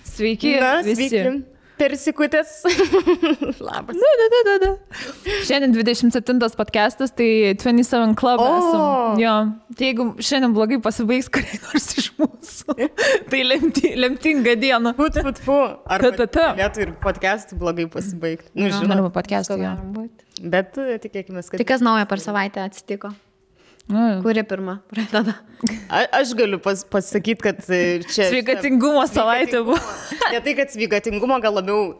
Sveiki, visi. Sveiki. Persikutės. Labas. Da. Šiandien 27 podcastas, tai 27 Club esam. Jo. Tai jeigu šiandien blogai pasibaigs kuriai nors iš mūsų, tai lemtinga diena. Fu. Ar galėtų ir podcastų blogai pasibaigti? Nu, žinoma, podcastų, jo. Bet tikėkime, kad... Tai kas naujo per savaitę atsitiko? Kuri pirma pradeda? Aš galiu pasakyti, kad čia... Sveikatingumo savaitė buvo. Ne tai, kad sveikatingumo, gal labiau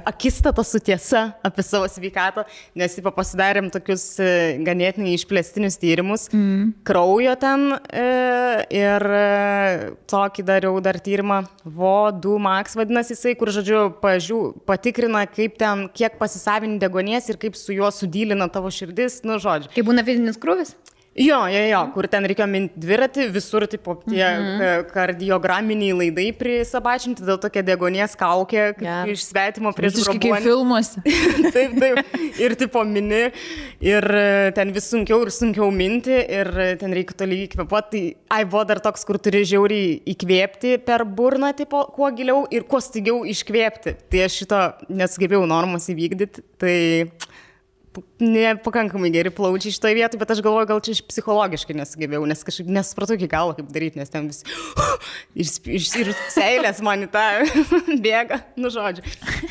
akistata su tiesa apie savo sveikatą, nes pasidarėm tokius ganėtinai išplėstinius tyrimus, kraujo ten ir tokį dariau dar tyrimą, VO2 max vadinasi jisai, kur, žodžiu, patikrina, kaip ten, kiek pasisavini deguonies ir kaip su juo sudylina tavo širdis, nu, žodžiu. Kaip būna fizinis krūvis? Jo, kur ten reikėjo minti dviratį, visur tipo tie kardiograminiai laidai prisabačinti, dėl tokia deguonies kaukė, kaip iš svetimo prieš grobuonį. Kaip filmuose. Taip. Ir tipo mini, ir ten vis sunkiau minti, ir ten reikia tolygiai kvėpuoti. Tai buvo dar toks, kur turi žiauriai įkvėpti per burną, tipo, kuo giliau ir kuo staigiau iškvėpti. Tai aš šito nesugebėjau normos įvykdyti, tai... Nepakankamai geri plaučiai šitoje vietoje, bet aš galvoju, gal čia psichologiškai nesugebėjau, nes kažkaip nesupratau iki galo, kaip daryti, nes ten visi ir seilės man į tą bėga, nu žodžiu.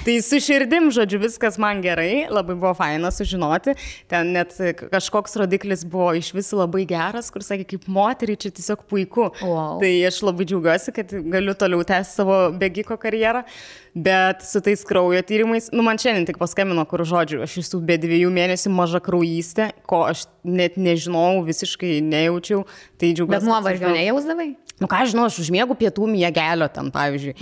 Tai su širdim, žodžiu, viskas man gerai, labai buvo faina sužinoti, ten net kažkoks rodiklis buvo iš visų labai geras, kur sakė, kaip moteriai čia tiesiog puiku. Wow. Tai aš labai džiaugiuosi, kad galiu toliau tęsti savo bėgiko karjerą, bet su tais kraujo tyrimais, nu man šiandien tik paskambino, kur žodžiu, aš esu be 2 mėnesių maža kraujystė, ko aš net nežinau, visiškai nejaučiau. Tai džiaugiuosi. Bet nuovargio nejausdavai? Nu ką žinau, aš užmiegu pietų miegelio ten, pavyzdžiui.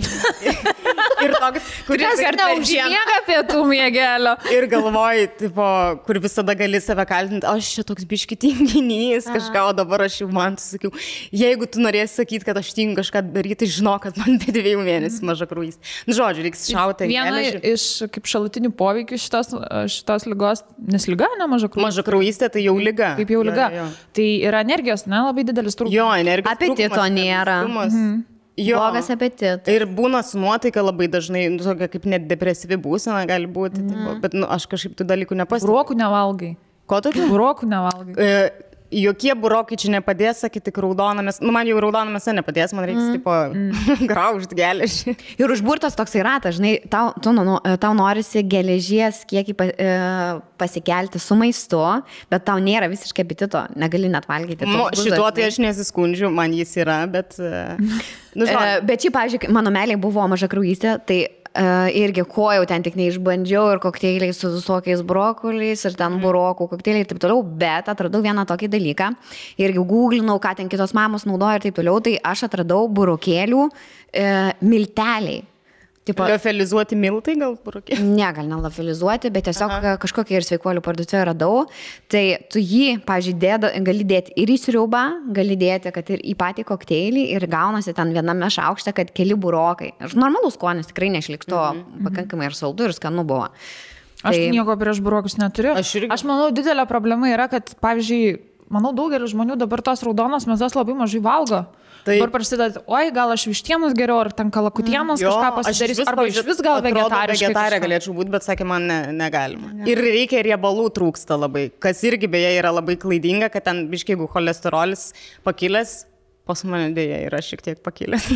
Ir toks, kuris neužmiega pietų miegelio. Ir galvoji, tipo, kur visada gali save kaltinti, aš čia toks biški tinginys, kažką, o dabar aš jau man sakiau, jeigu tu norėsi sakyti, kad aš tingiu kažką daryti, tai žinok, kad man be 2 mėnesių maža kraujystė. Nu, žodžiu, reiks šauti. Viena iš kaip šalutinių poveikių šitos ligos, nes liga, ne maža kraujystė. Maža kraujystė tai jau liga. Kaip jau liga. Jo. Tai yra energijos, ne, labai didelis trūkumas. Jo, energijos apetito nėra. Blogas apetitas. Ir būna su nuotaika labai dažnai, tokia kaip net depresyvi būsena gali būti, bet aš kažkaip tų dalykų nepastebiu. Burokų nevalgai. Ko tokių? Burokų nevalgai. Jokie burokai čia nepadės, sakyti, tik raudonamės. Nu, man jau raudonamėse nepadės, man reiks, tipo, graužti geležį. Ir užburtas toksai ratas, žinai, tau norisi geležies kiekį pasikelti su maistu, bet tau nėra visiškai apetito, negali net valgyti. Šituo tai aš nesiskundžiu, man jis yra, bet... Bet šiaip, pavyzdžiui, mano meiliai buvo maža kraujystė, tai irgi ko jau ten tik neišbandžiau ir kokteiliai su visokiais brokoliais ir ten burokų kokteiliai ir taip toliau, bet atradau vieną tokį dalyką, irgi googlinau, ką ten kitos mamos naudoja ir taip toliau, tai aš atradau burokėlių milteliai. Liofilizuoti miltai gal burokėliai? Ne, gal nelofilizuoti, bet tiesiog kažkokią ir sveikuolių parduotuvę radau. Tai tu jį, pavyzdžiui, gali dėti ir į sriubą, gali dėti, kad ir į patį kokteilį ir gaunasi ten viename šaukšte, kad keli burokai. Normalus skonis, tikrai nešlikšto, pakankamai ir saldu ir skanu buvo. Aš nieko prieš burokus neturiu. Aš manau, didelė problema yra, kad, pavyzdžiui, manau, daugelis žmonių dabar tos raudonos mėsos labai mažai valgo. Dabar prasideda, oi, gal aš vištienos geriau, ar ten kalakutienos kažką pasidarys, arba iš vis gal vegetarė galėčiau būti, bet sakė, man negalima. Ir reikia riebalų trūksta labai, kas irgi beje yra labai klaidinga, kad ten biškai, jeigu cholesterolis pakilęs, pas mane dėja yra šiek tiek pakilęs,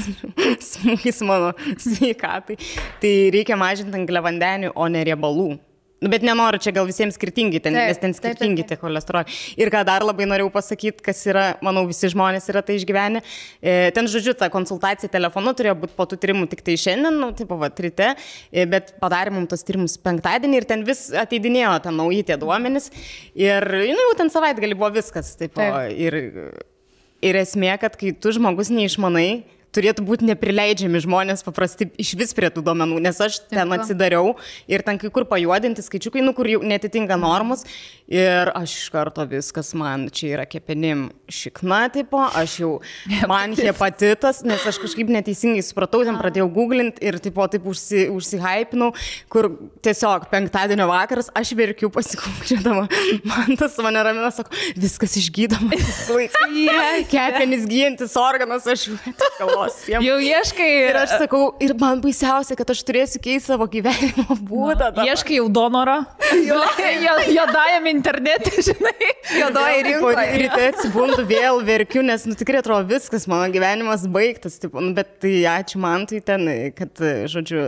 smūgis mano sveikatai, tai reikia mažinti angliavandenių, o ne riebalų. Bet nenoriu, čia gal visiems skirtingi, nes ten skirtingi tie cholesteroliai. Ir ką dar labai norėjau pasakyti, kas yra, manau, visi žmonės yra tai išgyvenę. Ten, žodžiu, ta konsultacija telefonu turėjo būti po tų tyrimų tik tai šiandien, nu, tipo, ryte, bet padarė mums tos tyrimus penktadienį ir ten vis ateidinėjo ten nauji tie duomenys. Ir, nu, jau ten savaitgalį buvo viskas. Tipo, ir esmė, kad kai tu žmogus neišmanai, turėtų būti neprileidžiami žmonės paprasti iš vis prie tų duomenų, nes aš ten atsidariau ir ten kai kur pajuodinti skaičiukai, nu, kur jau netitinka normus ir aš iš karto viskas man čia yra kepenim šikna, tipo, aš jau man hepatitas, nes aš kažkaip neteisingai supratau, ten pradėjau googlinti ir tipo, taip užsihypinau, kur tiesiog penktadienio vakaras aš verkiu pasikūkčiodama, man tas mane ramina, sako, viskas išgydoma, kepenis gyjantis organas, aš galvoju. jos. Jau ieškai. Ir aš sakau, ir man baisiausia, kad aš turėsiu keisti savo gyvenimo būdą. Ieškai jau donorą. Jodajam internete, žinai. Jodoji rinkoje. Ryte atsibundu, vėl verkiu, nes tikrai atrodo viskas, mano gyvenimas baigtas. Bet tai ačiū man tai ten, kad, žodžiu,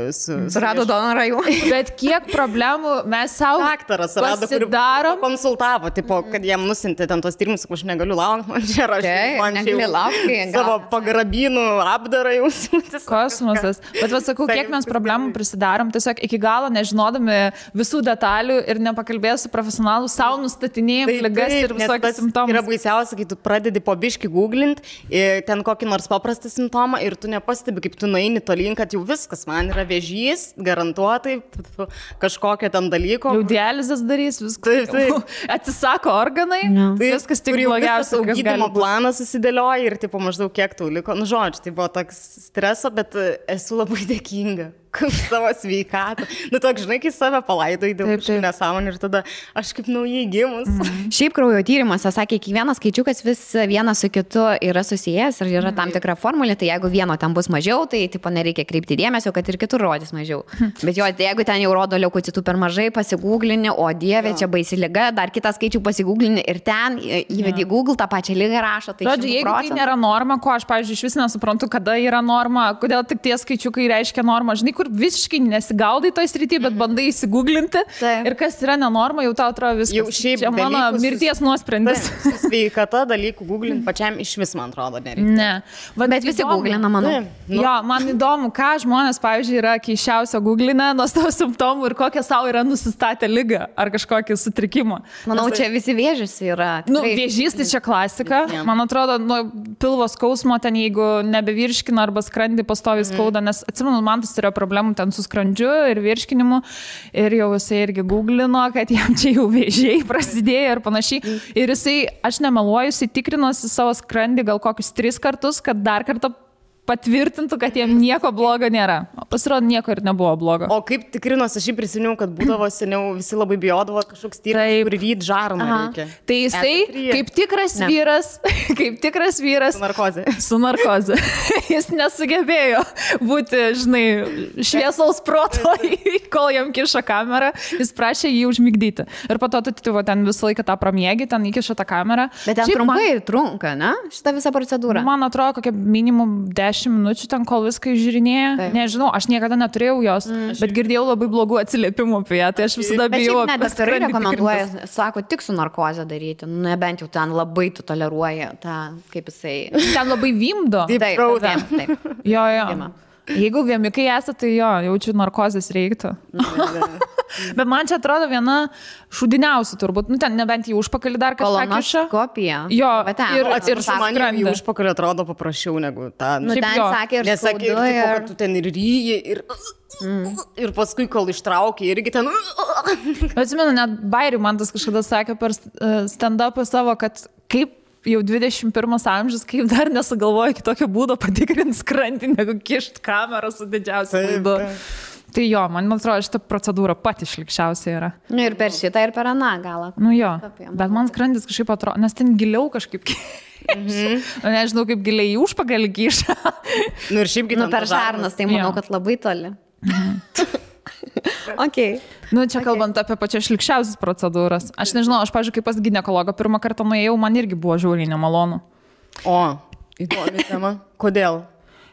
surado donorą jau. Bet kiek problemų mes savo daktaras rado, kur konsultavo, tipo, kad jam nusintė ten tos tyrimus, aš negaliu laukti, man čia rašyti. Man negali laukti. Savo pagrabinų apdarą jau siūtis. Kosmosas. Bet sakau, kiek mes problemų prisidarom, tiesiog iki galo nežinodami visų detalių ir nepakalbėjus su profesionalu, savo nustatinėjim ligas ir visokius simptomus. Yra baisiausia, kai tu pradedi po biškį googlint, ten kokį nors paprastą simptomą ir tu nepastebi, kaip tu nueini tolyn, kad jau viskas, man yra vėžys, garantuotai, kažkokio ten dalyko. Jau dializės darys, viskas. Taip. Atsisako organai, viskas tik blogiausia. Gydymo planas susidėlioja ir tipo, maždaug kiek tau liko. Nu, žodžiu, tai buvo toks streso, bet esu labai dėkinga už savo sveikatą. Nu, toks, žinai, kai save palaidai dėl kažkokių nesąmonių ir tada aš kaip naujai gimus. Šiaip kraujo tyrimuose sakė, kiekvienas skaičiukas vis vienas su kitu yra susijęs ir yra tam tikra formulė, tai jeigu vieno ten bus mažiau, tai tipo nereikia kreipti dėmesio, kad ir kitur rodys mažiau. Bet jo, tai jeigu ten jau rodo leukocitų per mažai, pasigūglini, o dieve, čia baisi liga, dar kitą skaičių pasigūglini ir ten įvedi Google tą pačią ligą rašo. Tai žodžiu, jeigu tai nėra norma, ko aš, pavyzdžiui, iš vis nesuprantu, kada yra norma, kodėl tik tie skaičiukai reiškia normą, žinai, kur visiškai nesigaudai toj srity, bet bandai įsigūglinti. Ir kas yra nenorma, jau tau atrodo viskas. Jau šiaip čia mano mirties nuosprendis. Sveikata dalykų googlint pačiam iš vis, man atrodo, nereikia. Ne. Bet visi googlina, manau. Jo, man įdomu, ką žmonės, pavyzdžiui, yra keisčiausio googlinę nuo savo simptomų ir kokią savo yra nusistatę ligą ar kažkokį sutrikimą. Manau, čia visi vėžys yra. Vėžys tai čia klasika. Man atrodo, nuo pilvo skausmo ten, jeigu nebevirškina arba skrandį pastoviai skauda, nes atsimenu, man tas turėjo problemų ten su skrandžiu ir virškinimu ir jau jisai irgi googlino, kad jam čia jau vėžiai prasidėjo ir panašiai. Ir jisai, aš nemeluoju, jisai tikrinosi savo skrandį gal kokius 3 kartus, kad dar kartą patvirtintų, kad jiem nieko blogo nėra. Pasirodo, nieko ir nebuvo blogo. O kaip tikrinos, aš jį prisiminiau, kad būdavo seniau, visi labai bijodavo kažkoks tyrimas, kur ryt žarną reikia. Tai jisai, kaip tikras vyras, su narkoze. Jis nesugebėjo būti, žinai, šviesaus proto, kol jam kiša kamerą, jis prašė jį užmigdyti. Ir po to tu ten visą laiką tą pramiegi, ten įkiša tą kamerą. Bet ten trumpai trunka, ne? Šitą visą procedūrą. Man atrodo, kokia minimum 10 minučių ten, kol viską išžiūrinėja. Nežinau, aš niekada neturėjau jos, bet girdėjau labai blogų atsiliepimų apie ją, tai aš visada bijau. Bet daktarai rekomenduoja, sako, tik su narkoze daryti, nebent jau ten labai tu toleruoji tą, kaip jisai. Ten labai vimdo. Taip. Jo. Jeigu viemikai esate, tai jo, jaučiu narkozės reiktų. Bet man čia atrodo viena šūdiniausių turbūt, nu ten nebent į užpakalį dar kažką kiša. Kolonoskopija. Jo, ir man į užpakalį atrodo paprasčiau negu tą. Nu ten sakė ir skaudu. Kad tu ten ir ryji, ir paskui, kol ištraukė, irgi ten. Atsimenu, net Bairių man tas kažkada sakė per stand-upą savo, kad kaip jau 21 amžius, kaip dar nesugalvoja kitokio būdo patikrinti skrandį, negu kišt kamerą su didžiausiu laidu. Tai jo, man atrodo, šitą procedūrą pati šlikščiausia yra. Nu ir per šitą, ir per aną galą. Nu jo, bet man skrandis kažkaip atrodo, nes ten giliau kažkaip nežinau, kaip giliai į užpakalį kiša. Nu ir šiaip nu, per žarnas, tai manau, kad labai toli. Okay. Nu, čia kalbant apie pačias šlikščiausias procedūras. Aš nežinau, aš, pavyzdžiui, kaip pas ginekologą pirmą kartą nuėjau, man irgi buvo žiauriai nemalonu. O, įdomi tema. Kodėl?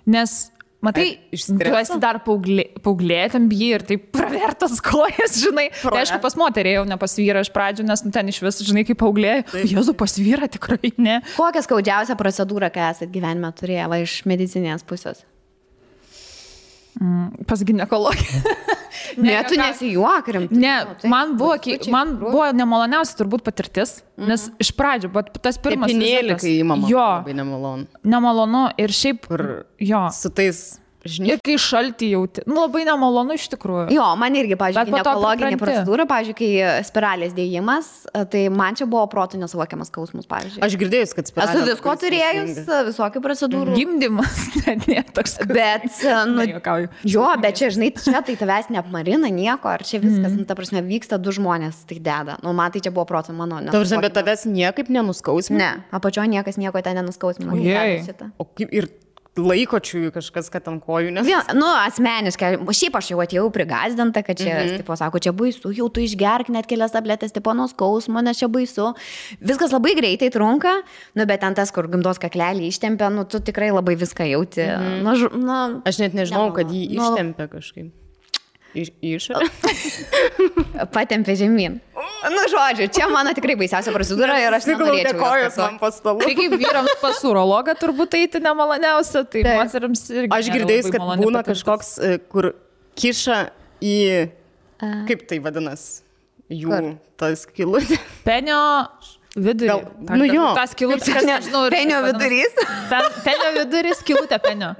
Nes, matai, tu esi dar paauglė, ten bijai ir taip pravertas kojas, žinai. Tai aišku, pas moterį jau ne pas vyrą iš pradžių, nes ten iš vis, žinai, kaip paauglė. Jėzu, pas vyrą tikrai ne. Kokią skaudžiausią procedūrą, ką esat gyvenime turėję, va, iš medicinės pusės? Pas ginekologį. Ne, tu nesijuok rimtai. Ne, man buvo nemaloniausia turbūt patirtis, nes iš pradžių, bet tas pirmas Tepinėlį, kai įmama, labai nemalonu. Nemalonu ir šiaip, jo. Su tais Ir kai šaltį jauti, nu labai nemalonu iš tikrųjų. Jo, man irgi, pavyzdžiui, ginekologinė procedūra, pavyzdžiui, kai spiralės dėjimas, tai man čia buvo protų nesuvokiamas skausmus, pavyzdžiui. Aš girdėjus, kad spiralės. Esu visko turėjus, visokių procedūrų. Gimdymas, net toks. Bet, nu, jo, bet čia, žinai, čia tai tavęs neapmarina nieko, ar čia viskas, nu, ta prasme, vyksta du žmonės, tai deda. Nu, man tai čia buvo protų mano. Tavęs, bet tavęs niekaip nenuskausmina? Ne, apačioje niekas nieko ten nenuskausmina. O kaip ir laikočių kažkas, kad ant kojų, nes... Asmeniškai, šiaip aš jau atėjau prigazdinta, kad čia, tipo, sako, čia baisu, jau tu išgerk net kelias tabletės, tipo, nuo skausmo, nes čia baisu. Viskas labai greitai trunka, bet ten tas, kur gimdos kaklelį ištempia, tu tikrai labai viską jauti. Aš net nežinau, kad jį ištempia kažkaip. Išorę? Patempė žemyn. Žodžiu, čia mano tikrai baisiausia procedūra ir aš nenorėčiau kojos man po stalu. Tai kaip vyrams pas urologą turbūt eiti nemaloniausia, tai moteriams irgi. Aš girdėjus, kad būna kažkoks, kur kiša į, kaip tai vadinas, jų tas skylutė. Penio vidurį. Tas skylutė, nežinau. Penio vidurys. Penio vidurys, skylutė penio.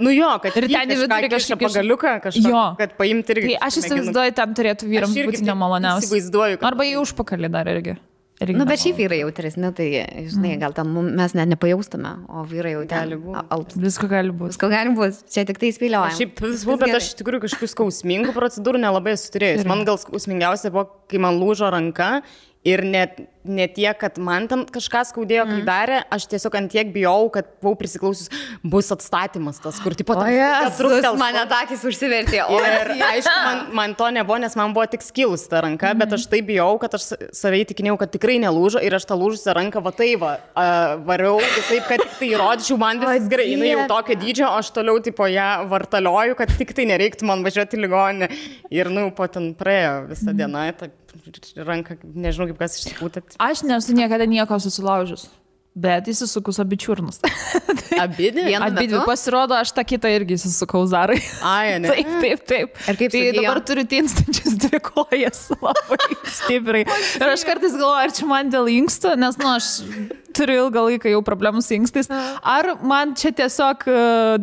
Kad ir ten į vidurį kažkaip pagaliuką kažką, kad paimti irgi. Tai aš įsivaizduoju, ten turėtų vyrams būti nemaloniausia. Įsivaizduoju. Arba į užpakalį dar irgi. Bet šiaip vyrai jautresni, tai, žinai, gal tam mes net nepajaustume, o vyrai jau gali būti. Visko gali būti. Visko gali būti. Čia tik tai spėliojame. Šiaip visų, bet aš iš tikrųjų kažkokių skausmingų procedūrų nelabai esu turėjus. Man gal skausmingiausia buvo, kai man lūžo ranka. Ir ne tiek, kad man ten kažką skaudėjo, kai darė, aš tiesiog ant tiek bijau, kad buvau prisiklausius, bus atstatymas tas, kur tipo... Mane takis užsivertė. Ir aišku, man to nebuvo, nes man buvo tik skilus ta ranka, bet aš tai bijau, kad aš savai tikinėjau, kad tikrai nelūžo ir aš tą lūžusią ranką variau visaip, kad tik tai įrodyčiau, man viskas gerai. Jinai jau tokio dydžio, aš toliau tipo ją vartalioju, kad tik tai nereiktų man važiuoti į ligoninę. Ir po ten praėjo visą dieną, ranką, nežinau kaip kas išsipūtė. Aš nesu niekada nieko susilaužus, bet įsisukus abi čiurnus. Abidvi. Pasirodo, aš tą kitą irgi įsisukau Zarai. Ne? Taip. Ir kaip tai dabar turiu tinstančias 2 kojas labai stipriai. Ir aš kartais galvoju, ar čia man dėl inkstų, nes, aš turiu ilgą laiką jau problemų su inkstais. Ar man čia tiesiog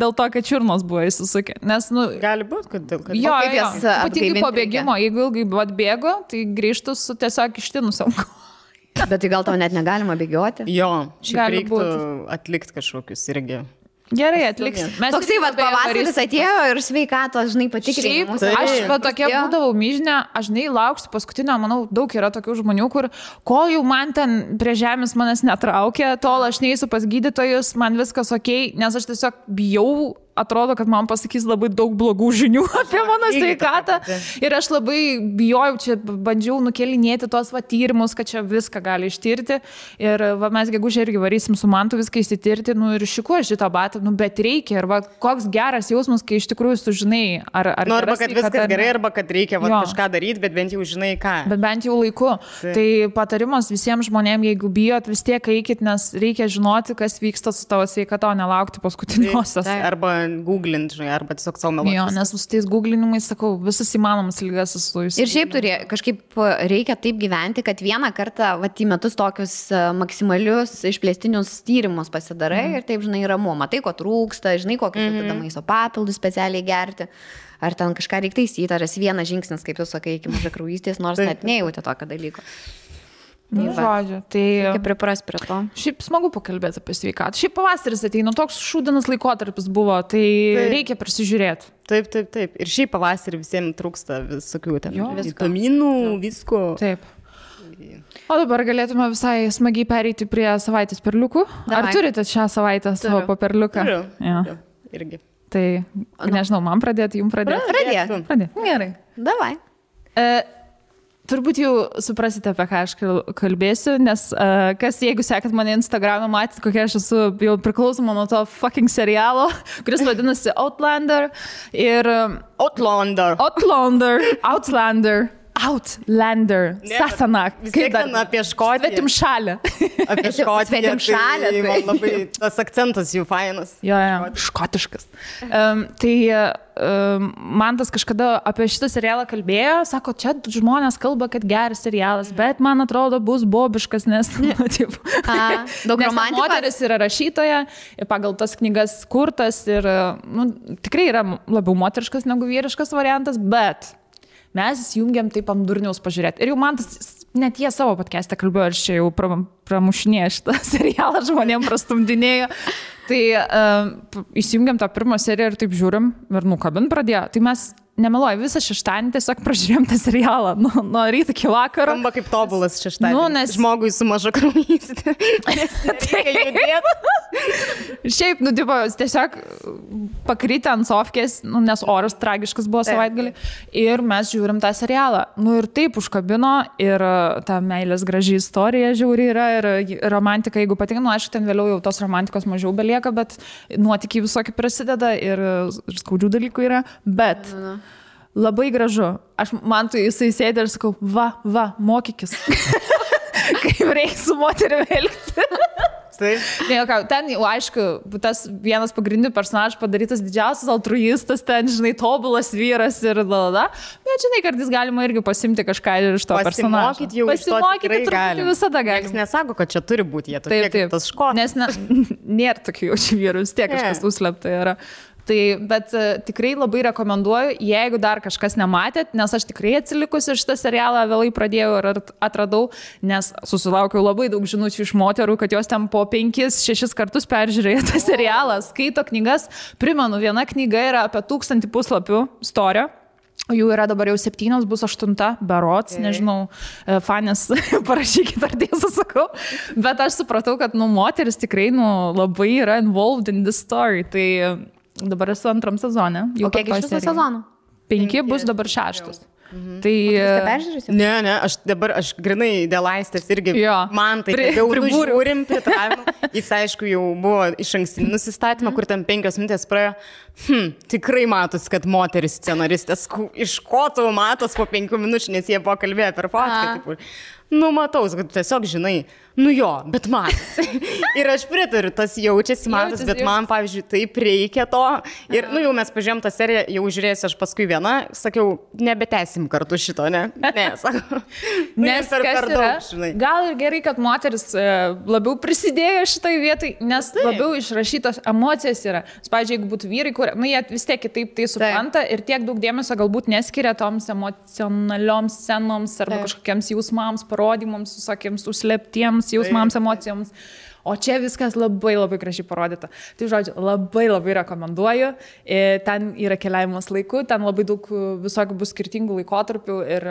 dėl to, kad čiurnos buvo įsisukę. Nes, gali būti, kad dėl kad... Jo. Ypatingai po bėgimo, jeigu ilgai atbėgo, tai grįžtu su tiesiog ištinusiam kojom. Bet tai gal tau net negalima bėgioti? Jo, šiaip reiktų atlikti kažkokius irgi. Gerai, atliksim. Toksai pavasaris atėjo ir sveikatos, žinai, patikrinimus. Aš tokia būdavau myžinė, aš lauksiu paskutinio, manau, daug yra tokių žmonių, kur kol jau man ten prie žemės manęs netraukia, tol aš neįsiu pas gydytojus, man viskas okei, nes aš tiesiog bijau. Atrodo, kad man pasakys labai daug blogų žinių apie mano sveikatą. Ir aš labai bijojau, čia bandžiau nukelinėti tos tyrimus, kad čia viską gali ištirti. Ir mes gegužę irgi varysim su Mantu viską įsitirti, ir šikuo šitą batą, bet reikia. Ir koks geras jausmas, kai iš tikrųjų sužinai, ar arba kad viskas gerai, arba kad reikia kažką daryti, bet bent jau žinai ką. Bet bent jau laiku. Tai patarimas visiems žmonėms, jeigu bijot, vis tiek eikit, nes reikia žinoti, kas vyksta su tavo sveikata, o nelaukti paskutiniosios. Arba googlint, žinai, arba tiesiog savo meluoti. Jo, nes su tais googlinimais, sakau, visas įmanomas lygas esu jūs. Ir šiaip kažkaip reikia taip gyventi, kad vieną kartą į metus tokius maksimalius išplėstinius tyrimus pasidarai ir taip, žinai, ramu. Matai, ko trūksta, žinai, kokius tada maisto papildus specialiai gerti. Ar ten kažką reikia taisyti, ar esi vienas žingsnis, kaip tu sakai, iki mažakraujystės, nors net nejauti tokio dalyko. Žodžiu, tai... Kaip pripras prie to. Šiaip smagu pakalbėti apie sveikatą. Šiaip pavasaris ateina, toks šūdinas laikotarpis buvo, tai reikia prisižiūrėti. Taip. Ir šiaip pavasarį visiems trūksta visokių ten vitaminų, visko. Taip. O dabar galėtume visai smagiai pereiti prie savaitės perliukų. Ar turite šią savaitę savo paperliuką? Turiu. Irgi. Tai, nežinau, man pradėti, jums pradėti? Pradėti. Gerai. Davai. Turbūt jau suprasite, apie ką aš kalbėsiu, nes jeigu sekat mane Instagram'e, matyt, kokia aš esu jau priklausoma nuo to fucking serialo, kuris vadinasi Outlander. Ir Outlander. Sasana. Kaip ten apie Škotiją. Svetimšalę. Apie Škotiją. Svetimšalę. Tai man labai tas akcentas jų fainas. Jo, škotiškas. Tai Mantas kažkada apie šitą serialą kalbėjo, sako, čia žmonės kalba, kad geras serialas, bet man atrodo bus bobiškas, nes daug romantikos. Moteris yra rašytoja, pagal tas knygas kurtas ir tikrai yra labiau moteriškas negu vyriškas variantas, bet mes įsijungiam taip ant durniaus pažiūrėti. Ir jau man tas, net jie savo podcast'e kalbėjo, ir čia jau pramušinėjo šitą serialą, žmonėm prastumdinėjo. Tai įsijungiam tą pirmą seriją ir taip žiūrim, ir kabin pradėjo. Tai mes nemeluoju, visą šeštadienį tiesiog pražiūrėjom tą serialą nuo ryto iki vakaro. Skamba kaip tobulas šeštadienis. Nes... Žmogui su maža kraujystė. Šiaip, tiesiog pakrytę ant sofkės, nes oras tragiškas buvo savaitgalį. Ir mes žiūrim tą serialą. Ir taip užkabino, ir ta meilės graži istorija žiauri yra, ir romantika, jeigu patinka, aišku, ten vėliau jau tos romantikos mažiau belieka, bet nuotykiai visokie prasideda ir skaudžių dalykų yra, bet labai gražu. Man tu jisai sėdė ir sakau, va, mokykis. Kaip reikia su moterimi elgti. Ten jau, aišku, tas vienas pagrindinių personažų padarytas didžiausias altruistas, ten, žinai, tobulas vyras ir bet, žinai, kartais galima irgi pasimti kažką iš to personažo. Pasimokyti truputį visada galima. Niekas nesako, kad čia turi būti, jie tokie kaip tas škotas. Nes nėra tokių jaučių vyrų, vis tiek kažkas užslėpta yra. Bet tikrai labai rekomenduoju, jeigu dar kažkas nematėt, nes aš tikrai atsilikusi šitą serialą vėlai pradėjau ir atradau, nes susilaukiau labai daug žinučių iš moterų, kad jos ten po 5-6 kartus peržiūrėjo tą serialą, skaito knygas. Primenu, viena knyga yra apie 1000 puslapių storio. Jų yra dabar jau 7, bus 8, berods, nežinau, fanės parašykit, ar tiesą sakau, bet aš supratau, kad moteris tikrai labai yra involved in this story, tai dabar esu 2 sezone. O kiek iš viso sezonų? 5 bus dabar 6. Tai... Ne, aš grinai dėl Aistės irgi, man tai jau žiūrim pritravimą. Jis, aišku, jau buvo iš ankstinį nusistatymą, kur ten 5 minutės praėjo. Tikrai matos, kad moteris scenaristės, iš ko tau matos po 5 minučių, nes jie buvo kalbėję per podcastą. Matau, kad tiesiog žinai, bet matas. Ir aš pritariu, tas jaučiasi matas, bet man, pavyzdžiui, taip reikia to. Ir, jau mes pažiūrėjom tą seriją, jau žiūrėsiu aš paskui vieną, sakiau, nebetęsim kartu šito, ne? Ne, sakau. Nes per daug, žinai. Gal ir gerai, kad moteris labiau prisidėjo šitai vietai, nes labiau išrašytos emocijos yra. Pavyzdžiui, jeigu būtų vyrai, kur, jie vis tiek kitaip tai supranta ir tiek daug dėmesio galbūt neskiria toms emocionalioms scenoms arba kažkokiems jausmams, parodymams, visokiems užslėptiems jausmams, emocijoms. O čia viskas labai gražiai parodyta. Tai, žodžiu, labai rekomenduoju. Ten yra keliavimas laiku, ten labai daug visokių bus skirtingų laikotarpių ir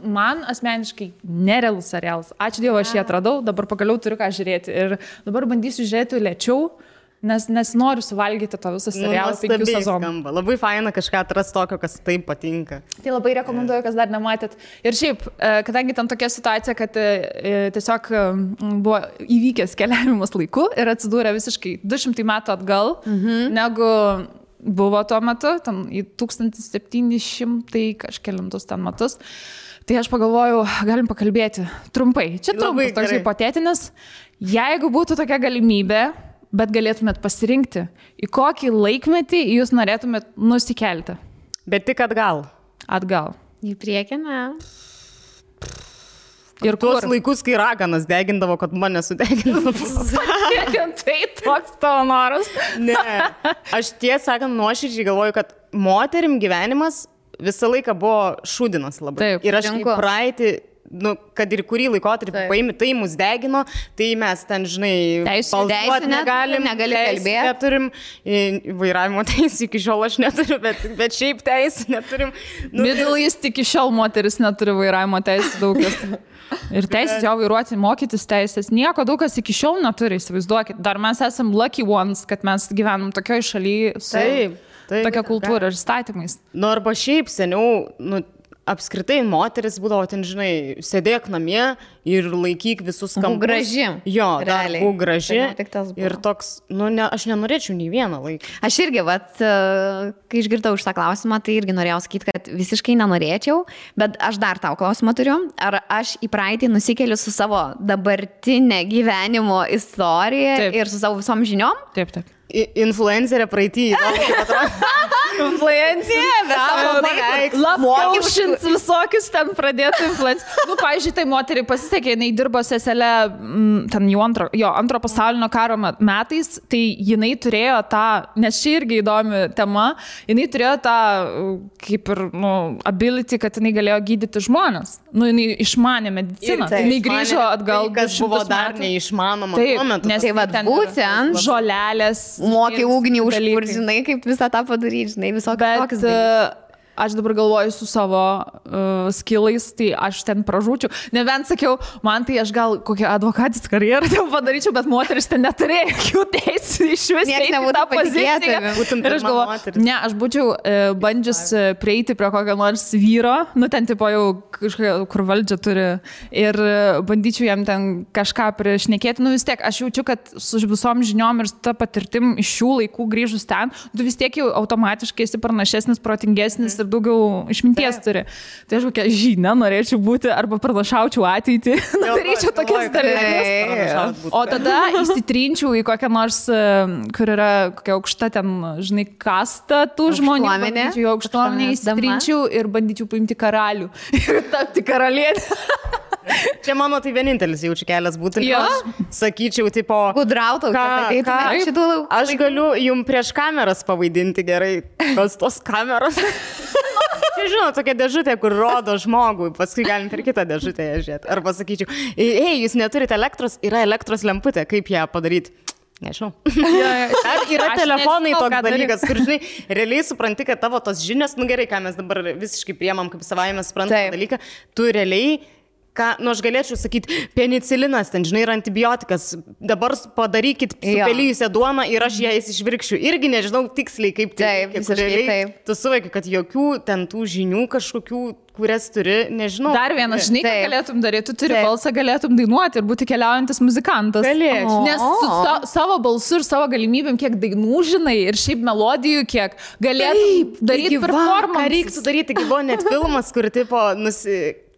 man asmeniškai nerealus serialas. Ačiū Dievui, aš jį atradau, dabar pagaliau turiu ką žiūrėti. Ir dabar bandysiu žiūrėti lėčiau, nes noriu suvalgyti to visą serialą 5 sezonų. Labai faina kažką atrasti tokio, kas taip patinka. Tai labai rekomenduoju, kas dar nematėt. Ir šiaip, kadangi ten tokia situacija, kad tiesiog buvo įvykęs keliavimas laiku ir atsidūrė visiškai 200 metų atgal, negu buvo tuo metu, ten į 1700 kažkelintus ten metus. Tai aš pagalvojau, galim pakalbėti trumpai. Čia trumpas toks hipotetinis. Jeigu būtų tokia galimybė, bet galėtumėt pasirinkti, į kokį laikmetį jūs norėtumėt nusikelti? Bet tik atgal. Atgal. Į priekį, ne? Ir tuos laikus, kai raganas degindavo, kad mane sudegindavo. Tai toks tavo noras. Ne. Aš tiesą sakant, nuoširdžiai galvoju, kad moterim gyvenimas visą laiką buvo šūdinas labai. Taip, ir aš į praeitį, kad ir kurį laikotarpį paimi, tai mus degino, tai mes ten, žinai, balsuoti negali kalbėti. Neturim, vairavimo teisų iki šiol aš neturiu, bet šiaip teisų neturim. Middle East iki šiol moteris neturi vairavimo teisų daugas. Ir teisės jau vairuoti, mokytis teisės. Nieko daug kas iki šiol neturi, įsivaizduokit. Dar mes esam lucky ones, kad mes gyvenam tokioj šalyje su tokia kultūra ir statymais. Arba šiaip seniau, apskritai moteris būdavo ten, žinai, sėdėk namie ir laikyk visus kampus. Graži. Jo, būk graži. Ir toks, aš nenorėčiau nei vieną laiką. Aš irgi, kai išgirdau šitą klausimą, tai irgi norėjau sakyti, kad visiškai nenorėčiau, bet aš dar tau klausimą turiu. Ar aš į praeitį nusikeliu su savo dabartinė gyvenimo istorija ir su savo visom žiniom? Taip. Influencerė praeitį. Influencerė. Lapkaušins visokius ten pradėtų influencerį. Pavyzdžiui, tai moteriai pasisekė, jinai dirbo seselė ten jau antro pasaulinio karo metais, tai jinai turėjo tą, nes čia irgi įdomi tema, jinai turėjo tą kaip ir ability, kad jinai galėjo gydyti žmonės. Jinai išmanė mediciną. Jinai grįžo atgal. Kas buvo dar neišmanoma tuo metu. Nes tai būtent žolelės. Mokė ugnį užpurti, žinai, kaip visą tą padaryti, žinai, visokius tokius. aš dabar galvoju su savo skillais, tai aš ten pražūčiau. Nebent sakiau, man tai aš gal kokią advokatės karjerą jau padaryčiau, bet moteris ten neturėjo jokių teisų iš vis. Niekas nebūtų patikėti. Ir aš galvoju, ne, aš būčiau bandžius prieiti prie kokio nors vyro, nu ten tipo jau kažkokia, kur valdžia turi, ir bandyčiau jam ten kažką priešnekėti. Nu vis tiek, aš jaučiu, kad su visom žiniom ir su ta patirtim iš šių laikų grįžus ten, tu vis tiek jau automatiškai esi pranašesnis, protingesnis ir daugiau išminties turi. Tai aš kokią žinią norėčiau būti arba pranašaučiau ateitį, daryčiau tokias dalykus. O tada įsitrinčiau į kokią nors, kur yra kokia aukšta ten, žinai, kasta tų žmonių. Bandyčiau į aukštuomenę, įsitrinčiau ir bandyčiau paimti karalių ir tapti karalienę. Čia mano tai vienintelis jaučiu kelias būtų. Aš sakyčiau, tipo... Gudrautau, aš galiu jum prieš kameras pavaidinti gerai, kas tos kameros. Čia žinau, tokia dėžutė, kur rodo žmogui, paskui galim per kitą dėžutę žiūrėti. Arba sakyčiau, jūs neturite elektros, yra elektros lemputė, kaip ją padaryti? Nežinau. Ar yra telefonai toks dalykas, kur, žinai, realiai supranti, kad tavo tos žinios, nu gerai, ką mes dabar visiškai priemam kaip savaime suprantamą dalyką, tu realiai nu aš galėčiau sakyti, penicilinas, ten, žinai, yra antibiotikas, dabar padarykit supelyjusią duoną ir aš ją išvirkščiu. Irgi nežinau tiksliai, kaip tai. Taip. Tu suvoki, kad jokių ten tų žinių kažkokių, kurias turi, nežinau. Dar vienas, žinai, ką galėtum daryti, tu turi balsą, galėtum dainuoti ir būti keliaujantis muzikantas. Galėčiau. Nes su savo balsu ir savo galimybėm, kiek dainų žinai ir šiaip melodijų, kiek galėtum daryti performance. Ką reiktų daryti, buvo net filmas, kur tipo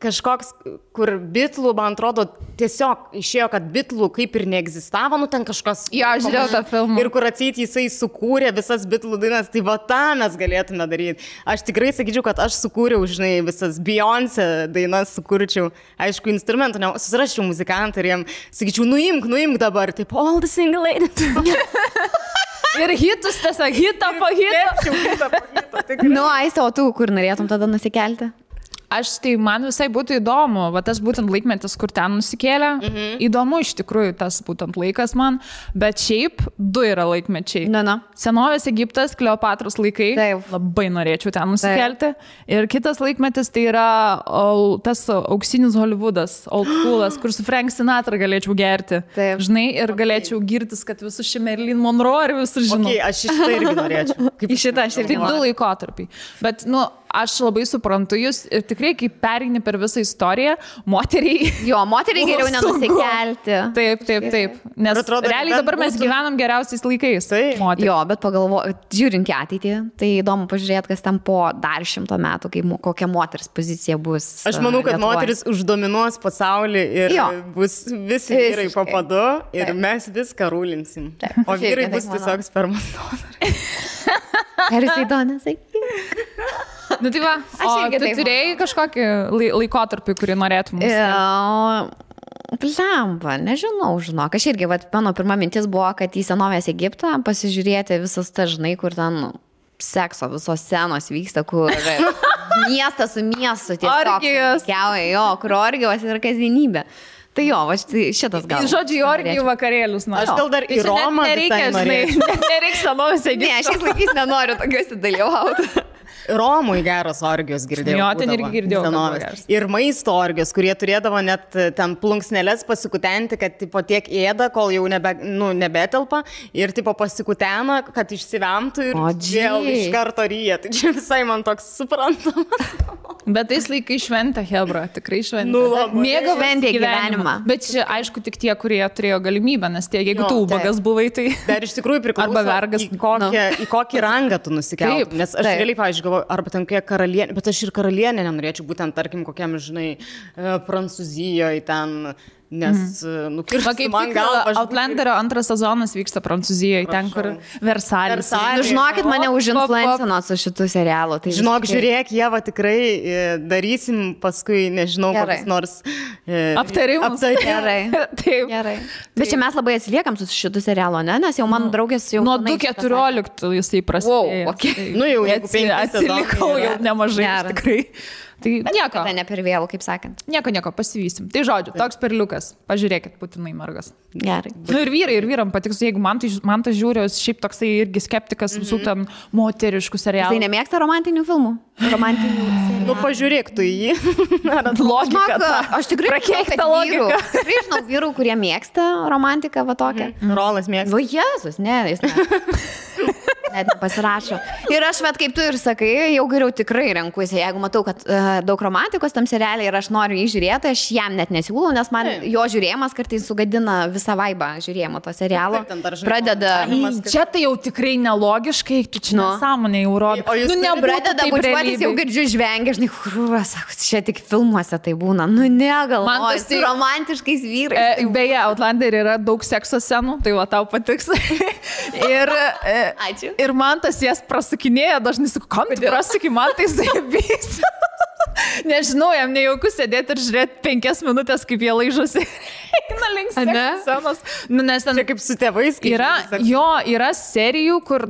kažkoks, kur Bitlų, man atrodo, tiesiog išėjo, kad Bitlų kaip ir neegzistavo, nu ten kažkas... Jo, žiūrėjau tą filmą. Ir kur atseit jisai sukūrė visas Bitlų dainas, tai va tą mes galėtume daryti. Aš tikrai sakyčiau, kad aš sukūriau, žinai, visas Beyoncé dainas sukūrčiau. Aišku, instrumentų, susiraščiau muzikantą ir jam sakyčiau, nuimk dabar, taip, all the single ladies. Ir hitus tiesiog, hitą po hito. Nu, Aiste, o tu kur norėtum tada nusikelti? Tai man visai būtų įdomu, va tas būtent laikmetis, kur ten nusikėlė. Įdomu iš tikrųjų tas būtent laikas man, bet šiaip du yra laikmečiai. Senovės Egiptas, Kleopatros laikai, labai norėčiau ten nusikelti. Ir kitas laikmetis tai yra tas auksinis Hollywoodas, old schoolas, kur su Frank Sinatra galėčiau gerti. Žinai, ir galėčiau girtis, kad visus šį Marilyn Monroe ir visus žinau. Aš šitą irgi norėčiau. Į šitą aš irgi norėčiau. Tai du laikotarpiai. Bet, nu, aš labai suprantu jūs ir tikrai, kai pereini per visą istoriją, moteriai... Jo, moteriai geriau nenusikelti. Taip. Nes realiai dabar mes gyvenam geriausiais laikais. Jo, bet žiūrint į ateitį, tai įdomu pažiūrėti, kas ten po dar 100 metų, kokia moters pozicija bus. Aš manau, kad moteris uždominuos pasaulį ir bus visi vyrai po padu ir mes viską rūlinsim. O vyrai bus tiesiog spermos donoriai. Ar jisai donas? Nu tai va, tu turėjai kažkokį laikotarpį, kurį norėtum nusikelti? Plemba, nežinau, žinok. Aš irgi, mano pirma mintis buvo, kad į senovės Egiptą pasižiūrėti visas tas, žinai, kur ten sekso visos scenos vyksta, kur miestas su miestu tiesiog kiauja, kur orgijos yra kasdienybė. Tai jo, šitas gal. Žodžiu, orgijų vakarėlius. Aš gal dar į Romą visai norėčiau. Nereiks senovės Egipto. Ne, šiais laikais nenoriu tokiuose dalyvauti. Romui geros orgijos girdėjau. Jo, ten irgi girdėjau. Ir maisto orgijos, kurie turėdavo net ten plunksneles pasikutenti, kad tipo tiek ėda, kol jau nebetelpa. Ir tipo pasikutena, kad išsivemtų ir vėl iš karto ryja. Tai čia visai man toks suprantamas. Bet tais laikai šventė, hebra, tikrai šventė. Mėgavantė gyvenimą. Bet čia, aišku, tik tie, kurie turėjo galimybę, nes tie, jeigu tu ubagas buvai, tai... Dar iš tikrųjų priklauso, į kokį rangą tu nusikeltum. Nes aš realiai, pavyzdžiui, galvoju, arba ten kokia karalienė, bet aš ir karalienė nenorėčiau, būtent, tarkim, kokiam, žinai, Prancūzijoje ten... Nes, nukirsti man galvą. Outlanderio antras sezonas vyksta Prancūzijoje, ten, kur Versalis. Žinokit, mane užinfluencino su šitų serialų. Tai žinok, žiūrėk, Ieva, tikrai darysim paskui, nežinau, kokius nors aptarimus. Gerai. Taip. Gerai. Bet čia mes labai atsiliekam su šitų serialų, ne? Nes jau mano draugės jau... Nuo 2014 jisai prasidėjo. Okay. Nu jau, jeigu 5 atsilikau jau nemažai, tikrai. Tai nieko. Tai ne per vėlų, kaip sakant. Nieko, pasivysim. Tai žodžiu, toks perliukas. Pažiūrėkit, būtinai mergas. Gerai. Nu ir vyram patiks, jeigu man tai žiūri, šiaip toksai irgi skeptikas visų ten moteriškų serialų. Tai nemėgsta romantinių filmų? Romantinių serialų. Nu, pažiūrėk tu jį. Logika. Aš tikrai žinau vyrų, kurie mėgsta romantiką, va tokią. Rolas mėgsta. O Jėzus, ne, jis net nepasirašo. Ir aš, kaip tu ir sakai, jau geriau tikrai renkuosi. Jeigu matau, kad daug romantikos tam serialė ir aš noriu jį žiūrėti, aš jam net nesiūlau, nes man jo žiūrėjimas kartais sugadina visą vaibą žiūrėjimo to serialo. Pradeda... Čia tai jau tikrai nelogiškai, tu čia nesąmonė jau rodo. O jūs pradeda bučiuotis, jau girdžiu žvengia, žinai, sako, čia tik filmuose tai būna. Nu, negal, man tas su romantiškais vyrais. Beje, Outlander yra daug sekso scenų, tai va tau patiks. Ačiū. Ir man tas jas prasukinėja, dažnai sakau, kam tu prasuki, man tai zaibys. Nežinau, jam nejauku sėdėti ir žiūrėti 5 minutės, kaip jie laižosi. Eina link scenos. Nu, nes ten... Čia kaip su tėvais. Yra serijų, kur,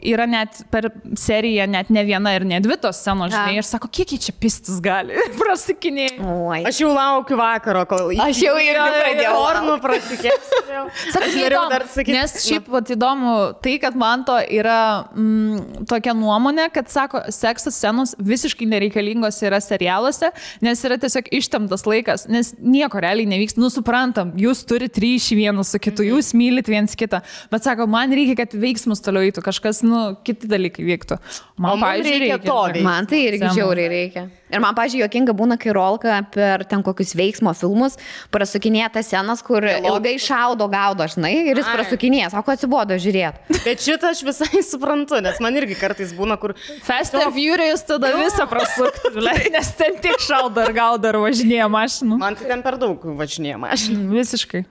yra net per seriją net ne viena ir ne dvi tos scenos, žinai. Ir sako, kiek jį čia pistis gali. Prasukinėja. Aš jau laukiu vakaro, kol... Aš jau irgi pradėjau. Ornų prasikėsiu. Nes šiaip įdomu tai, kad man to yra tokia nuomonė, kad sako, sekso scenos visiškai nereikalingos yra serialuose, nes yra tiesiog ištemtas laikas, nes nieko realiai nevyksta. Suprantam, jūs turite ryšį vienas su kitu, jūs mylit viens kitą, bet sako, man reikia, kad veiksmus toliau eitų, kažkas, kiti dalykai vyktų. Man, reikia to. Man tai irgi žiauriai reikia. Ir man, pažiūrėjau, jokinga būna, kai Rolka per ten kokius veiksmo filmus prasukinėja tas scenas, kur ilgai šaudo, gaudo, žinai, ir jis prasukinėja, sako, atsibodo žiūrėti. Bet šitą aš visai suprantu, nes man irgi kartais būna, kur... Fast and Furious tada visą prasukti, nes ten tik šaudo ir gaudo ir važinėja mašinų. Man tai ten per daug važinėja mašinų. Visiškai.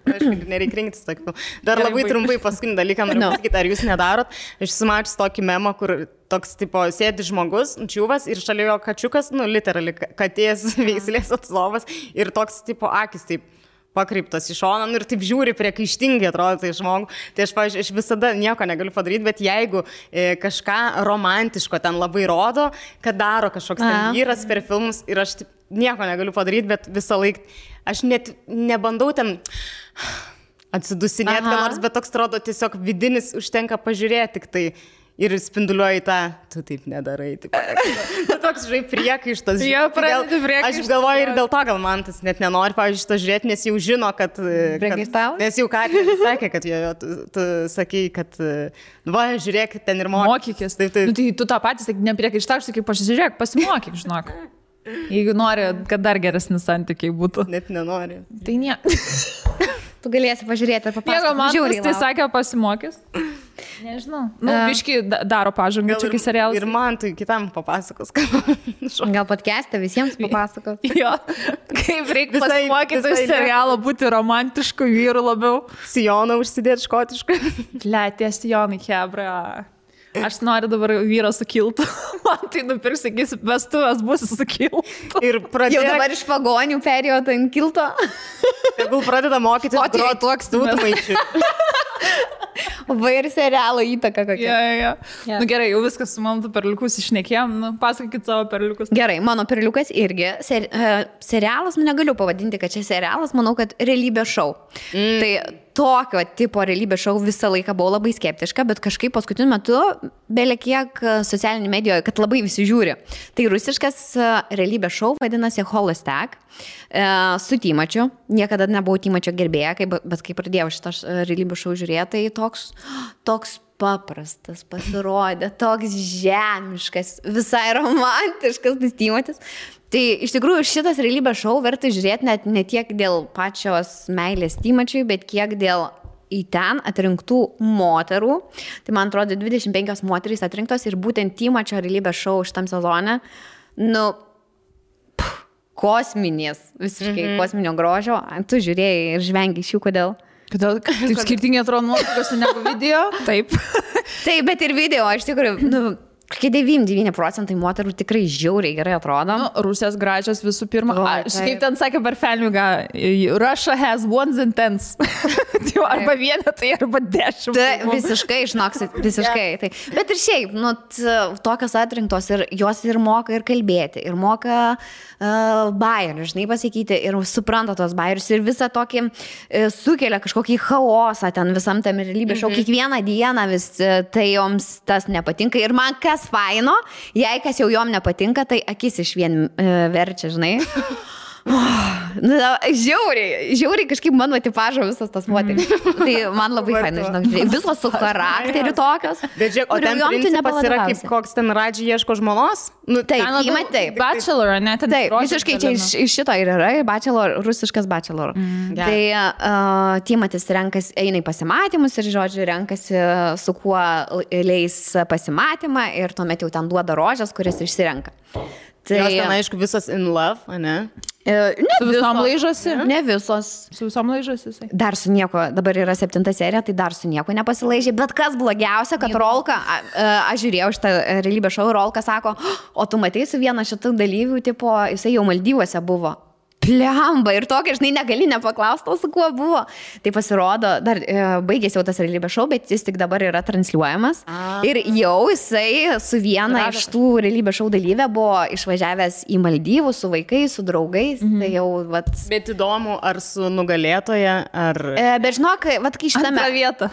Nereikia rinktis tokį. Dar labai trumpai paskutinį dalyką noriu pasakyti, ar jūs nedarot. Aš sumačius tokį memą, kur toks, tipo, sėdi žmogus, čiūvas ir šalia jo kačiukas, literally katės veislės atstovas ir toks, tipo, akis taip pakreiptas į šoną ir taip žiūri priekaištingai atrodo tai žmogų. Tai aš, pavyzdžiui, aš visada nieko negaliu padaryti, bet jeigu kažką romantiško ten labai rodo, kad daro kažkoks ten vyras per filmus ir aš taip, nieko negaliu padaryti, bet visą laiką aš net nebandau ten atsidusinėti, nors, bet toks atrodo tiesiog vidinis užtenka pažiūrėti tik tai. Ir spinduliuoji tą, tu taip nedarai. Toks, žinai, priekaištas. Aš galvoju ir dėl to, gal man tas net nenori, pavyzdžiui, šito žiūrėti, nes jau žino, kad... Nes jau Katė sakė, kad tu sakai, kad, va, žiūrėk, ten ir mokykis. Tai tu tą patį sakai, nepriekaištau, sakai, pasižiūrėk, pasimokyk, žinok. Jeigu nori, kad dar geresnis santykiai būtų. Net nenori. Tai ne. Tu galėsi pažiūrėti ir papasakoti. Jeigu man tai sakė, pasimokys. Nežinau. Biškai daro pažangą čia, kai serialas. Ir man tai kitam papasakos. Gal podcast'e visiems papasakos. Jo. Kaip reikia pasimokyti iš serialo būti romantišku vyru labiau. Sijoną užsidėti škotišką. Tie sijonai, hebra. Aš noriu dabar vyro su kiltu. Man tai nupirks, sakysi, vestuvės bus su kiltu. Ir jau dabar iš pagonių perėjo tai ant kilto. Tegul pradeda mokytis groti dūdmaišių. Va ir serialo įtaka kokia. Ja. Nu gerai, jau viskas su mano perliukus išnekėjom. Pasakykit savo perliukus. Gerai, mano perliukas irgi. Serialas, negaliu pavadinti, kad čia serialas, manau, kad realybės šou. Tai tokio tipo realybės šou visą laiką buvau labai skeptiška, bet kažkaip paskutiniu metu belekiek socialinį medijoje, kad labai visi žiūri. Tai rusiškas realybės šou vadinasi Holostak su Tymačiu. Niekada nebuvau Tymačio gerbėja, bet kai pradėjau šitą realybės šou žiūrėti, tai toks paprastas pasirodė, toks žemiškas, visai romantiškas tas Tymatis. Tai iš tikrųjų šitas realybės šou verta žiūrėti net ne tiek dėl pačios meilės Tymačiui, bet kiek dėl į ten atrinktų moterų. Tai man atrodo 25 moterys atrinktos ir būtent Tymačio realybės šou šitam sezone, kosminės, visiškai kosminio grožio. Tu žiūrėjai ir žvengi iš jų, kodėl? Kodėl taip skirtingai atrodo nuotraukose negu video? Taip. Taip, bet ir video, iš tikrųjų, 99% moterų tikrai žiauriai gerai atrodo. Nu, Rusijos gražios visų pirma. Kaip ten sakė per Felmigą, Russia has ones and tens. Arba vienetai, arba 10. Visiškai, žinoksit, visiškai. Tai. Bet ir šiaip, nu, tokios atrinktos ir jos ir moka ir kalbėti, ir moka bairių, žinai, pasakyti, ir supranta tos bairius, ir visą tokį sukelia kažkokį chaosą ten visam tam realybės šou. Kiekvieną dieną vis tai joms tas nepatinka. Ir man kas faino, jei kas jau jom nepatinka, tai akis iš vien verčia, žinai. Žiauriai kažkaip mano tipažo visas tas moteris. Tai man labai faina, žinok, visos su charakteriu tokios. Bet žiūrėk, o ten principas yra kaip koks ten Radži ieško žmonos? Nu, taip. Bachelor, ne? Taip, visiškai čia iš šito ir yra, bachelor, rusiškas bachelor. Tai Timotis eina į pasimatymus ir, žodžiu, renkasi su kuo leis pasimatymą ir tuomet jau ten duoda rožės, kuris išsirenka. Tai jos ten, aišku, visos in love, ne? Ne su visom laižosi? Ne visos. Su visom laižosi? Dar su nieko, dabar yra 7 serija, tai dar su nieko nepasilaižė. Bet kas blogiausia, kad Rolka, aš žiūrėjau šitą realybės šou, Rolka sako, o tu matei su viena šitų dalyvių, tipo, jisai jau Maldyvuose buvo. Plemba ir tokia, žinai, negali nepaklausti, su kuo buvo. Tai pasirodo, dar baigėsi jau tas realybės šou, bet jis tik dabar yra transliuojamas. Ir jau jisai su viena iš tų realybės šou dalyvė buvo išvažiavęs į Maldyvus su vaikais, su draugais. Tai jau, vat... Bet įdomu, ar su nugalėtoja, ar... Bet žinok, vat, kai šitą vietą.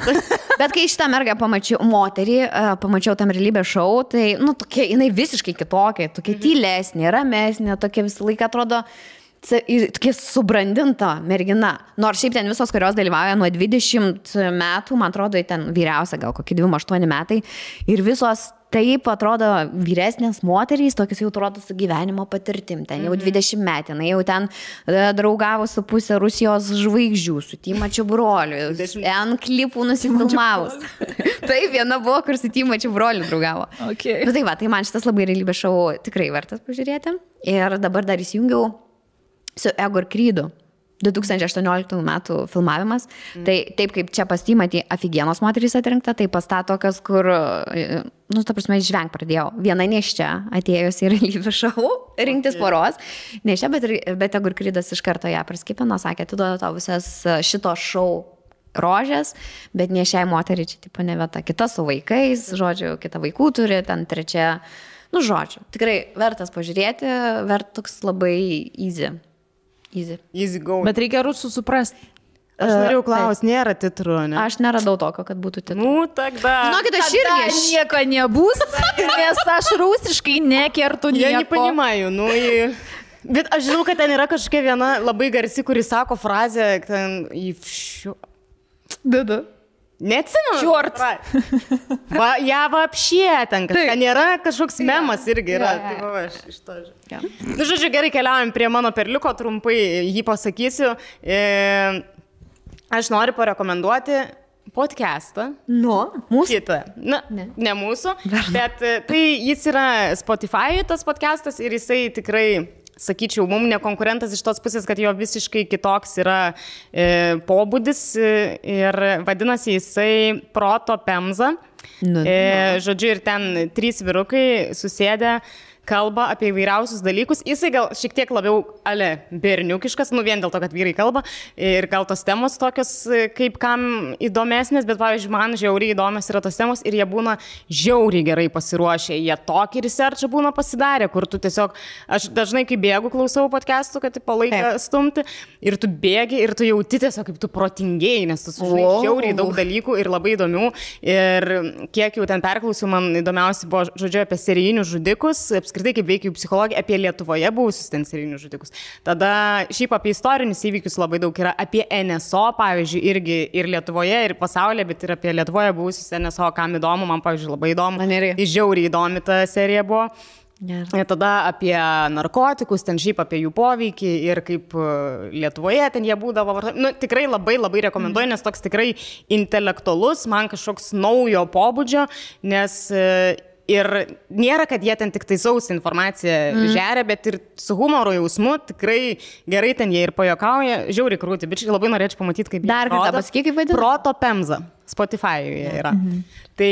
Bet kai šitą mergą pamačiau, moterį, pamačiau tam realybės šou, tai, nu, tokia, jinai visiškai kitokia, tokia tylesnė, ramesnė, tokia visą laiką atrodo... Tokia subrandinta mergina. Nors šiaip ten visos, kurios dalyvauja nuo 20 metų, man atrodo, ten vyriausia gal kokie 28 metai. Ir visos taip atrodo vyresnės moterys, tokios jau atrodo su gyvenimo patirtim. Ten jau 20 metų. Jau ten draugavo su pusė Rusijos žvaigždžių, su Timačiu broliu. N klipų nusifilmavus. Taip, viena buvo, kur su Timačiu broliu draugavo. Okay. Bet tai va, tai man šitas labai realybės šou tikrai vertas pažiūrėti. Ir dabar dar įsijungiau su Ego ir Krydu. 2018 metų filmavimas. Tai taip kaip čia pas Timatį afigienos moterys atrinkta, tai pas tą tokios, kur, nu, ta prasme, žvengt pradėjau. Viena neščia atėjus į realybės šou, rinktis poros. Neščia, bet Ego ir Krydas iš karto ją praskipino, sakė, tu duoda tau visas šito šou rožės, bet ne šiai moteriai čia tipo ne vieta. Kita su vaikais, žodžiu, kita vaikų turi, ten trečia, nu, žodžiu. Tikrai vertas pažiūrėti, toks labai Easy go. Bet reikia rusų suprasti. Aš norėjau klausti, nėra titrų, ne? Aš neradau tokio, kad būtų titrų. Nu, tada. Žinokit, aš irgi nieko nebus, nes aš rusiškai nekertu nieko. Я не понимаю, ну и... Bet aš žinau, kad ten yra kažkokia viena labai garsi, kuri sako frazę, ten į šiu... Dada. Neatsimenu. Čiort. Ja вообще ten, kad nėra kažkoks memas irgi yra. Tai va, aš iš to žiūrėjau. Nu, žodžiu, gerai, keliaujam prie mano perliuko, trumpai jį pasakysiu. Aš noriu parekomenduoti podcastą. Mūsų? Kitą. Na, ne mūsų, bet tai jis yra Spotify tas podcastas ir jisai tikrai... Sakyčiau, mums nekonkurentas iš tos pusės, kad jo visiškai kitoks yra pobūdis ir vadinasi jisai Proto Pemza. Žodžiu, ir ten 3 vyrukai susėdę kalba apie įvairiausius dalykus. Jisai gal šiek tiek labiau berniukiškas, nu vien dėl to, kad vyrai kalba ir gal tos temos tokios kaip kam įdomesnės, bet pavyzdžiui, man žiauriai įdomios yra tos temos ir jie būna žiauriai gerai pasiruošę. Jie tokį researchą būna pasidarę, kur tu tiesiog, aš dažnai kai bėgu klausau podcastų, kad tipo laiką stumti ir tu bėgi ir tu jauti tiesiog kaip tu protingėjai, nes tu sužinai žiauriai daug dalykų ir labai įdomių. Ir kiek jau ten perklausiau, man įdomiausia buvo, žodžiu, apie serijinius žudikus, apskritai kaip veikia jų psichologija, apie Lietuvoje buvusius ten serijinius žudikus. Tada šiaip apie istorinius įvykius labai daug yra, apie NSO, pavyzdžiui, irgi ir Lietuvoje, ir pasaulyje, bet ir apie Lietuvoje buvusius NSO, kam įdomu, man, pavyzdžiui, labai įdomu. Žiauriai įdomi ta serija buvo. Tada apie narkotikus, ten šiaip apie jų poveikį ir kaip Lietuvoje ten jie būdavo. Nu, tikrai labai rekomenduoju, nes toks tikrai intelektualus, man kažkoks naujo pobūdžio, nes Ir nėra, kad jie ten tik tai sausą informaciją žeria, bet ir su humoro jausmu tikrai gerai ten jie ir pajokauja. Žiauriai krūti, bet labai norėčiau pamatyti, kaip dar kartą pasakyk, kaip vadinasi. Proto Pemza. Spotify'uje yra. Tai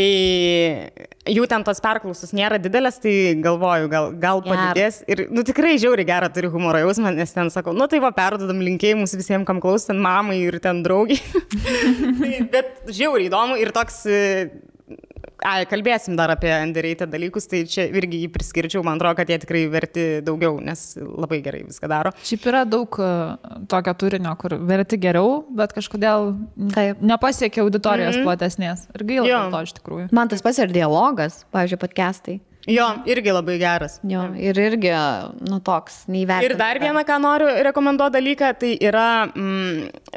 jų ten tos perklausos nėra didelės, tai galvoju, gal padidės. Ir tikrai žiauriai gerą turi humoro jausmą, nes ten sakau, tai va, perdodam linkėjimus visiems, kam klaus, ten mamai ir ten draugiai. Bet žiauriai įdomu ir toks... kalbėsim dar apie underrated dalykus, tai čia irgi jį priskirčiau, man atrodo, kad jie tikrai verti daugiau, nes labai gerai viską daro. Šiaip yra daug tokio turinio, kur verti geriau, bet kažkodėl nepasiekia auditorijos platesnės. Ir gaila dėl to iš tikrųjų. Man tas pats ir dialogas, pavyzdžiui, podcastai. Jo, irgi labai geras. Jo, ir irgi, toks, neįvertintas. Ir dar vieną, ką noriu rekomenduoti dalyką, tai yra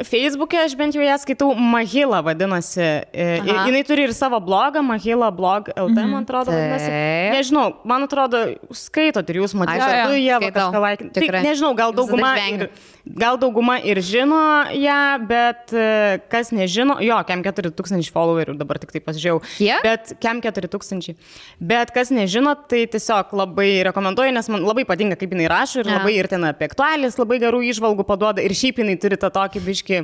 Facebook'e, aš bent jau ją skaitau, Mahila vadinasi. Jinai turi ir savo blogą, Mahila blog LT, man atrodo, vadinasi. Nežinau, man atrodo, skaitot ir jūs matysite, tu jie kažką laikinti. Tai nežinau, gal dauguma ir žino ją, bet kas nežino, kem 4000 followerių, dabar tik tai pasižiūrėjau. Bet kem 4000. Bet kas nežino, tai tiesiog labai rekomenduoju, nes man labai patinka, kaip jinai rašo ir labai ir ten apie aktualijas labai gerų įžvalgų paduoda ir šiaip jinai turi tą tokį biškį,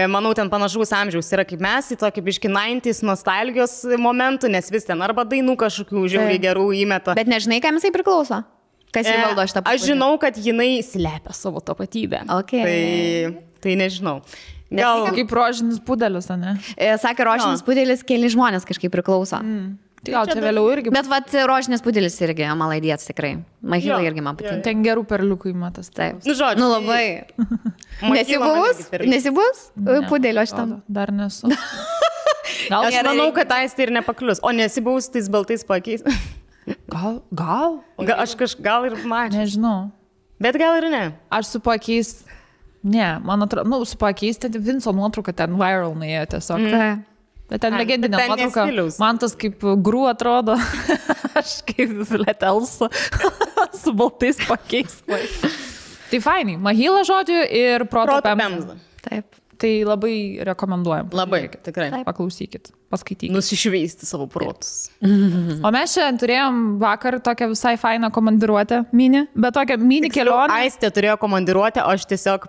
manau, ten panašaus amžiaus yra kaip mes, į tokį biškį 90s nostalgijos momentų, nes vis ten arba dainų kažkokių žiauriai gerų įmeta. Bet nežinai, kam jisai priklauso? Kas jį valdo šitą tapatybę? Aš žinau, kad jinai slepia savo tapatybę. Tai nežinau. Gal kaip rožinis pudelis, ne? Sakė, rožinis pudelis keli žmonės kažkaip priklauso. Gal čia vėliau irgi. Bet rožinis pudelis irgi malaidėts tikrai. Mahila irgi man patinka. Ten gerų perliukų įmatas. Taip. Žodžiu. Labai. Nesibuvus pudelio šitam? Dar nesu. Aš manau, kad Aistė ir nepaklius. O nesibuvus tais baltais pakeis. Gal? Gal ir mačiau. Nežinau. Bet gal ir ne. Aš su pakeis. Ne, man atrodo, su pakeis, ten Vinco nuotrauka ten viral nuėjo tiesiog. Bet ten legendinė nuotrauka. Man tas kaip grų atrodo. Aš kaip Letelsa su baltais pakeis. Tai fainai. Mahila žodžiu ir Proto Pemza. Taip. Tai labai rekomenduojam. Labai, tikrai. Paklausykit, paskaitykit. Nusišveisti savo protus. O mes šiandien turėjom vakar tokią visai fainą komandiruotę mini, bet tokią mini kelionę. Aistė turėjo komandiruotę, o aš tiesiog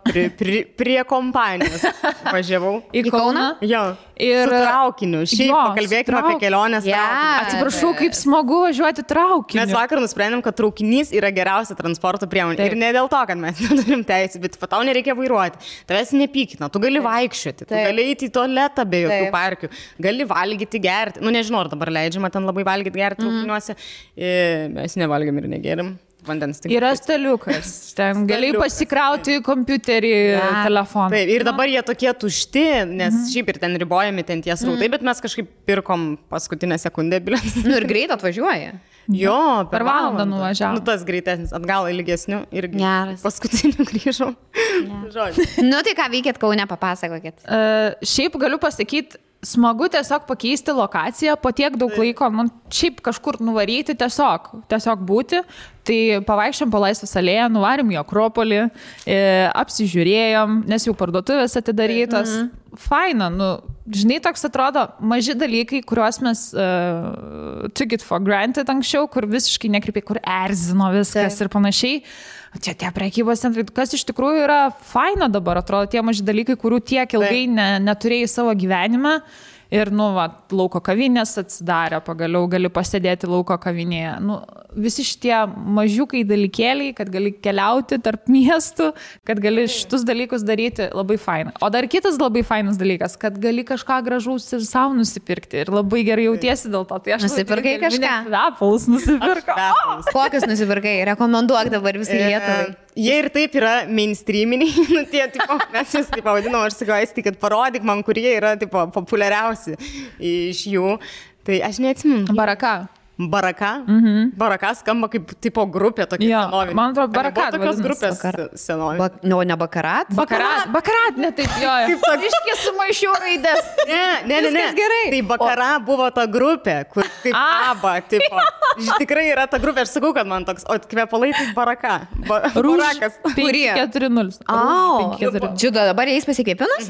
prie kompanijos važiavau. Į Kauną? Jo. Ir su traukiniu. Šiaip pakalbėkime apie kelionės traukiniu. Atsiprašau, kaip smagu važiuoti traukiniu. Mes vakar nusprendėm, kad traukinys yra geriausia transporto priemonė. Ir ne dėl to, kad mes neturim teisės, bet tau nereikia vairuoti. Tavęs nepykina, tu gali vaikščioti, tu gali eiti į tualetą be jokių parkių, gali valgyti, gerti. Nežinau, ar dabar leidžiama ten labai valgyti, gerti traukiniuose. Mes nevalgėm ir negėrim. Yra staliukas, ten gali pasikrauti kompiuterį, telefoną. Taip, ir dabar jie tokie tušti, nes šiaip ir ten ribojami ten tie srautai, bet mes kažkaip pirkom paskutinę sekundę bilietus. Ir greit atvažiuoja. Jo, per valandą nuvažiavo. Tas greitesnis, atgal ilgesniu irgi. Paskutiniu grįžau. Tai ką veikėt Kaune, papasakokit. Šiaip galiu pasakyti, smagu tiesiog pakeisti lokaciją po tiek daug laiko, šiaip kažkur nuvaryti, tiesiog būti. Tai pavaikščiom po Laisvės alėją, nuvarėm į Akropolį, apsižiūrėjom, nes jau parduotuvės atidarytos. Faina, žinai, toks atrodo maži dalykai, kuriuos mes took it for granted anksčiau, kur visiškai nekreipiai, kur erzino viskas ir panašiai. Čia tie prekybos centrai, kas iš tikrųjų yra faina dabar, atrodo, tie maži dalykai, kurių tiek ilgai neturėjai savo gyvenime. Ir, lauko kavinės atsidarė, pagaliau gali pasėdėti lauko kavinėje. Visi šitie mažiukai dalykėliai, kad gali keliauti tarp miestų, kad gali šitus dalykus daryti, labai faina. O dar kitas labai fainas dalykas, kad gali kažką gražaus ir savo nusipirkti. Ir labai gerai jautiesi dėl to. Tai aš nusipirkai kažką? Kvepalus nusipirkau. Kokius nusipirkai? Rekomenduok dabar visai Lietuvai. Jie ir taip yra mainstreaminiai, mes jūs taip pavadinom, aš sakau, Aistė, kad parodyk man, kurie yra populiariausi iš jų. Tai aš neatsimenu. Baraka? Baraka skamba kaip tipo grupė tokia senovinė. Man atrodo, Baraka. Tokios grupės senovinė. Ne Bakarat? Bakarat, ne taip, jo. Kaip iškė sumaišiau raidės. Ne. Gerai. Tai Bakara buvo ta grupė, kur kaip ABBA, tipo. Tikrai yra ta grupė, aš sakau, kad man toks, o kvepalai tai Baraka. Barakas. 5-4-0. Džiudo, dabar jais pasikėpinus?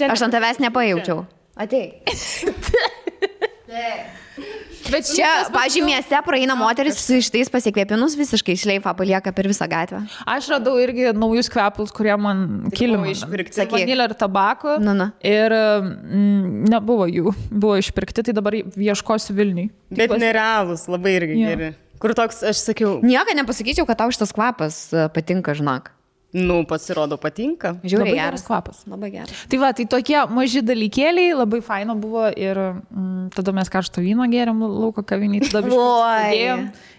Aš ant tavęs nepajaučiau. Atei. Bet čia, pažiūrėjau, mieste praeina moteris su šitais pasikvėpinus visiškai šleifą palieka per visą gatvę. Aš radau irgi naujus kvepalus, kurie man kilimą išpirkti. Vanilė ir tabako. Ir nebuvo jų. Buvo išpirkti, tai dabar ieškosiu Vilniui. Bet nerealus, labai irgi geri. Kur toks, aš sakiau... Nieko nepasakyčiau, kad tau šitas kvapas patinka, žinok. Nu, pasirodo, patinka. Žiūrėjau, labai geras kvapas. Labai geras. Tai va, tai tokie maži dalykėliai, labai faino buvo ir tada mes karšto vyno gėrėm lauko kavinį, tada biškai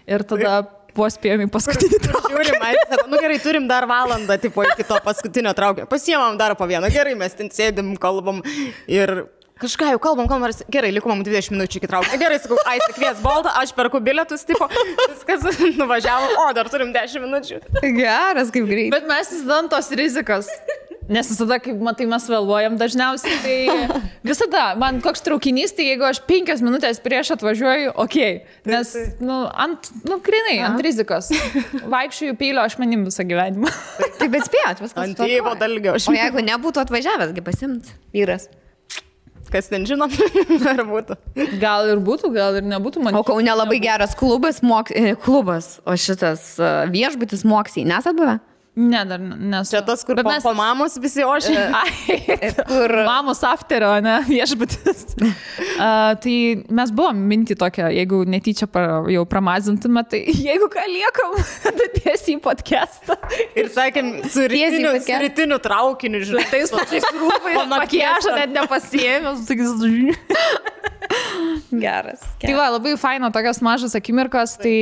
ir tada spėjom į paskutinį traukinį. Žiūrim, sako, nu gerai, turim dar valandą, tipo, iki to paskutinio traukinio. Pasiemam dar po vieną, gerai, mes ten sėdim, kalbam ir... Kažką jau kalbam, gerai, liko mums 20 minučių iki traukinio. Gerai, sakau, Aistė kvies Boltą, aš perku bilietus, tipo, viskas nuvažiavo, o dar turim 10 minučių. Geras, kaip greit. Bet mes visada tos rizikas. Nes visada, kaip matai, mes vėluojam dažniausiai, tai visada, man koks traukinys, tai jeigu aš 5 minutės prieš atvažiuoju, okei. Nes, grinai, ant rizikos. Vaikščiųjų peilio ašmenim visą gyvenimą. Taip, bet spėjot, viskas. Ant tėvo dalgio. O jeigu nebūtų atvažiavęs, pasimt vyras. Kas ten žino, ar būtų. Gal ir būtų, gal ir nebūtų. O Kaune labai geras klubas, o šitas viešbutis Moksiai. Nesat buvę? Ne, dar nesu. Čia tas, kur po mamos visi ošia. Kur mamos afterio, ne, viešbutis. Tai mes buvom minti tokia, jeigu netyčia jau pramazintume, tai jeigu ką liekam, tada tiesiai į podcastą. Ir sakėm, su rytiniu traukiniu, žinai. Tais pačiais rūbais, makiažą net nepasiėmęs. Geras. Tai va, labai faino tokios mažos akimirkos, tai...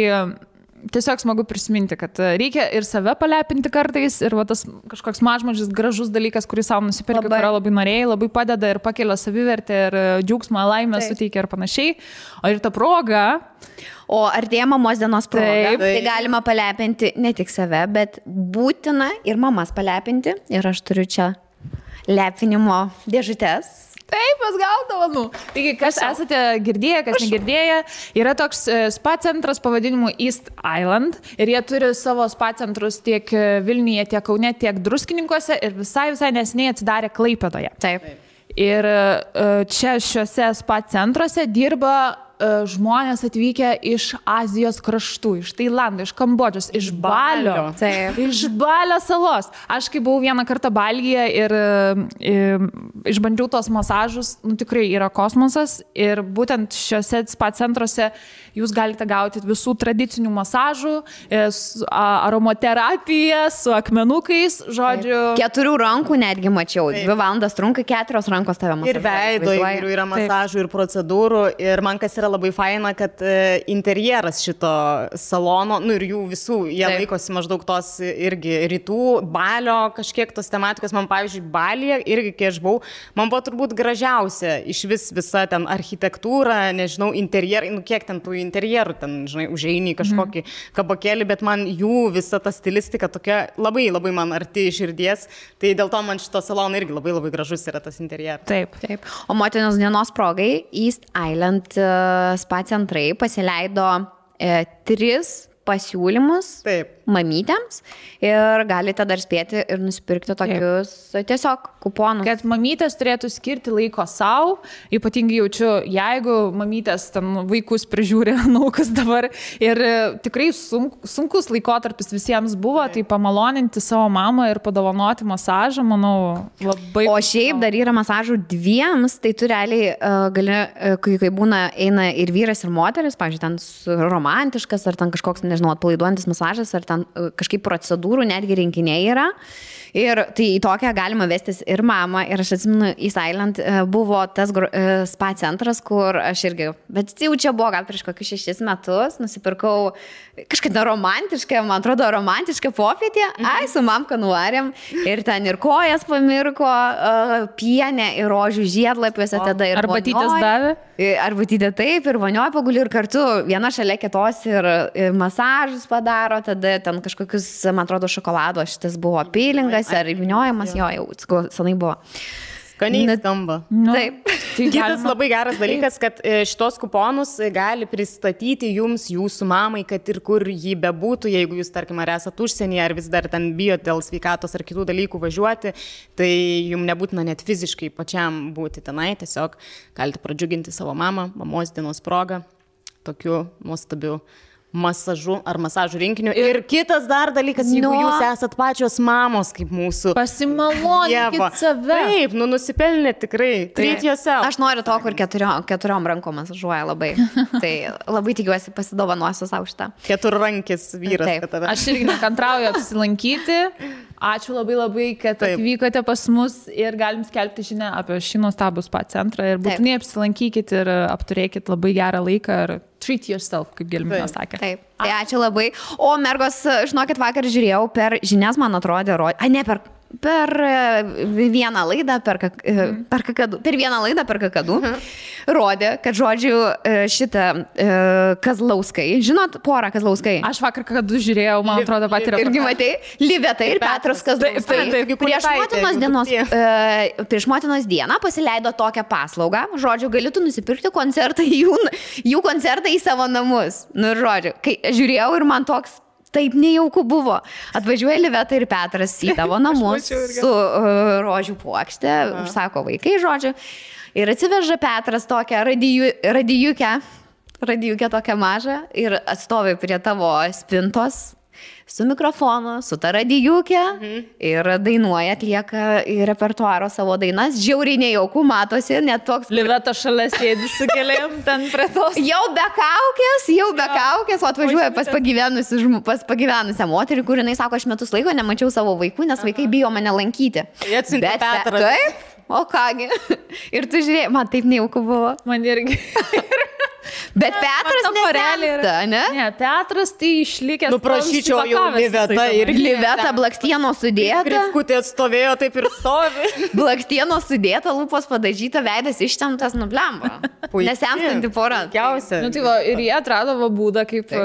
Tiesiog smagu prisiminti, kad reikia ir save palepinti kartais ir va, tas kažkoks mažmažis gražus dalykas, kurį savo nusipirki, kurio labai norėjai, labai padeda ir pakelia savivertę ir džiaugsmą, laimę suteikia ir panašiai. O ir ta proga... O artėja mamos dienos proga, tai galima palepinti ne tik save, bet būtina ir mamas palepinti. Ir aš turiu čia lepinimo dėžutės. Taip, mes gaudavome. Taigi, kas esate girdėję, kas negirdėję, yra toks spa centras pavadinimu East Island ir jie turi savo spa centrus tiek Vilniuje, tiek Kaune, tiek Druskininkuose ir visai neseniai atsidarė Klaipėdoje. Taip. Ir čia šiuose spa centruose dirba žmonės atvykę iš Azijos kraštų, iš Tailando, iš Kambodžos, iš Balio. Taip. Iš Balio salos. Aš kai buvau vieną kartą Balyje ir išbandžiau tos masažus, tikrai yra kosmosas ir būtent šiuose spa centruose jūs galite gauti visų tradicinių masažų, aromaterapiją, su akmenukais, žodžiu. 4 rankų netgi mačiau. 2 valandas trunka, 4 rankos tave masažuoja. Ir veido įvairių yra masažų ir procedūrų. Ir man kas yra labai faina, kad interjeras šito salono, ir jų visų, jie laikosi maždaug tos irgi rytų, Balio kažkiek tos tematikos. Man, pavyzdžiui, Balyje irgi, kai aš buvau, man buvo turbūt gražiausia iš visa ten architektūra, nežinau, interjerai, kiek ten tų interjerų, ten, žinai, užeini kažkokį kabakėlį, bet man jų visa ta stilistika tokia labai, labai man arti širdies, tai dėl to man šito salono irgi labai, labai gražus yra tas interjeras. Taip. O motinos dienos progai East Island spa centrai pasileido 3 pasiūlymus mamytėms ir galite dar spėti ir nusipirkti tokius tiesiog kuponus. Kad mamytės turėtų skirti laiko savo, ypatingai jaučiu, jeigu mamytės ten vaikus prižiūri, kas dabar ir tikrai sunkus laikotarpis visiems buvo, tai pamaloninti savo mamą ir padovanoti masažą, manau, labai... O šiaip dar yra masažų 2, tai tu realiai gali, kai būna, eina ir vyras, ir moteris, pavyzdžiui, ten romantiškas, ar ten kažkoks, nežinau, atpalaiduojantis masažas, ar ten kažkaip procedūrų netgi rinkiniai yra. Ir tai į tokią galima vestis ir mamą. Ir aš atsimenu, East Island buvo tas spa centras, kur aš irgi, bet jau čia buvo gal prieš kokius 6 metus, nusipirkau kažkada romantišką, man atrodo, romantišką popietę. Su mamka nuvarėm ir ten ir kojas pamirko, pienė ir rožių žiedlapiuose tada ir arbatytės davė. Arbatytė taip, ir vonioje paguli ir kartu viena šalia kitos ir masažus padaro, tada ten kažkokius, man atrodo, šokolado šitas buvo pilingas ar įviniojamas, jau senai buvo. Skaniai skamba. Taip. Kitas labai geras dalykas, kad šitos kuponus gali pristatyti jums, jūsų mamai, kad ir kur jį bebūtų, jeigu jūs, tarkim, ar esat užsienyje, ar vis dar ten bijot dėl sveikatos ar kitų dalykų važiuoti, tai jums nebūtina net fiziškai pačiam būti tenai, tiesiog galite pradžiuginti savo mamą, mamos dienos progą. tokiu nuostabiu masažu ar masažų rinkiniu. Ir kitas dar dalykas, jeigu jūs esat pačios mamos kaip mūsų. Pasimalonkit save. Taip, nusipelnė tikrai. Treat yourself. Aš noriu to, kur keturiom rankom masažuoja labai. Tai labai tikiuosi pasidovanosiu savo šitą. Keturrankis vyras. Taip. Aš irgi nekantrauju apsilankyti. Ačiū labai, kad atvykote pas mus ir galim skelbti žinią apie šį nuostabų spa centrą ir būtinai apsilankykit ir apturėkit labai gerą laiką ir treat yourself, kaip Gelmina sakė. Taip, tai ačiū labai. O mergos, žinokit, vakar žiūrėjau per žinias, man atrodė, per vieną laidą per vieną laidą per kakadu rodė, kad žodžiu šitą Kazlauskai, žinot porą Kazlauskai? Aš vakar kakadu žiūrėjau, man atrodo, pat ir irgi matei, Liveta ir Petras Kazlauskai. Prieš motinos dieną pasileido tokią paslaugą, žodžiu, galėtų nusipirkti koncertą, jų koncertą į savo namus. Nu, žodžiu, kai žiūrėjau ir man toks taip nejauku buvo. Atvažiuoja Liveta ir Petras į tavo namus su rožių puokšte, užsako vaikai, žodžiu. Ir atsiveža Petras tokią radijukę tokią mažą ir atstovi prie tavo spintos su mikrofonu, su ta radijukė ir dainuoja, atlieka į repertuaro savo dainas. Žiauriai nejauku, matosi, net toks... Liveta šalia sėdi su keliam ten prie tos. Jau be kaukės, o atvažiuoja pas pagyvenusią moterį, kur jinai sako, aš metus laiko nemačiau savo vaikų, nes vaikai bijo mane lankyti. Bet Petras. Taip, o kągi. Ir tu žiūrėjai, man taip nejauku buvo. Man irgi. Bet Petras nesensta, ne? Ne, Petras tai išlikęs. Prašyčiau jau Liveta ir Liveta blakstieno sudėta. Grifkutė atstovėjo, taip ir stovi. Blakstieno sudėta, lūpos padažyta, veidas ištemptas, nublemba. Nesenstanti pora. Nu, tai va, ir jie atrado būdą, kaip...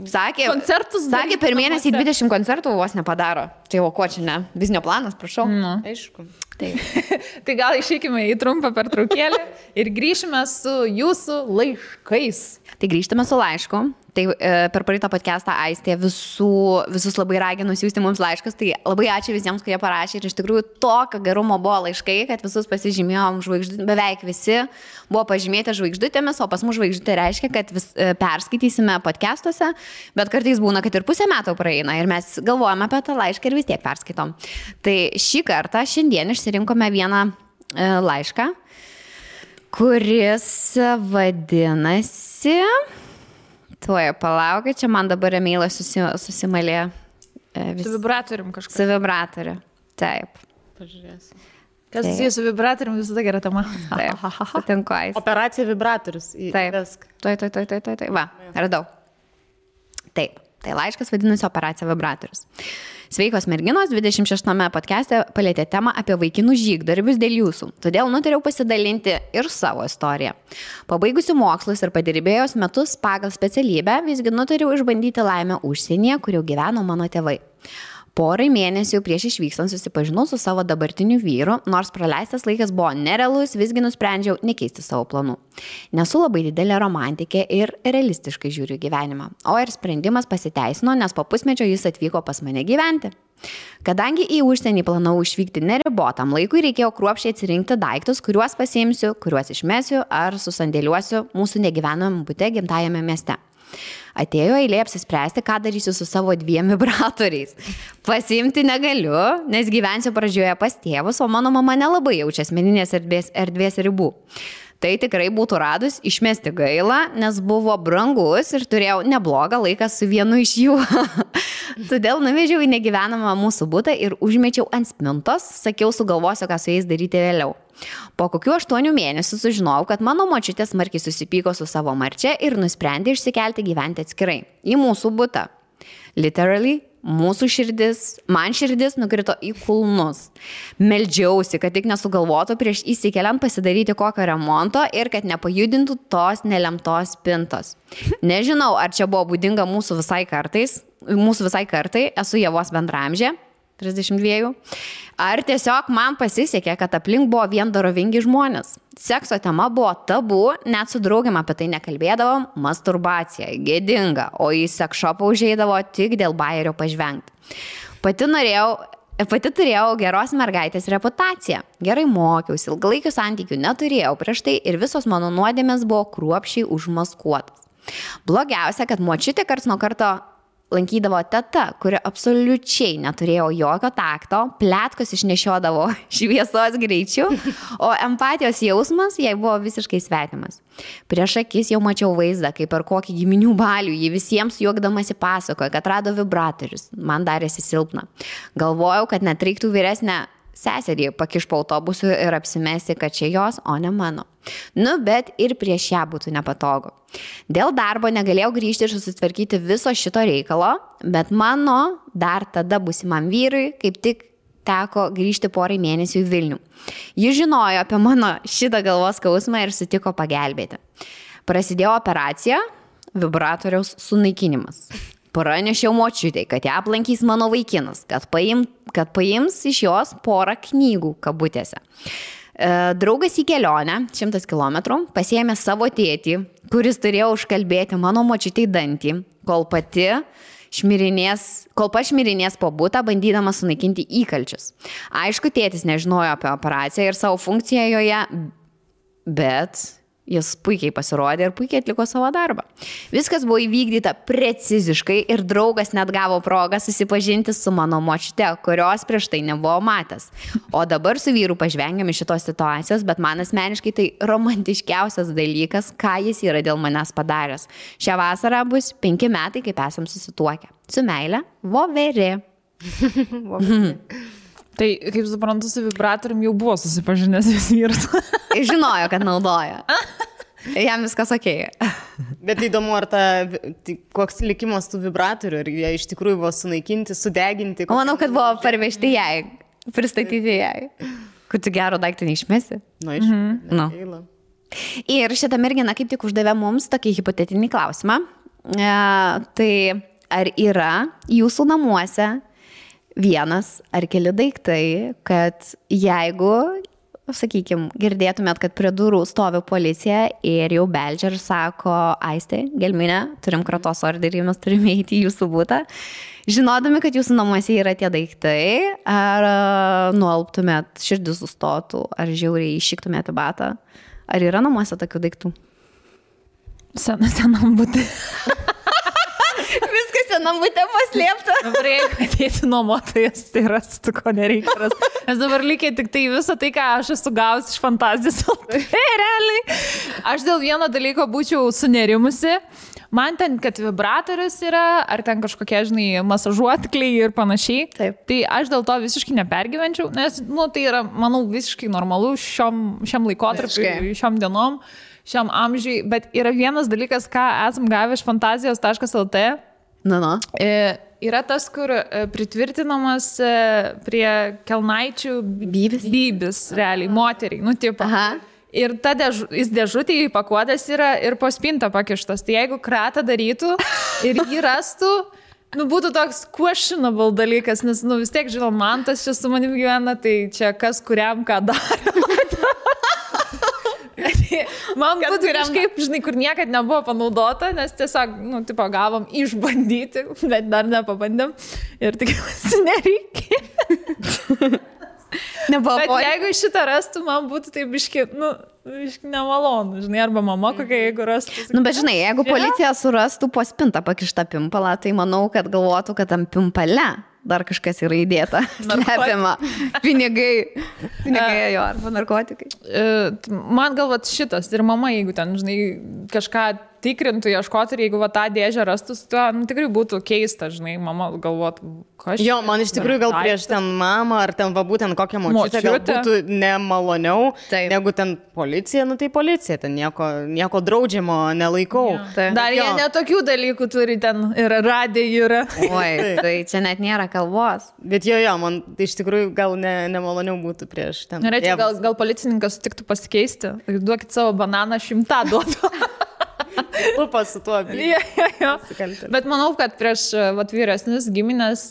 Sakė, koncertus sakė, per mėnesį 20 koncertų vos nepadaro. Tai o ko čia ne? Biznio planas, prašau. Aišku. Tai gal išeikime į trumpą pertraukėlę ir grįšime su jūsų laiškais. Tai grįžtame su laišku. Tai per praeitą podcastą Aistė visus labai ragino siųsti mums laiškus. Tai labai ačiū visiems, kurie parašė. Ir iš tikrųjų tokio gerumo buvo laiškai, kad visus pasižymėjom žvaigždutėmis. Beveik visi buvo pažymėti žvaigždutėmis, o pas mus žvaigždutė reiškia, kad perskaitysime podcastuose. Bet kartais būna, kad ir pusę metų praeina. Ir mes galvojame apie tą laišką ir vis tiek perskaitom. Tai šį kartą, šiandien išsirinkome vieną laišką, kuris vadinasi... Tuoja, palaukit, čia man dabar emailas susimalė. Su vibratorium kažkas. Su vibratoriu, taip. Pažiūrėsiu. Kas susijęs su vibratorium, visada gera tema. Taip, sutinku. Operacija vibratorius. Taip, tuoj. Va, radau. Taip, tai laiškas vadinasi Operacija vibratorius. Sveikos merginos, 26 podcast'e palėtė temą apie vaikinų žygdarbius dėl jūsų. Todėl nutariau pasidalinti ir savo istoriją. Pabaigusiu mokslus ir padirbėjus metus pagal specialybę, visgi nutariau išbandyti laimę užsienyje, kur jau gyveno mano tėvai. Porai mėnesių prieš išvykstant susipažinau su savo dabartiniu vyru, nors praleistas laikas buvo nerealus, visgi nusprendžiau nekeisti savo planų. Nesu labai didelė romantikė ir realistiškai žiūriu gyvenimą, o ir sprendimas pasiteisino, nes po pusmečio jis atvyko pas mane gyventi. Kadangi į užsienį planavau išvykti neribotam laikui, reikėjo kruopščiai atsirinkti daiktus, kuriuos pasiimsiu, kuriuos išmesiu ar susandėliuosiu mūsų negyvenamam bute gimtajame mieste. Atėjo eilė apsispręsti, ką darysiu su savo 2 vibratoriais. Pasiimti negaliu, nes gyvensiu pradžioje pas tėvus, o mano mama nelabai jaučia asmeninės erdvės ribų. Tai tikrai būtų radus išmesti gaila, nes buvo brangus ir turėjau neblogą laiką su vienu iš jų. Todėl nuvežiau į negyvenamą mūsų butą ir užmečiau ant spintos, sakiau, sugalvosiu, ką su jais daryti vėliau. Po kokių 8 mėnesių sužinojau, kad mano močiutė smarkiai susipyko su savo marčia ir nusprendė išsikelti gyventi atskirai į mūsų butą. Literally, man širdis nukrito į kulnus. Meldžiausi, kad tik nesugalvotų prieš įsikeliant pasidaryti kokio remonto ir kad nepajudintų tos nelemtos spintos. Nežinau, ar čia buvo būdinga mūsų visai kartai, esu Ievos bendramžė, 32. Ar tiesiog man pasisekė, kad aplink buvo vien dorovingi žmonės. Sekso tema buvo tabu, net su draugiam apie tai nekalbėdavom, masturbacija, gėdinga, o į seksšopą užeidavo tik dėl bajerio pažvengti. Pati turėjau geros mergaitės reputaciją. Gerai mokiausi, ilgalaikių santykių neturėjau prieš tai ir visos mano nuodėmės buvo kruopščiai užmaskuotas. Blogiausia, kad močiutė karts nuo karto lankydavo teta, kuri absoliučiai neturėjo jokio takto, pletkos išnešiodavo šviesos greičiu, o empatijos jausmas jai buvo visiškai svetimas. Prieš akis jau mačiau vaizdą, kaip per kokį giminių balių ji visiems juokdamasi pasakoja, kad rado vibratorius. Man darėsi silpna. Galvojau, kad net reiktų vyresnę seserį pakiš po autobusu ir apsimesti, kad čia jos, o ne mano. Bet ir prieš ją būtų nepatogu. Dėl darbo negalėjau grįžti ir susitvarkyti viso šito reikalo, bet mano dar tada būsimam vyrui kaip tik teko grįžti porai mėnesių į Vilnių. Jis žinojo apie mano šitą galvos skausmą ir sutiko pagelbėti. Prasidėjo operacija, vibratoriaus sunaikinimas. Pranešiau močiutei, kad ją aplankys mano vaikinas, kad paims iš jos porą knygų kabutėse. Draugas į kelionę, 100 km, pasiėmė savo tėtį, kuris turėjo užkalbėti mano močiutei dantį, kol pats šmirinės po butą, bandydamas sunaikinti įkalčius. Aišku, tėtis nežinojo apie operaciją ir savo funkciją joje, bet jis puikiai pasirodė ir puikiai atliko savo darbą. Viskas buvo įvykdyta preciziškai ir draugas net gavo progą susipažinti su mano močiute, kurios prieš tai nebuvo matęs. O dabar su vyru pažvengiam iš šitos situacijos, bet man asmeniškai tai romantiškiausias dalykas, ką jis yra dėl manęs padaręs. Šią vasarą bus 5 metai, kaip esam susituokę. Su meile, Voverė. Tai, kaip suprantu, su vibratorium jau buvo susipažinęs vis vyras. Žinojo, kad naudoja. Jam viskas okei. Bet įdomu, ar koks likimas tų vibratorių, ar jie iš tikrųjų buvo sunaikinti, sudeginti. Manau, kad buvo parvežti jai, pristatyti jai. Kad tu gero daiktą neišmesi. Gaila. Ir šitą merginą kaip tik uždavė mums tokį hipotetinį klausimą. Tai ar yra jūsų namuose vienas ar keli daiktai, kad jeigu, sakykime, girdėtumėt, kad prie durų stovi policija ir jau beldžia ir sako, Aistė, Gelminė, turim kratos orderį, mes turime eiti į jūsų butą, žinodami, kad jūsų namuose yra tie daiktai, ar nualptumėt, širdis sustotų, ar žiauriai iššiktumėt į batą, ar yra namuose tokių daiktų? Senam būti. Viskas senam būtė paslėpta. Dabar jeigu atėti nuomotojas, tai rastų, ko nereikia rasti. Nes dabar lygiai tik tai visą tai, ką aš esu gausi iš fantazijos. Tai realiai. Aš dėl vieno dalyko būčiau sunerimusi. Man ten, kad vibratorius yra, ar ten kažkokie, masažuotkliai ir panašiai. Taip. Tai aš dėl to visiškai nepergyvenčiau, nes, tai yra, manau, visiškai normalu šiam laikotarpiu, šiam dienom. Šiam amžiui, bet yra vienas dalykas, ką esam gavę iš fantazijos.lt. Yra tas, kur pritvirtinamas prie kelnaičių bybis, realiai, moteriai, tipo. Ir jis dėžutėje įpakuotas yra ir po spintą pakištas. Tai jeigu kratą darytų ir jį rastų, būtų toks questionable dalykas, nes, vis tiek, man tas čia su manim gyvena, tai čia kas kuriam ką daro. Man būtų kažkaip, kur niekad nebuvo panaudota, nes tiesiog, gavom išbandyti, bet dar nepabandėm ir tikiuosi nereikia. Bet jeigu šitą rastų, man būtų tai biški nemalonu, arba mama kokia, jeigu rastų. Bet jeigu policija surastų po spintą pakištą pimpalą, tai manau, kad galvotų, kad tam pimpale dar kažkas yra įdėta, slepiama, pinigai jo, arba narkotikai. Man galvat šitas ir mama, jeigu ten, kažką tikrintų, ieškotų ir jeigu tą dėžę rastus, tai tikrai būtų keista, mama galvotų, kas. Jo, man iš tikrųjų gal prieš ten mamą ar ten būtent kokią močiutę gal būtų nemaloniau, negu ten policija, tai policija, ten nieko draudžiamo nelaikau. Dar jie netokių dalykų turi, ten ir radija yra. Oi, tai čia net nėra kalbos. Bet jo, man iš tikrųjų gal nemaloniau būtų prieš ten. Norėčiau, gal policininkas sutiktų pasikeisti, duokit savo bananą 100 duotų. Lupas su tuo. Bet manau, kad prieš vyresnis giminės,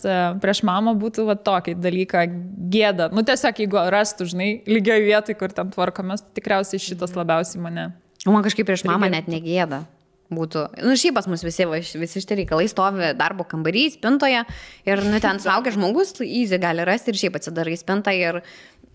prieš mamą būtų tokį dalyką gėda. Tiesiog, jeigu rastų, lygioj vietoj, kur ten tvarkomės, tikriausiai šitas labiausiai mane. Man kažkaip prieš mamą net negėda būtų. Šiaip pas mus visi šitie reikalai stovi darbo kambarį, spintoje ir ten suaugęs žmogus easy gali rasti ir šiaip atsidarai spintą ir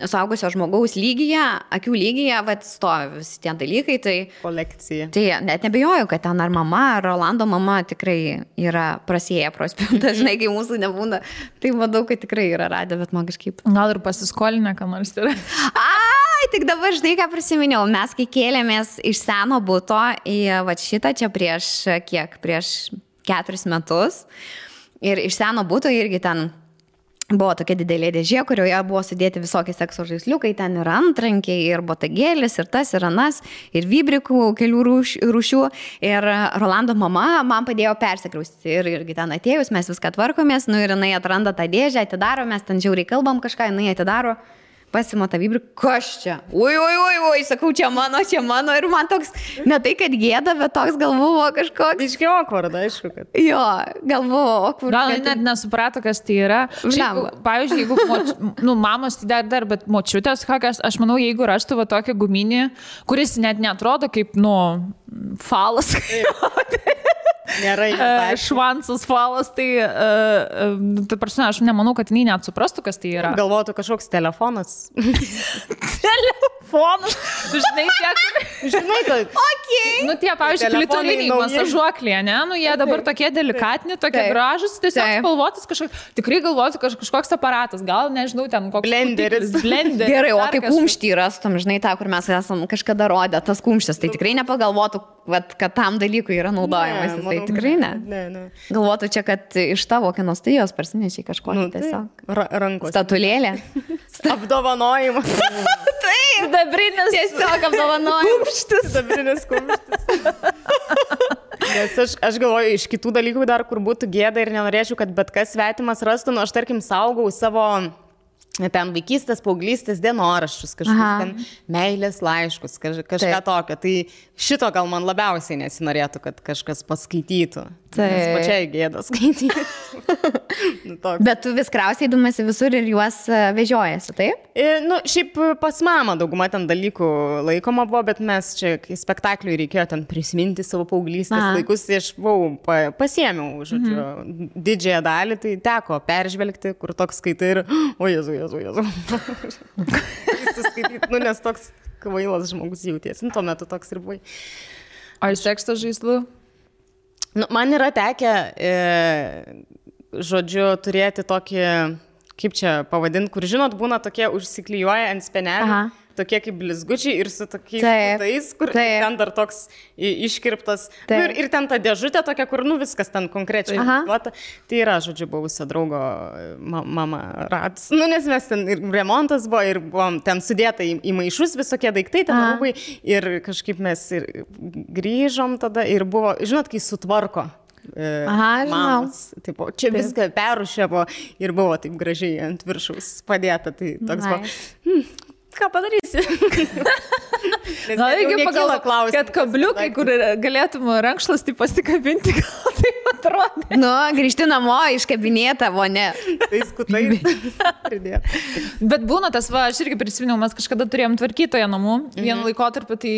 suaugusio žmogaus lygyje, akių lygyje, vat stovi visi tie dalykai, tai... Kolekcija. Tai net nebejoju, kad ten ar mama, ar Rolando mama tikrai yra prasėję prospėjų, dažnai, kai mūsų nebūna, tai manau, kad tikrai yra radę, bet man kažkaip... Gal ir pasiskolinę, ką nors yra. Ai, tik dabar žinai, ką prisiminiau, mes kai kėlėmės iš seno buto į vat šitą čia prieš 4 metus ir iš seno buto irgi ten... Buvo tokia didelė dėžė, kurioje buvo sudėti visokie sekso žaisliukai, ten ir antrankiai, ir botagėlis, ir tas, ir anas, ir vybrikų kelių rūšių. Ir Rolando mama man padėjo persikraustyti. Ir irgi ten atėjus, mes viską tvarkomės, nu ir jinai atranda tą dėžę, atidaro, mes ten žiauriai kalbam kažką, jinai atidaro. Pasima tą vybrį, kas čia? Ui, sakau, čia mano, ir man toks, ne tai, kad gėda, bet toks gal buvo kažkoks. Iškiai okvarda, aišku, kad. Jo, gal buvo okvarda. Gal net nesuprato, kas tai yra. Šiaip, pavyzdžiui, jeigu mamos tai dar, bet močiutės kokias, aš manau, jeigu rastų va tokį guminį, kuris net neatrodo kaip, falas. Nėra švansas falas, tai prasme, aš nemanau, kad jinai net suprastų, kas tai yra. Galvotų kažkoks telefonas. Telefonas? Žinai, kad... Nu, tie, pavyzdžiui, klitoliniai masažuoklė, ne? Nu, jie dabar tokie delikatini, tokie gražus, tiesiog spalvotis kažkoks. Tikrai galvotų kažkoks aparatas, gal, nežinau, ten koks... Blenderis. Gerai, o kaip kumštį rastum, žinai, tą, kur mes esam kažkada rodę, tas kumštis, tai tikrai nepagalvotų, kad tam dalykui yra naudojamas. Tai tikrai ne. Ne. Galvotų čia, kad iš tavo kino studijos parsinešiai kažkokį tiesiog. Rankos. Statulėlė. Apdovanojimas. Taip, dabrinis. Tiesiog apdovanojimas. Dabrinis kumštis. Nes aš galvoju, iš kitų dalykų dar, kur būtų gėda ir nenorėčiau, kad bet kas svetimas rastų, aš tarkim saugau savo... ten vaikystės, paauglystės dienoraščius, kažkokius ten meilės laiškus, kažką tokio. Tai šito gal man labiausiai nesinorėtų, kad kažkas paskaitytų. Nes pačiai gėda skaityti. Bet tu vis krausiai dumasi visur ir juos vežiojasi, taip? Šiaip pas mamą dauguma ten dalykų laikoma buvo, bet mes čia, kai spektakliui reikėjo ten prisiminti savo paauglystės laikus, tai aš pasiėmiau, žodžiu, didžiąją dalį, tai teko peržvelgti, kur toks skaitai ir, o Jėzu. Nes toks kvailas žmogus jautiesi. Tuo metu toks ir buvai. O iš sekso žaislų? Man yra tekę, žodžiu, turėti tokį, kaip čia pavadinti, kur, žinot, būna tokie užsiklijuoja ant spenelių. Tokie kaip blizgučiai ir su tokiais tais, kur ten dar toks iškirptas. Ir ten ta dėžutė tokia, kur viskas ten konkrečiai. Tai yra, žodžiu, buvusio draugo mama radus. Nes mes ten ir remontas buvo, ir buvom ten sudėta į maišus visokie daiktai, ten rūbai. Ir kažkaip mes ir grįžom tada ir buvo, žinot, kai sutvarko. Mamos. Tipo, čia viską perrušėvo ir buvo taip gražiai ant viršaus padėta. Tai toks buvo. Ką padarysi? Gal reikia pagalvoti, kad kabliukai, kur galėtum rankšluostį pasikabinti, gal taip atrodė. Grįžti namo, iškabinėta, ne. Tai skutai pridėjo. Bet būna tas, aš irgi prisiminiau, mes kažkada turėjom tvarkytoje namų. Vienu laikotarpiu tai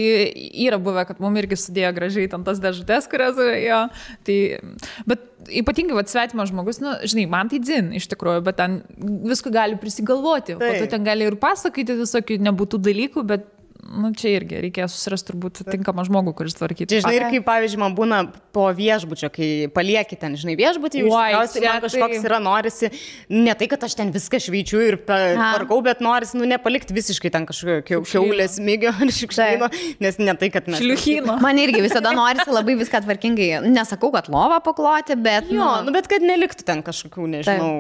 yra buvę, kad mums irgi sudėjo gražiai ten tas dėžutės, kurias jo. Tai, bet ypatingai svetimas žmogus, žinai, man tai dzin iš tikrųjų, bet ten visko gali prisigalvoti. Po to ten gali ir pasakyti visokių nebūtų dalykų, bet čia irgi reikėjo susirasti turbūt tinkamą žmogų, kuris tvarkytų. Žinai, ir kaip, pavyzdžiui, man būna po viešbučio, kai palieki ten, žinai, viešbutį, man kažkoks yra, norisi, ne tai, kad aš ten viską šveičiu ir tvarkau, bet norisi, nepalikti visiškai ten kažkokio kiaulės mygio ar šikštyno, nes ne tai, kad mes... Šliuchino. Man irgi visada norisi labai viską tvarkingai, nesakau, kad lovą pakloti, bet... Bet kad neliktų ten kažkokių, nežinau...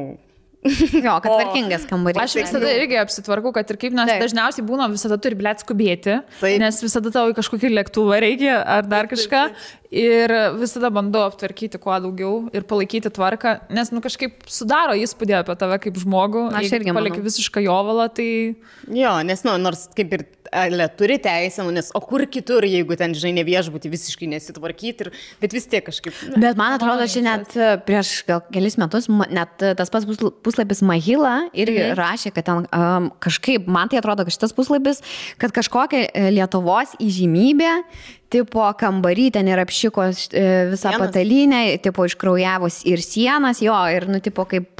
Jo, kad tvarkingas kambarys. Aš visada irgi apsitvarkau, kad ir kaip, nes dažniausiai būna visada turi skubėti, nes visada tau į kažkokį lėktuvą reikia ar dar kažką ir visada bandau aptvarkyti kuo daugiau ir palaikyti tvarką, nes kažkaip sudaro įspūdį apie tave kaip žmogų, jeigu palieki visišką jovalą, tai... Jo, nes nors kaip ir turi teisę, nes o kur kitur, jeigu ten, žinai, ne viešbutį visiškai nesitvarkyti, bet vis tiek kažkaip... Bet man atrodo, šiandien prieš gal kelis metus, net tas pats puslapis Mahila irgi rašė, kad ten kažkaip, man tai atrodo, kad šitas puslapis, kad kažkokia Lietuvos įžymybė, tipo kambarį ten ir apšiko visą patalynę, tipo iškraujavus ir sienas, jo, ir, tipo kaip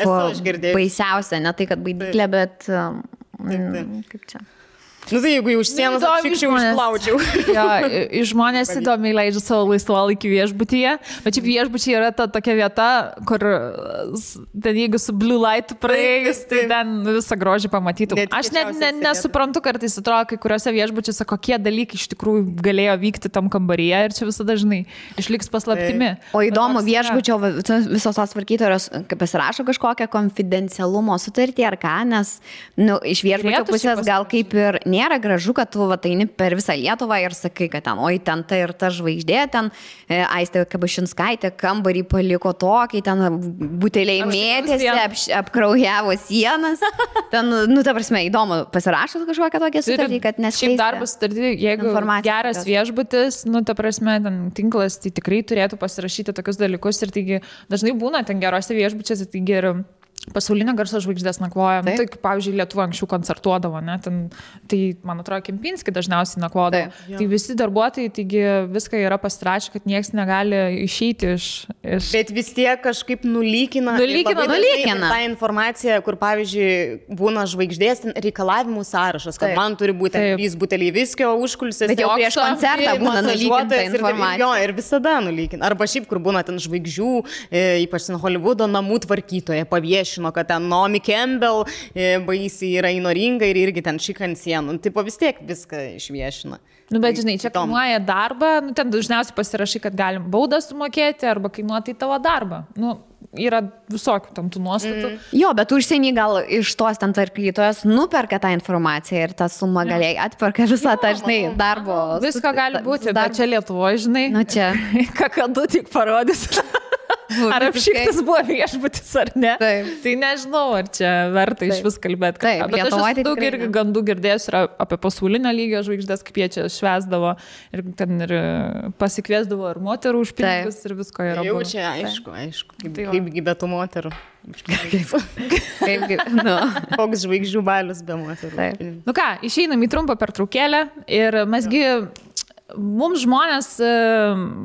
baisiausia, ne tai, kad baidyklė, bet... Kaip čia? Nu tai jeigu jau už sienos apšikščiau, išplaučiau. Ja, žmonės įdomiai leidžia savo laisvalaikį viešbutyje, bet šiaip viešbučiai yra ta tokia vieta, kur ten jeigu su blue light praėjus, tai ten visą grožį pamatytum. Aš net nesuprantu, kartais atrodo, kai kuriuose viešbučiuose kokie dalykai iš tikrųjų galėjo vykti tam kambaryje ir čia visada, žinai, išliks paslaptimi. O įdomu, viešbučio visos tos tvarkytojos pasirašo kažkokią konfidencialumo sutartį ar ką, nes iš viešbučio pusės gal kaip ir nėra gražu, kad tu ateini per visą Lietuvą ir sakai, kad ten, oi, ten ta ir ta žvaigždė, ten Aistė Kabašinskaitė kambarį paliko tokį, ten buteliai mėtėsi, apkraujavo sienas. Ten, ta prasme, įdomu, pasirašo kažkokią tokią sutartį, kad neskleisti. Šiaip darbo sutartį, jeigu geras viešbutis, ta prasme, ten tinklas, tai tikrai turėtų pasirašyti tokius dalykus ir taigi dažnai būna ten gerose viešbučiuose, taigi ir pasaulinio garso žvaigždės nakvoja. Tai, pavyzdžiui, Lietuva anksčiau koncertuodavo, ne? Tai, man atrodo, Kempinski dažniausiai nakvodavo. Tai visi darbuotojai, taigi viską yra pasirašę, kad niekas negali išeiti iš... Bet vis tiek kažkaip nulykina tą informaciją, kur, pavyzdžiui, būna žvaigždės reikalavimų sąrašas, kad man turi būti 3 buteliai viskio užkulsės. Bet jau prieš koncertą būna nulykinta informacija. Jo, ir visada nulykina. Arba šiaip, kur būna ten žvaigždžių, ypač Holivudo namų tvarkytoje paviešino, kad ten Naomi Campbell baisiai yra įnoringa ir irgi ten šik ant sienų. Tipo vis tiek viską išviešina. Bet žinai, čia kainuoja darbą, ten dažniausiai pasirašai, kad galim baudą sumokėti arba kainuoti tavo darbą. Yra visokių tam tų nuostatų. Jo, bet užsienį gal iš tos ten tvarkytojos nuperka tą informaciją ir tą sumą galiai atperka visą tą, žinai, darbo. Visko gali būti, bet čia Lietuvoje, žinai, čia kakadu tik parodys. Ar apšiktas buvo viešbutis ar ne? Taip. Tai nežinau, ar čia verta iš vis kalbėti. Taip, bet aš daug irgi gandų girdėjus yra apie pasaulinio lygio žvaigždės, kaip jie čia švesdavo ir ten ir pasikviesdavo ir moterų už pinigus ir visko yra. Jau čia aišku. Kaipgi be tų moterų. Koks žvaigždžių balius be moterų. Nu ką, išeinam į trumpą pertraukėlę ir mesgi... Mums žmonės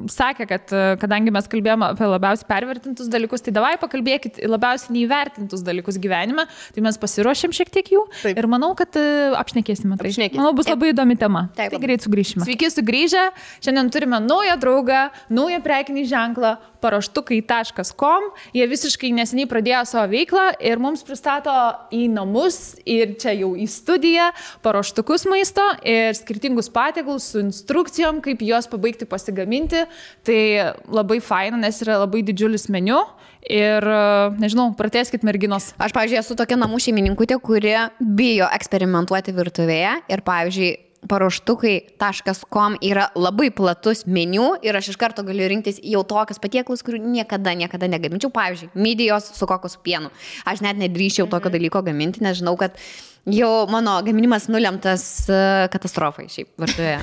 sakė, kad kadangi mes kalbėjome apie labiausiai pervertintus dalykus, tai davai pakalbėkit labiausiai neįvertintus dalykus gyvenime, tai mes pasiruošėm šiek tiek jų. Taip. Ir manau, kad apšnekėsime tai. Manau, bus labai įdomi tema. Taip. Tai greit sugrįšime. Sveiki sugrįžę, šiandien turime naują draugą, naują prekinį ženklą, paraštukai.com. Jie visiškai neseniai pradėjo savo veiklą ir mums pristato į namus ir čia jau į studiją paruoštukus maisto ir skirtingus patiekalus su instrukcijom, kaip juos pabaigti pasigaminti. Tai labai faina, nes yra labai didžiulis meniu ir, nežinau, pratęskit merginos. Aš, pavyzdžiui, esu tokia namų šeimininkutė, kuri bijo eksperimentuoti virtuvėje ir, pavyzdžiui, paruoštukai.com yra labai platus meniu ir aš iš karto galiu rinktis jau tokius patiekalus, kurių niekada negaminčiau. Pavyzdžiui, midijos su kokosų pienu. Aš net nedrįščiau tokio dalyko gaminti, nes žinau, kad jau mano gaminimas nulemtas katastrofai šiaip virtuvėje.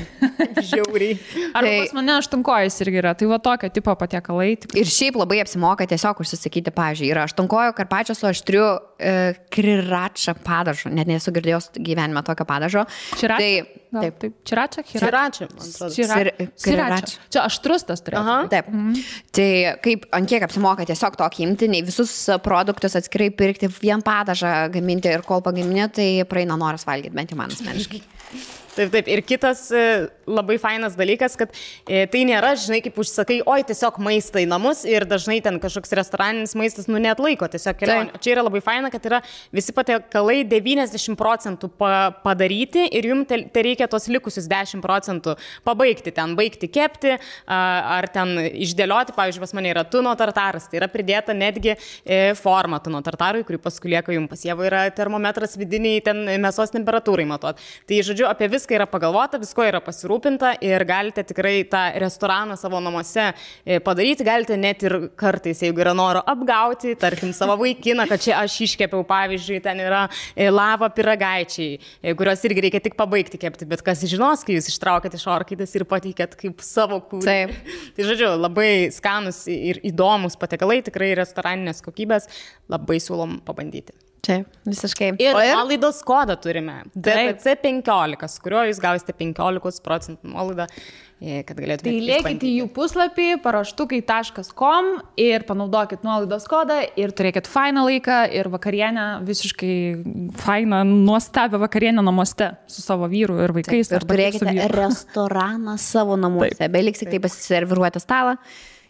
Žiauriai. Arba pas mane aštunkojus irgi yra, tai va tokio tipo patiekalai. Ir šiaip labai apsimoka tiesiog užsisakyti, pavyzdžiui, yra aštunkojo karpačio su aštriu krirača padažu, net nesu girdėjęs gyvenime tokio padažo. Čirača? Taip. Čirača? Čirača, man atrodo. Čirača. Čia aštrus tas turėtų. Taip. Tai kaip, ant kiek apsimoka tiesiog tokį imti, nei visus produktus atskirai pirkti, vien padažą gaminti ir kol pagaminė, tai praeina noras valgyti, bent jau man asmeniškai. Taip. Ir kitas labai fainas dalykas, kad tai nėra, žinai, kaip užsakai, oi, tiesiog maistą į namus ir dažnai ten kažkoks restoraninis maistas, neatlaiko tiesiog kelionė. Čia yra labai faina, kad yra visi patiekalai 90% padaryti ir jums tai reikia tos likusius 10% pabaigti, ten baigti kepti ar ten išdėlioti. Pavyzdžiui, pas mane yra tuno tartaras, tai yra pridėta netgi forma tuno tartarui, kurį paskui lieka jums pas jėvą yra termometras vidiniai ten mėsos temperatūrai matuot. Tai, žodžiu, apie viską yra pagalvota, visko yra pasirūpinta ir galite tikrai tą restoraną savo namuose padaryti, galite net ir kartais, jeigu yra noro apgauti, tarkim, savo vaikiną, kad čia aš iškepiau, pavyzdžiui, ten yra lava pyragaičiai, kuriuos irgi reikia tik pabaigti kepti, bet kas žinos, kai jūs ištraukėt iš orkaitės ir pateikėt kaip savo kūrinį. Tai, žodžiu, labai skanus ir įdomus patiekalai, tikrai restoraninės kokybės, labai siūlom pabandyti. Taip, visiškai. Ir nuolaidos kodą turime. DPC 15, su kuriuo jūs gausite 15% nuolaidą, kad galėtumėte. Tai lėkite į jų puslapį paraštukai.com ir panaudokit nuolaidos kodą ir turėkit fainą laiką ir vakarienę, visiškai fainą, nuostabią vakarienę namuose su savo vyru ir vaikais. Taip, ir turėkite restoraną savo namuose. Beliks tik tai pasiserviruoti stalą.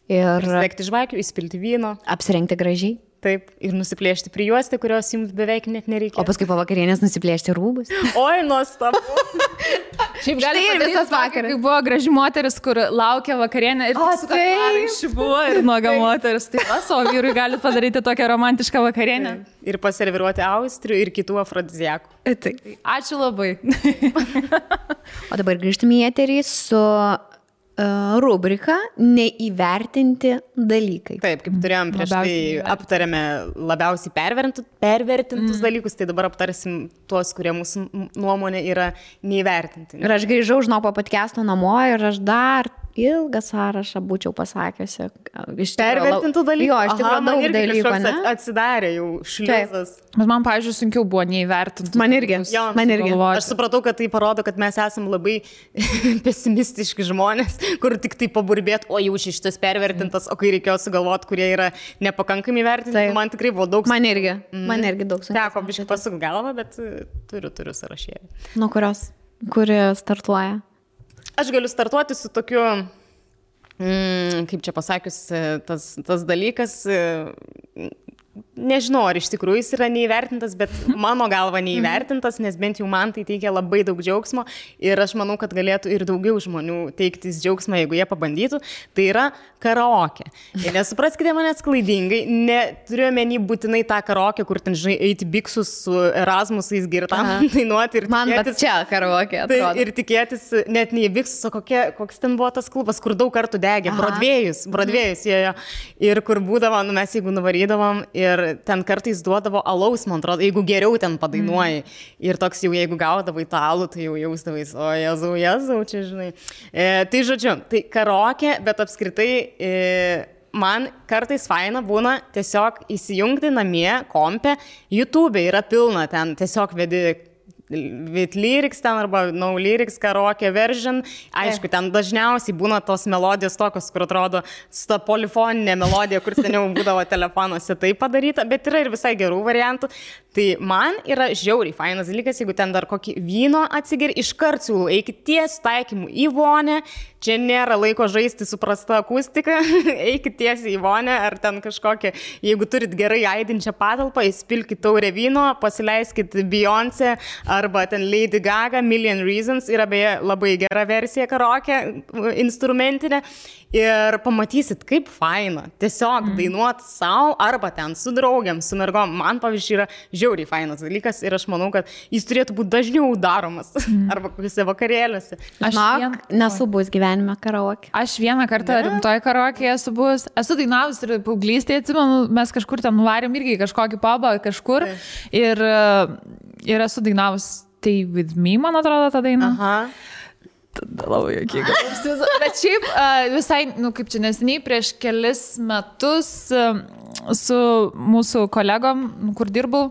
Ir degti žvakių, įspilti vyno. Apsirengti gražiai. Taip, ir nusiplėšti prijuostę, kurios jums beveik net nereikia. O paskui po vakarienės nusiplėšti rūbus. Oi, nuostabu. Šiaip gali ir visas vakaras. Kai buvo graži moteris, kur laukia vakarienę ir buvo ir nuoga moteris. Tai savo vyrui gali padaryti tokią romantišką vakarienę. Ir paserviruoti austrių ir kitų afrodiziakų. Taip. Ačiū labai. O dabar grįžtame į eterį su rubrika neįvertinti dalykai. Taip, kaip turėjom prieš tai, aptarėme labiausiai pervertintus dalykus, tai dabar aptarsim tuos, kurie mūsų nuomonė yra neįvertinti. Ir aš grįžau žinau po podcast'o namo ir aš dar ilgą sąrašą būčiau pasakiusi. Pervertintų dalykų? Jo, iš tikrųjų daug dalykų, ne? Atsidarė jau šliuzas. Bet man, pavyzdžiui, sunkiau buvo neįvertinti. Man irgi. Aš supratau, kad tai parodo, kad mes esam labai pesimistiški žmonės, kur tik tai paburbėt, o jau šitas pervertintas, o kai reikėjo sugalvoti, kurie yra nepakankami vertinti, man tikrai buvo daug. Man irgi daug sunkiau. Teko biškai pasuk galvą, bet turiu sąrašėlį. Nuo kurios? Kuri startuoja? Aš galiu startuoti su tokiu, kaip čia pasakius, tas dalykas, nežinau, ar iš tikrųjų jis yra neįvertintas, bet mano galva neįvertintas, nes bent jau man tai teikia labai daug džiaugsmo ir aš manau, kad galėtų ir daugiau žmonių teiktis džiaugsmą, jeigu jie pabandytų, tai yra karaoke. Ir nesupraskite manęs klaidingai, neturiu omeny būtinai tą karaoke, kur ten, žinai, eiti biksus su Erasmusais girtam dainuoti ir man tikėtis. Man čia karaoke atrodo. Tai, ir tikėtis, net ne į biksus, o koks ten buvo tas klubas, kur daug kartų degė, Brodvėjus jojo. Ir kur būdavo, mes jeigu nuvarydavom ir ten kartais duodavo alaus, man atrodo, jeigu geriau ten padainuoji. Ir toks jau, jeigu gaudavai tą alų, tai jau jausdavais, o Jėzau, čia žinai. Tai žodžiu, tai karaoke, bet apskritai man kartais faina būna tiesiog įsijungti namie, kompe, YouTube yra pilna ten, tiesiog vedi with lyrics ten arba no lyrics karaoke version. Aišku, ten dažniausiai būna tos melodijos tokios, kur atrodo su ta polifoninė melodija, kur seniau būdavo telefonuose tai padaryta, bet yra ir visai gerų variantų. Tai man yra žiauriai fainas dalykas, jeigu ten dar kokį vyno atsigeri, iškart siūlau, eikit tiesiai taikymu į vonę, čia nėra laiko žaisti su prasta akustika, eikit tiesiai į vonę, ar ten kažkokią, jeigu turit gerai aidinčią patalpą, įspilkit taurę vyno, pasileiskit Beyoncé, arba ten Lady Gaga, Million Reasons, yra beje labai gera versija karaoke, instrumentinė, ir pamatysit, kaip faina tiesiog dainuoti savo, arba ten su draugiam, su mergom. Man, pavyzdžiui, yra žiauriai fainas dalykas ir aš manau, kad jis turėtų būti dažniau daromas, arba kokiuose vakarėliuose. Aš nesu buvus gyvenime karaoke. Aš vieną kartą rimtoj karaoke esu buvus. Esu dainavus ir paauglystėje, atsimenu, mes kažkur ten nuvarėm irgi kažkokį pubą kažkur ir esu dainavus Stay With Me, man atrodo, tą dainą. Aha. Tada labai jokinga. Bet šiaip visai, kaip čia neseniai, prieš kelis metus su mūsų kolegom, kur dirbau,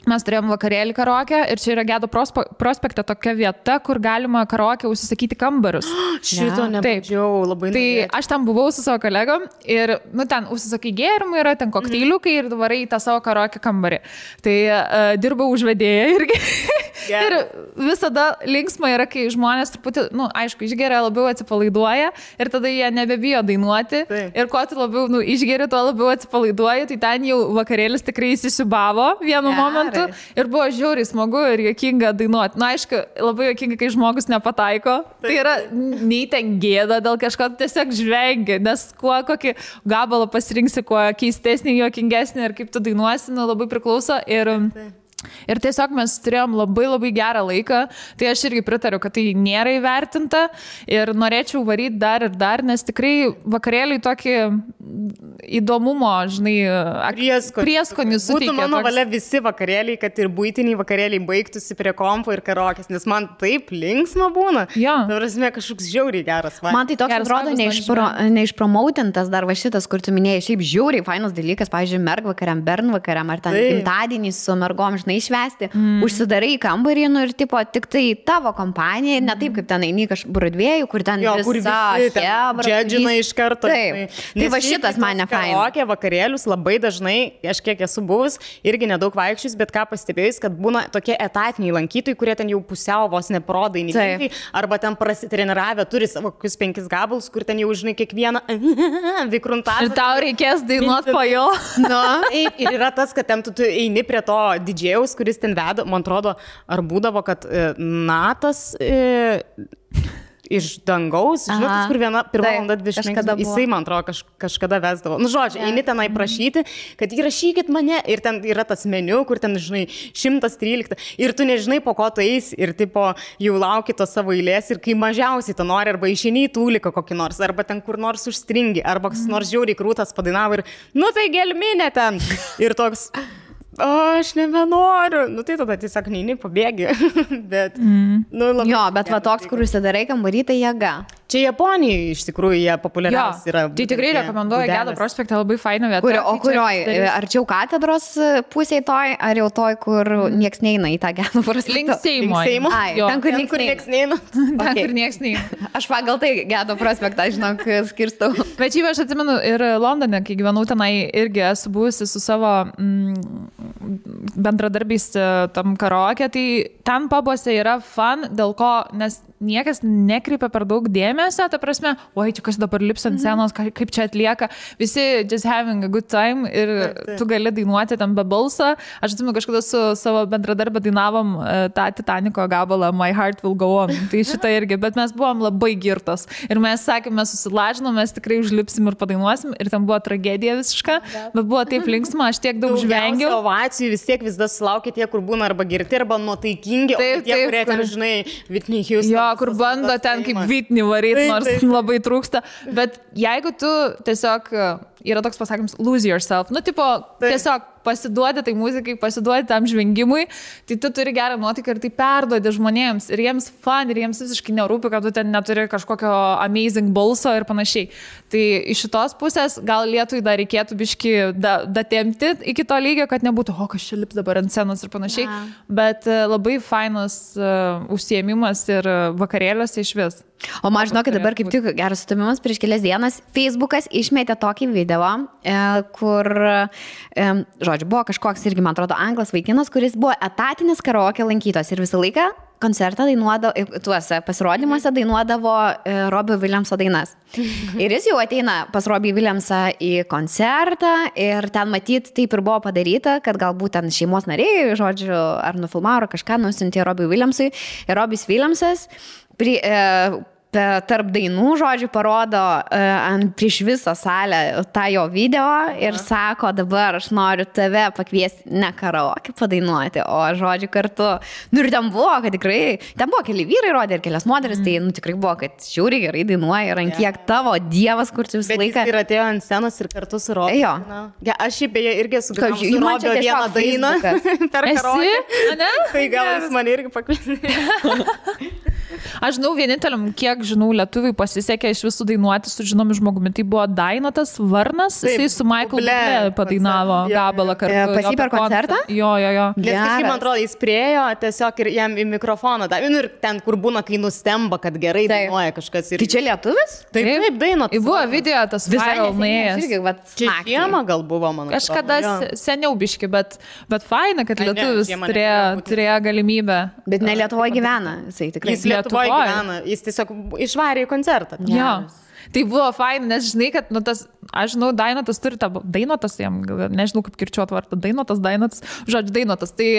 mes turėjom vakarėlį karaoke ir čia yra Gedo prospekte tokia vieta, kur galima karaoke užsisakyti kambarius. Šito nebandžiau, labai norėčiau. Tai aš ten buvau su savo kolegom ir, ten užsisakai gėrimų, yra ten kokteiliukai ir varai į tą savo karaoke kambarį. Tai dirbau užvedėję irgi. Ir visada linksma yra, kai žmonės truputį, aišku, išgeria, labiau atsipalaiduoja ir tada jie nebebijo dainuoti. Taip. Ir kuo tu labiau išgeri, tuo labiau atsipalaiduoji, tai ten jau vakarėlis tikrai įsisiubavo vienu momentu. Ir buvo žiauriai smagu ir juokinga dainuoti. Aišku, labai juokinga, kai žmogus nepataiko. Taip. Tai yra nei ten gėda dėl kažko, tiesiog žvengi, nes kokį gabalą pasirinksi, kuo keistesnį, juokingesnį ir kaip tu dainuosi, labai priklauso. Ir Ir tiesiog mes turėjom labai gerą laiką, tai aš irgi pritariu, kad tai nėra įvertinta ir norėčiau varyti dar, nes tikrai vakarėliai tokį įdomumo, žinai, prieskonį suteikia. Būtų mano valia visi vakarėliai, kad ir buitiniai vakarėliai baigtųsi prie kompo ir karaokės, nes man taip linksma būna. Jo. Prasme, kažkoks žiauriai geras. Man tai toks atrodo neišpromautintas dar va šitas, kur tu minėjai, šiaip žiauriai fainas dalykas, pavyzdžiui, mergvakariam, bernvakariam, ar ten gimtadienį su mergom, žinai, švęsti, užsidarai į kambarį, nu ir tipo, tik tai tavo kompanija, ne taip kaip ten eini kažkur Broadway'u, kur ten visa hebra. Džedžina iš karto. Taip. Tai va šitas man nefaina. Karaokė vakarėlius labai dažnai, aš kiek esu buvus, irgi nedaug vaikščius, bet ką pastebėjus, kad būna tokie etatiniai lankytojai, kurie ten jau pusiau vos neprodai, arba ten prasitreniravę, turi savo kokius 5 gabalus, kur ten jau žinai kiekvieną vikruntą. Ir tau reikės dainuoti po jo. Ir yra tas, kad ten tu eini prie to didžėjaus, kuris ten veda, man atrodo, ar būdavo, kad Natas iš dangaus, žinot, kur pirmą valandą 20, jisai, man atrodo, kažkada vesdavo. Nu, žodžiu, eini tenai prašyti, kad įrašykit mane, ir ten yra tas meniu, kur ten, žinai, 113, ir tu nežinai, po ko tu eis, ir tipo, jau lauki to savo eilės, ir kai mažiausiai tu nori, arba išeini į tūliką kokį nors, arba ten kur nors užstringi, arba kas nors žiauriai krūtas padainavo, ir, nu tai gelminė ten, ir toks... aš nebenoriu. Nu tai tada tiesiog neini, pabėgi. Bet, nu, labai... Jo, bet va toks, kur užsidarai kambarį, tai jėga. Čia Japonijoje iš tikrųjų jie populiariausi yra. Tai tikrai rekomenduoju Gedo prospektą, labai faina vieta. O kurioj? Arčiau katedros pusėje toj, ar jau toj, kur nieks neina į tą Gedo prospektą? Link Seimo. Ten, kur nieks neina. Ten, kur nieks neina. Aš pagal tai Gedo prospektą, žinok, skirstau. Bet šiaip aš atsimenu ir Londone, kai gyvenau tenai, irgi esu buvusi su savo bendradarbiais tam karaoke, tai ten pabuose yra fun, dėl ko, nes niekas nekreipia per daug dėmesio, ta prasme, oi, čia kas dabar lips ant scenos, kaip čia atlieka, visi just having a good time ir tu gali dainuoti tam be balso. Aš atsimenu, kažkada su savo bendradarbę dainavom tą Titaniko gabalą My Heart Will Go On, tai šitą irgi, bet mes buvom labai girtos ir mes sakėm, mes susilažinom, mes tikrai užlipsim ir padainuosim ir ten buvo tragedija visiška, bet buvo taip linksma, aš tiek daug žvengiau. Ovacijų vis tiek vis dar sulaukia tie, kur būna arba girti, arba nuotaikingi, o tie, kurie ten, žinai, Whitney Houston. Jo, kur bando ten kaip Whitney varyti, nors labai trūksta. Bet jeigu tu tiesiog, yra toks pasakymas, lose yourself, nu, tipo, tiesiog pasiduodi tai muzikai, pasiduodi tam žvengimui, tai tu turi gerą nuotaiką ir tai perduodi žmonėms. Ir jiems fun, ir jiems visiškai nerūpi, kad tu ten neturi kažkokio amazing balso ir panašiai. Tai iš šitos pusės gal Lietuvai dar reikėtų biški datempti iki to lygio, kad nebūtų, o kas čia lips dabar ant scenos ir panašiai. Bet labai fainas užsiėmimas ir vakarėliuose iš vis. O man žinokit, dabar kaip tik geras sutamimas, prieš kelias dienas Facebookas išmetė tokį video, kur, žodžiu, buvo kažkoks irgi, man atrodo, anglas vaikinas, kuris buvo etatinis karaoke lankytojas ir visą laiką koncertą dainuodavo, tuose pasirodymuose dainuodavo Robbie Williamso dainas. Ir jis jau ateina pas Robbie Williamsą į koncertą ir ten matyt taip ir buvo padaryta, kad galbūt ten šeimos nariai, žodžiu, ar nufilmavo, ar kažką nusiuntė Robbie Williamsui. Ir Robbie Williamsas tarp dainų, žodžiu, parodo prieš visą salę tą jo video ir sako, dabar aš noriu tave pakviesti ne karaoke padainuoti, o žodžiu kartu. Nu ir ten buvo, kad tikrai, ten buvo keli vyrai rodė ir kelias moteris, tai nu tikrai buvo, kad žiauriai gerai dainuoja ir ant kiek tavo dievas, kur tu visą laiką. Bet jis ir atėjo ant scenos ir kartu su Robiu. Jo. Ja, aš šiaip beje irgi sugrįžau su Robiu vieną dainą per karaoke. Tai gal jis mane irgi pakviesti. Aš žinau, vieninteliam, kiek žinau, lietuviai pasisekė iš visų dainuoti su žinomi žmogumi. Tai buvo Dainotas Varnas, jisai su Michael Bublé padainavo gabalą kartu. Pas jį per koncertą? Jo. Nes kažkaip, man atrodo, jis priejo tiesiog ir jam į mikrofoną. Ir ten, kur būna, kai nustemba, kad gerai dainuoja kažkas. Tai čia lietuvis? Taip, Dainotas. Buvo video tas viral nuėjęs. Čia žiemą gal buvo, man atrodo. Kažkada seniau biški, bet faina, kad lietuvis turėjo galimybę. Bet ne Lietuvoje gyvena, jisai tikrai. Lietuvoje gyvena, jis tiesiog išvarė į koncertą. Jo. Tai buvo fain, nes žinai, kad, nu, tas, aš žinau, Dainotas turi tą, Dainotas, jam, nežinau kaip kirčiuot vardą, Dainotas, žodžiu, Dainotas, tai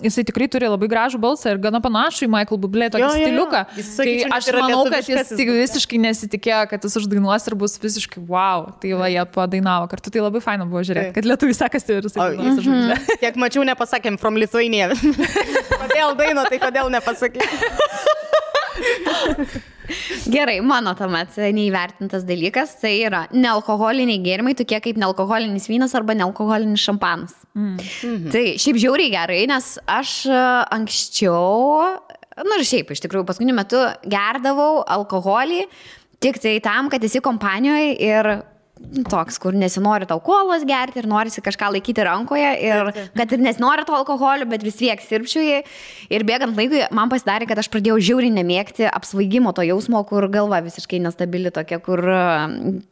jisai tikrai turi labai gražų balsą ir gana panašų į Michael Bublé tokį stiliuką. Tai aš manau, kad jis visiškai nesitikėjo, kad jis uždainuos ir bus visiškai wow. Tai va, jie padainavo kartu, tai labai faina buvo žiūrėti, kad lietuviai sekasi ir jisai dainuos už Bublé. Kiek mačiau, nepasakėm from Lithuania. Kodėl daino, tai kodėl nepasakėm? Gerai, mano tuomet neįvertintas dalykas, tai yra nealkoholiniai gėrimai, tokie kaip nealkoholinis vynas arba nealkoholinis šampanas. Tai šiaip žiauriai gerai, nes aš anksčiau, nu ir šiaip iš tikrųjų paskutiniu metu gerdavau alkoholį tik tai tam, kad esi kompanijoje ir toks, kur nesinori tau kolos gerti ir norisi kažką laikyti rankoje ir kad ir nesinori to alkoholio, bet vis tiek sirpčiui. Ir bėgant laikui man pasidarė, kad aš pradėjau žiauriai nemėgti apsvaigimo to jausmo, kur galva visiškai nestabili tokia, kur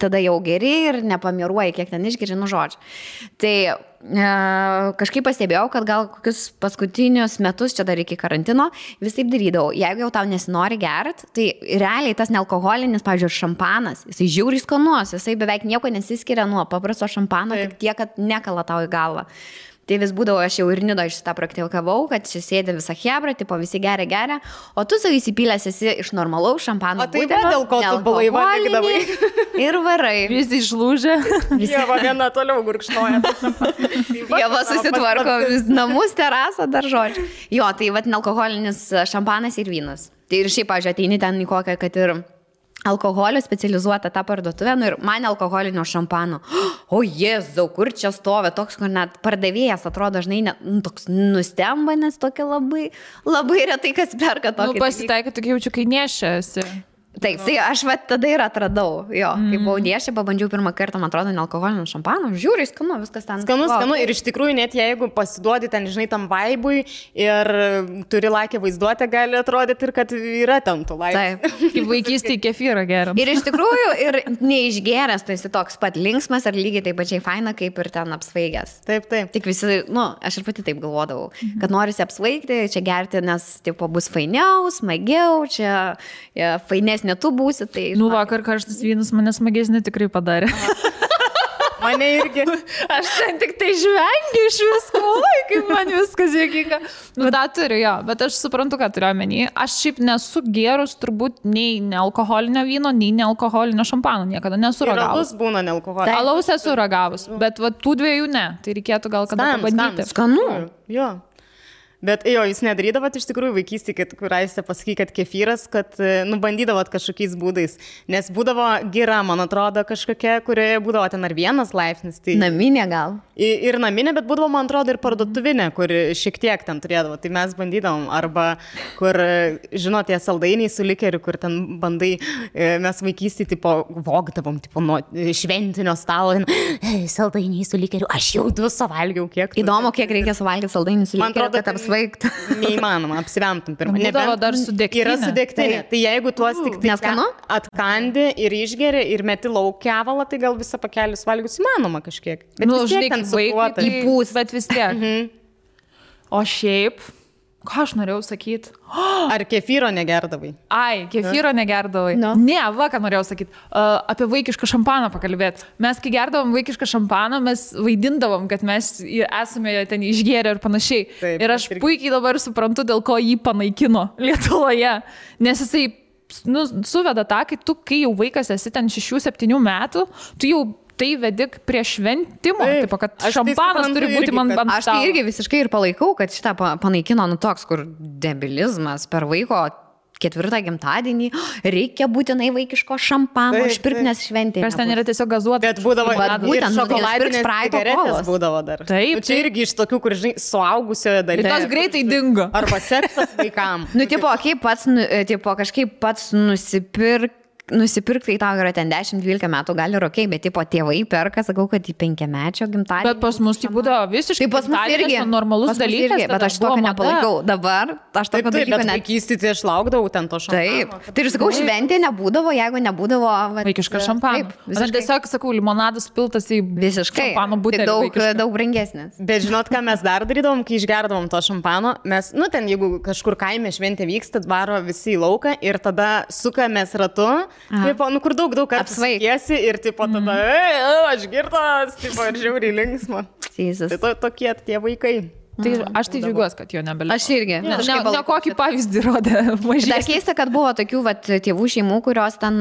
tada jau geri ir nepamiruoji, kiek ten išgeri, nu žodžiu. Tai kažkaip pastebėjau, kad gal kokius paskutinius metus, čia dar iki karantino, vis taip darydavau. Jeigu jau tau nesinori gert, tai realiai tas nealkoholinis, pavyzdžiui, šampanas, jisai žiauriai skanus, jisai beveik nieko nesiskiria nuo paprasto šampano, tik tiek, kad nekala tau į galvą. Tai vis būdavo, aš jau ir Nidoje šitą praktikavau, kad čia sėdė visą hebrą, tipo visi geria, o tu savo įsipylęs esi iš normalaus šampano. O tai va, dėl ko tu blaiva vykdavai. Ir varai. Visi išlūžė. Jeva viena toliau gurkšnoja. Jeva susitvarko namus, terasą, dar žodžiu. Jo, tai va, nealkoholinis šampanas ir vynas. Tai ir šiaip, pavyzdžiui, ateini ten į kokią, kad ir alkoholio specializuota tą parduotuvę, nu ir man alkoholinio šampano. O Jėzau, kur čia stovi, toks, kur net pardavėjas atrodo dažnai toks nustemba, nes tokia labai retai kas perka tokį. Nu, pasitaikai, tokia jaučiu, kai nešiasi. Taip, tai aš va tada ir atradau, jo, kai buvau nešė, pabandžiau pirmą kartą, man atrodo, nealkoholinio šampano, žiūriai skanu, viskas ten. Skanu, ir iš tikrųjų net jeigu pasiduodi ten, žinai, tam vaibui ir turi lakę vaizduotę, gali atrodyti ir kad yra ten tų laikų. Taip. Kaip vaikystėje kefyrą geram. Ir iš tikrųjų, ir neišgeręs, tai esi toks pat linksmas ar lygiai taip pačiai faina, kaip ir ten apsvaigęs. Taip. Tik visi, nu, aš ir pati taip galvodavau, kad norisi apsvaigti, čia gerti, nes, tipo, bus fainiau, smagiau, čia fainesnė tu būsi, tai... Nu, vakar karštas vynas mane smagesnį tikrai padarė. Mane irgi. Aš ten tik tai žvengiu iš visko, kaip man viskas juokinga. Nu, da turiu, jo, bet aš suprantu, ką turiu omeny. Aš šiaip nesu gerus turbūt nei nealkoholinio vyno, nei nealkoholinio šampano, niekada nesu ragavus. Alaus būna nealkoholinio. Alaus esu ragavus, bet va, tų dviejų ne. Tai reikėtų gal kada pabandyti. Skanu. Jo. Bet jo, jūs nedarydavot iš tikrųjų vaikystėje, kur aistė pasaky, kad kefyras, kad bandydavot kažkokiais būdais. Nes būdavo gira, man atrodo, kažkokia, kurioje būdavo ten ar vienas laipsnis. Tai... Naminė gal. Ir naminė, bet būdavo, man atrodo, ir parduotuvinė, kur šiek tiek ten turėdavo. Tai mes bandydavom. Arba kur, žinot, tie saldainiai su likeriu, kur ten bandai, mes vaikystėje, tipo, vogdavom, tipo, nuo šventinio stalo. Saldainiai su likeriu. Aš jau 2 suvalgiau, kiek. Įdomu, kiek reikia suvalgyti saldainių su likeriu, kad apsvaigtų. Neįmanoma, apsivemtum pirmą. Būdavo dar su degtinė. Yra su degtinė. Tai jeigu tuos tik atkandi ir išgeri ir meti lauk kevalą, tai gal visą pakelį suvalgius įmanoma kažkiek. Bet nu, vis tiek ten sukuota. Įpūs, bet vis tiek. O šiaip, ką aš norėjau sakyti? Ar kefyro negerdavai? Ai, kefyro negerdavai. No. Ne, va, ką norėjau sakyti. Apie vaikišką šampaną pakalbėti. Mes, kai gerdavom vaikišką šampaną, mes vaidindavom, kad mes esame ten išgėrę ir panašiai. Taip, ir aš puikiai dabar suprantu, dėl ko jį panaikino Lietuvoje. Nes jisai suveda tą, kai jau vaikas esi ten 6-7 metų, tu jau tai vedik prie šventimo, tipo, kad šampanas turi būti man ant stalo. Aš tai irgi visiškai ir palaikau, kad šitą panaikino, nu toks, kur debilizmas per vaiko 4 gimtadienį, reikia būtinai vaikiško šampano, išpirkti, nes šventė. Kas ten yra tiesiog gazuota. Bet būdavo ir šokoladinės cigaretės būdavo dar. Taip. Čia irgi iš tokių, kur, žinai, suaugusioje dalyje. Ir tos greitai dingo. Arba seksas vaikam. Nu, tipo, kaip pats, tipo, kažkaip pats nusipirkti, tai tau yra ten 10-12 metų, gali ir okei, bet tipo tėvai perka, sakau, kad į 5-mečio gimtadienį. Bet pas mus tai būdavo visiškai pas mus irgi normalus dalykas. Bet aš tokio nepalaikau. Dabar aš tokio dalyko net. Vaikystėje tai aš laukdavau ten to šampano. Taip. Tai ir sakau, šventė nebūdavo, jeigu nebūdavo vaikišką šampaną. Aš tiesiog sakau, limonadas piltas į šampano butelį. Daug brangesnis. Bet žinot, ką mes dar darydavom, kai išgerdavom to šampano? Mes, ten jeigu kažkur kaime šventė vyksta, varo visi į lauką ir tada sukamės ratu. tipo, nu kur daug kartų apsvaigėsi ir tipo tada, aš girtas, tipo, ir žiauriai linksma. Tai tokie tie vaikai. Tai aš tai džiaugiuosi, kad jo nebelieka. Aš irgi. Ne kokį pavyzdį rodė mažai. Dar keista, kad buvo tokių tėvų šeimų, kurios ten,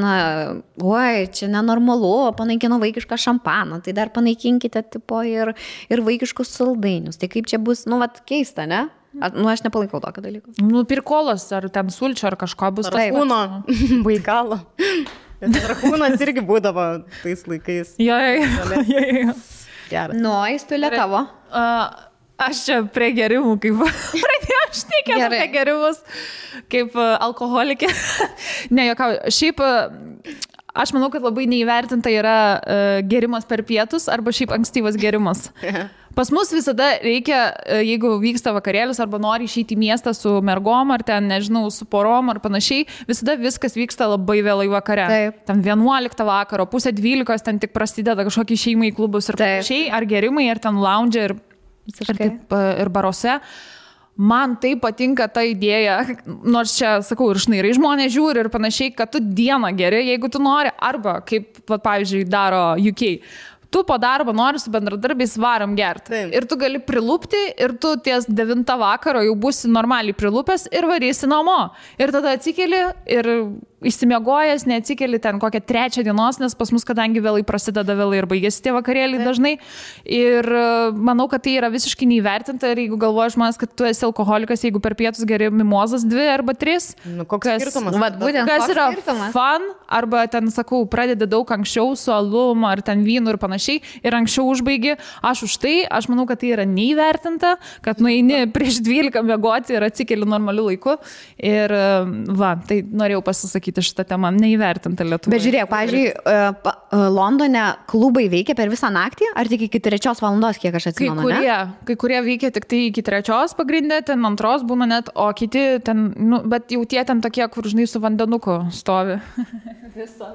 oi, čia nenormalu, panaikino vaikišką šampaną, tai dar panaikinkite tipo ir vaikiškus saldainius. Tai kaip čia bus, keista, ne? Aš nepalaikau tokio dalyko. Pirkolas ar ten sulčio ar kažko bus. Rakūno, baikalo. Rakūnas irgi būdavo tais laikais. Jo. Įstulė tavo. Aš čia prie gerimų, kaip pradėjau šnekėti apie gerimus, kaip alkoholikė. Ne, jokau, šiaip aš manau, kad labai neįvertinta yra gerimas per pietus arba šiaip ankstyvas gerimas. Pas mus visada reikia, jeigu vyksta vakarėlis arba nori išeiti į miestą su mergom ar ten, nežinau, su porom ar panašiai, visada viskas vyksta labai vėlai vakare. Taip. Ten 11 vakaro, 11:30 ten tik prasideda kažkokį šeimai į klubus ir panašiai, ar gerimai, ar ten lounge ir baruose. Man tai patinka ta idėja, nors čia, sakau, ir šnairai žmonės žiūri ir panašiai, kad tu dieną geri, jeigu tu nori, arba, kaip, pavyzdžiui, daro UK. Tu po darbo nori su bendradarbiais varam gerti. Taip. Ir tu gali prilupti ir tu ties 9 vakaro jau būsi normaliai prilupęs ir varysi namo. Ir tada atsikeli ir išsimiegojęs, neatsikeli ten kokią 3 dienos, nes pas mus, kadangi vėlai prasideda vėlai ir baigėsi tie vakarėliai dažnai. Ir manau, kad tai yra visiškai neįvertinta ir jeigu galvoja žmonės, kad tu esi alkoholikas, jeigu per pietus geri mimozas 2 arba 3. Koks skirtumas? Kas yra fun, arba ten, sakau, pradedi daug anksčiau su alum ar ten vynu ir panašiai ir anksčiau užbaigi. Aš už tai, aš manau, kad tai yra neįvertinta, kad nueini prieš 12 miegoti ir atsikeli normaliu laiku. Ir tai norėjau pasisakyti šitą temą, neįvertinta Lietuvoje. Bet žiūrėk, pavyzdžiui, Londone klubai veikia per visą naktį, ar tik iki 3 valandos, kiek aš atsimenu, Kai kurie veikia tik tai iki 3 pagrindė, ten 2 būna net, o kiti ten, bet jau tie ten tokie, kur žinai su vandenuku stovi. Visą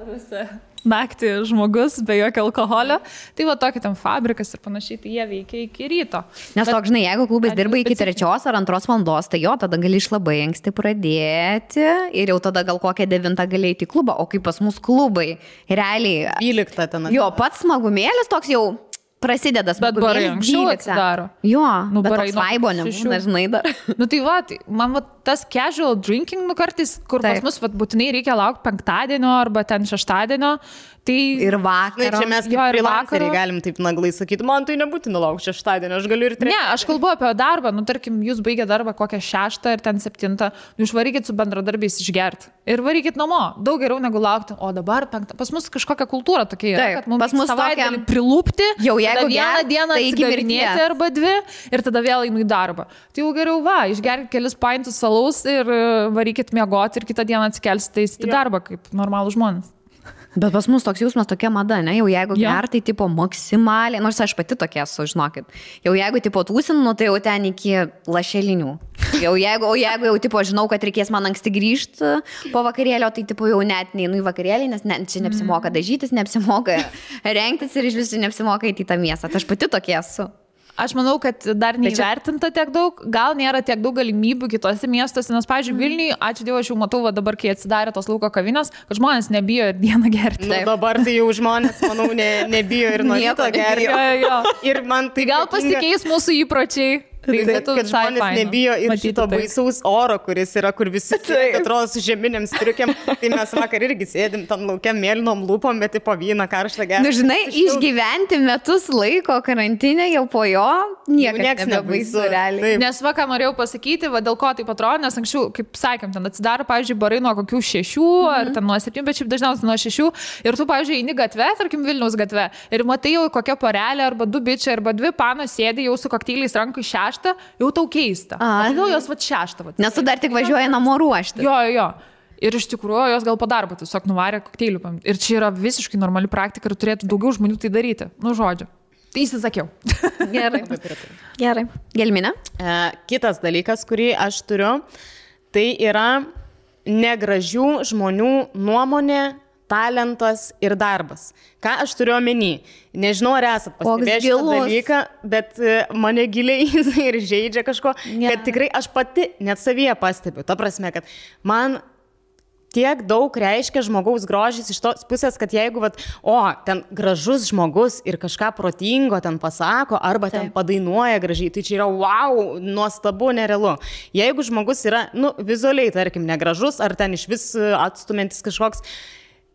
naktį žmogus be jokio alkoholio. Tai va tokia ten fabrikas ir panašiai, tai jie veikia iki ryto. Nes toks, žinai, jeigu klubas dirba iki 3 ar 2 valandos, tai jo, tada gali iš labai anksti pradėti ir jau tada gal kokią 9 gali eiti į klubą, o kaip pas mus klubai, realiai. 12 ten. Jo, pats smagumėlis toks jau prasideda smagumėlis. Bet barai anksčiau atsidaro. Jo, bet toks vaibo nebūna, žinai dar. Tai man tas casual drinking kartais, kur pas mus būtinai reikia laukti 5-dienio arba ten 6-dienio. Tai ir vakarą. Čia mes kaip freelanceriai galim taip naglai sakyti, man tai nebūtina laukti 6-dienio, aš galiu ir 3. Ne, aš kalbu apie darbą, tarkim, jūs baigė darbą kokią 6 ir ten 7, išvarykit su bendradarbiais išgerti ir varykit namo, daug geriau negu laukti, o dabar 5. Pas mus kažkokia kultūra tokia yra, kad mums savaitgalį prilupti, jau jeigu vieną dieną atsigarinėti arba 2 ir tada vėl einu į darbą. Tai jau geriau išgerkit kelis paintus salaus ir varykit miegoti ir kitą dieną atsikelsite į darbą kaip normalų žmonės. Bet pas mus toks jausmas, tokia mada, ne? Jau jeigu gertai, tipo, maksimaliai, nors aš pati tokia esu, žinokit. Jau jeigu, tipo, tūsinu, tai jau ten iki lašelinių. Jeigu jau, tipo, žinau, kad reikės man anksti grįžti po vakarėlio, tai, tipo, jau net neinu į vakarėlį, nes čia neapsimoka dažytis, neapsimoka rengtis ir iš visų neapsimoka į tą miestą. Tai aš pati tokia esu. Aš manau, kad dar neįvertinta tiek daug, gal nėra tiek daug galimybių kitose miestuose, nes, pavyzdžiui, Vilniuje, ačiū Dievui, aš jau matau, dabar, kai atsidarė tos lauko kavinės, kad žmonės nebijo ir dieną gerti. Dabar tai jau žmonės, manau, nebijo ir nuo ryto gerti. Ir man tai gal pasikeis mūsų įpročiai. Kad žmonės nebijo ir šito baisaus oro, kuris yra, kur visi atrodo su žeminiam striukiam. Tai mes vakar irgi sėdim tam laukiam mėlynom lūpom, bet po vyną karštą gerą. Nu, žinai, išgyventi metus laiko karantinę jau po jo niekas nebaisu realiai. Nes ką norėjau pasakyti, dėl ko taip atrodo, nes anksčiau, kaip sakėm, ten atsidaro, pavyzdžiui, barai nuo kokių 6 ar ten nuo 7, bet šiaip dažniausiai nuo 6. Ir tu, pavyzdžiui, eini gatve, tarkim Vilniaus gatve, ir matai jau kokia porelė arba 2 bičiai arba 2 panos sėdi jau su kokteiliais rankų 6. Jau tau keista. Kodėl jos 6? Nes tu dar tik važiuoji namo ruošti. Jo. Ir iš tikrųjų jos gal po darbo tiesiog nuvarė kokteilių. Ir čia yra visiškai normali praktika ir turėtų daugiau žmonių tai daryti. Nu, žodžiu. Tai įsisakiau. Gerai. Gelminė? Kitas dalykas, kurį aš turiu, tai yra negražių žmonių nuomonė, talentas ir darbas. Ką aš turiu omeny? Nežinau, ar esat pastebėję šitą dalyką, bet mane giliai ir žaidžia kažko, kad tikrai aš pati net savyje pastebiu. Ta prasme, kad man tiek daug reiškia žmogaus grožis iš tos pusės, kad jeigu, ten gražus žmogus ir kažką protingo ten pasako, arba ten padainuoja gražiai, tai čia yra wow, nuostabu, nerealu. Jeigu žmogus yra, vizualiai, tarkim, negražus, ar ten iš vis atstumiantis kažkoks,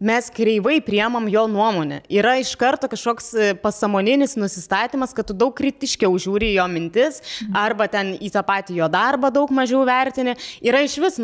mes kreivai priemam jo nuomonę. Yra iš karto kažkoks pasąmoninis nusistatymas, kad tu daug kritiškiau žiūri jo mintis, arba ten į tą patį jo darbą daug mažiau vertini. Yra iš vis,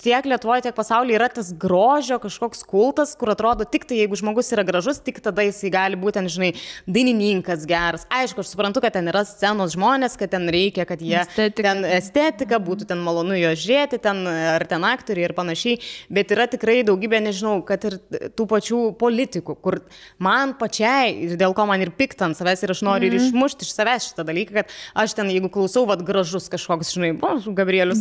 tiek Lietuvoje, tiek pasaulyje yra tas grožio kažkoks kultas, kur atrodo tik tai, jeigu žmogus yra gražus, tik tada jisai gali būti, ten, žinai, dainininkas geras. Aišku, aš suprantu, kad ten yra scenos žmonės, kad ten reikia, kad jie ten estetika, būtų ten malonu jo žiūrėti, ten, ar ten aktoriai ir panašiai, bet yra tikrai daugybė, nežinau, kad ir tų pačių politikų, kur man pačiai, ir dėl ko man ir pikta ant savęs, ir aš noriu ir išmušti iš savęs šitą dalyką, kad aš ten, jeigu klausau, gražus kažkoks, žinai, Gabrielius,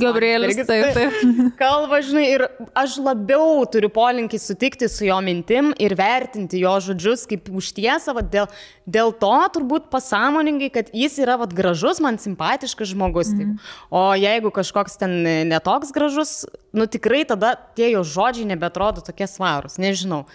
taip. Kalba, žinai, ir aš labiau turiu polinkį sutikti su jo mintim ir vertinti jo žodžius kaip už tiesą, dėl to turbūt pasąmoningai, kad jis yra gražus, man simpatiškas žmogus. O jeigu kažkoks ten netoks gražus, tikrai tada tie jo žodžiai nebeatrodo tokie svarūs. Nežinau.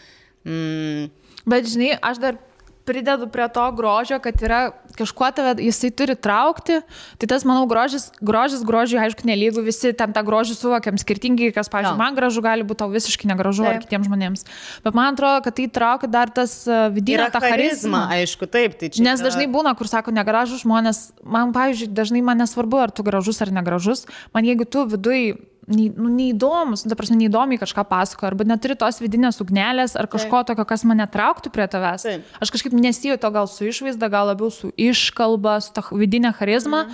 Bet žinai, aš dar pridedu prie to grožio, kad yra kažkuo tave, jisai turi traukti, tai tas, manau, grožiui, aišku, nelygų, visi ten tą grožį suvokiam skirtingai, kas, pavyzdžiui, man gražu gali būti tau visiškai negražu ar kitiems žmonėms. Bet man atrodo, kad tai traukia dar tas vidinę tą charizmą. Aišku, taip. Tai čia nes dažnai būna, kur sako negražus žmonės, man, pavyzdžiui, dažnai man nesvarbu, ar tu gražus ar negražus, man jeigu tu viduj neįdomus, neįdomiai kažką pasako, arba neturi tos vidinės ugnelės, ar kažko tokio, kas mane trauktų prie tavęs. Aš kažkaip nesijaučiu gal su išvaizda, gal labiau su iškalba, su ta vidinė charizma.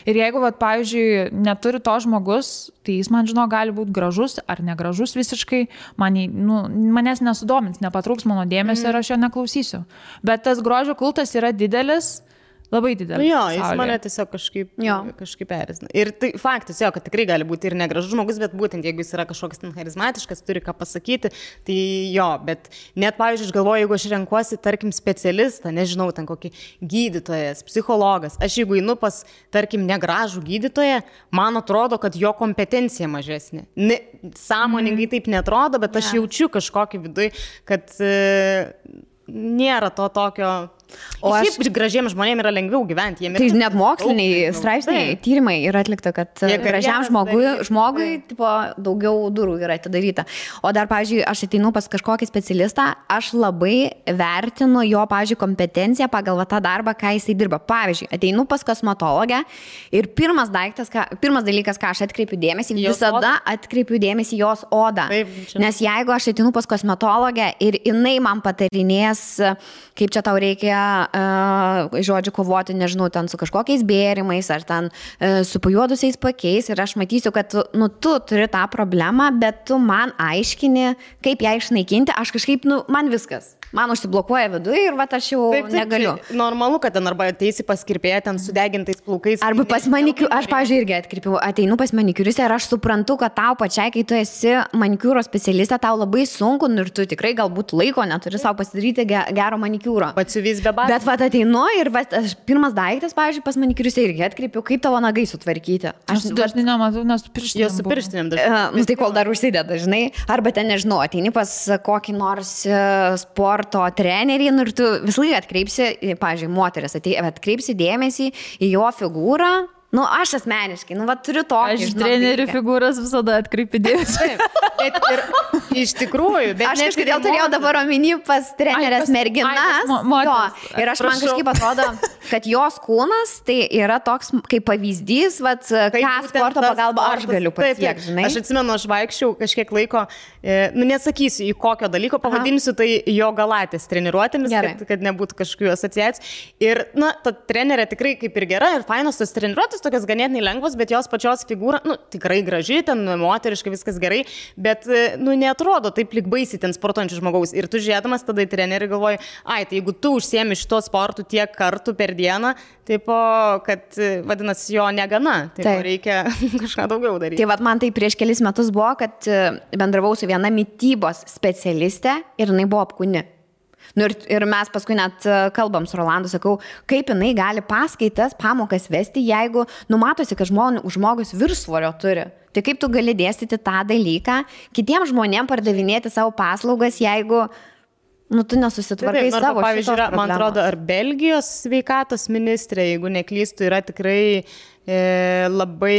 Ir jeigu, pavyzdžiui, neturi to žmogus, tai jis man, gali būti gražus ar negražus visiškai, manęs nesudomins, nepatrauks mano dėmesio ir aš jo neklausysiu. Bet tas grožio kultas yra didelis, labai didelis. Jo, jis mane tiesiog kažkaip erzina. Ir tai faktas, kad tikrai gali būti ir negražus žmogus, bet būtent jeigu jis yra kažkoks ten charizmatiškas, turi ką pasakyti, tai bet net, pavyzdžiui, aš galvoju, jeigu aš renkuosi, tarkim, specialistą, nežinau, ten kokį gydytojas, psichologas, aš jeigu einu pas, tarkim, negražų gydytoją, man atrodo, kad jo kompetencija mažesnė. Sąmoningai taip netrodo, bet aš jaučiu kažkokį viduj, kad nėra to tokio. O šiaip gražiems žmonėms yra lengviau gyventi. Tai net moksliniai straipsniai, tyrimai yra atlikta, kad gražiam žmogui daugiau durų yra atidaryta. O dar, pavyzdžiui, aš ateinu pas kažkokį specialistą, aš labai vertinu jo, pavyzdžiui, kompetenciją pagal tą darbą, ką jisai dirba. Pavyzdžiui, ateinu pas kosmetologę ir pirmas dalykas, ką aš atkreipiu dėmesį, visada atkreipiu dėmesį jos odą. Nes jeigu aš ateinu pas kosmetologę ir jinai man patarinės, kaip čia tau reikia žodžiu kovoti, nežinau, ten su kažkokiais bėrimais ar ten su pajuodusiais pakiais ir aš matysiu, kad tu turi tą problemą, bet tu man aiškini, kaip ją išnaikinti, aš kažkaip, man viskas. Man užsiblokuoja viduje ir aš jau negaliu. Normalu, kad ten arba ateisi pas kirpėją ten sudegintais plaukais. Arba pas manikiūrą, aš, pavyzdžiui, irgi ateinu pas manikiūristę ir aš suprantu, kad tau pačiai, kai tu esi manikiūro specialistė, tau labai sunku ir tu tikrai galbūt laiko neturi savo pasidaryti gero manikiūro. Patsiuvys be batų. Bet ateinu ir pirmas daiktas, pavyzdžiui, pas manikiūristę irgi atkreipiu, kaip tavo nagai sutvarkyti. Aš dažnai nematau, nes su pirštinėm. Jos su pirštinėm dažnai. Tai kol dar užsideda, žinai. Arba ten, nežinau, ateini pas kokį nors sporto trenerį ir tu visą laiką atkreipsi, pavyzdžiui, moteris atkreipsi dėmesį į jo figūrą. Aš asmeniškai, turiu tokį. Aš trenerių figūras visada atkreipiu dėmesį. Bet ir iš tikrųjų, bet aš kažkodėl turėjau dabar omeny pas trenerės merginas. Ir aš man kažkaip atrodo, kad jos kūnas tai yra toks kaip pavyzdys, ką sporto pagalba aš galiu pasiekti, žinai. Aš atsimenu, aš vaikščiau kažkiek laiko, nesakysiu į kokio dalyko, pavadinsiu tai jo galatės treniruotėmis, kad nebūtų kažkokių asociacijų. Ir, ta trenerė tikrai kaip ir gera ir fainos tos treniruotės, tokios ganėtinai lengvos, bet jos pačios figūra, tikrai graži, ten moteriškai viskas gerai, bet, neatrodo taip lyg baisiai ten sportuojančių žmogaus. Ir tu žiūrėdamas tada į trenerį galvoji, tai jeigu tu užsiemi šito sportu tiek kartų per dieną, kad vadinasi jo negana, reikia kažką daugiau daryti. Tai man tai prieš kelis metus buvo, kad bendravau su viena mitybos specialistė ir jinai buvo apkūni. Nu, ir mes paskui net kalbam su Rolandu, sakau, kaip jinai gali paskaitas, pamokas vesti, jeigu numatosi, kad žmogus viršsvorio turi. Tai kaip tu gali dėstyti tą dalyką, kitiems žmonėms pardavinėti savo paslaugas, jeigu tu nesusitvarkai savo. Pavyzdžiui, man atrodo, ar Belgijos sveikatos ministrė, jeigu neklystu, yra tikrai labai,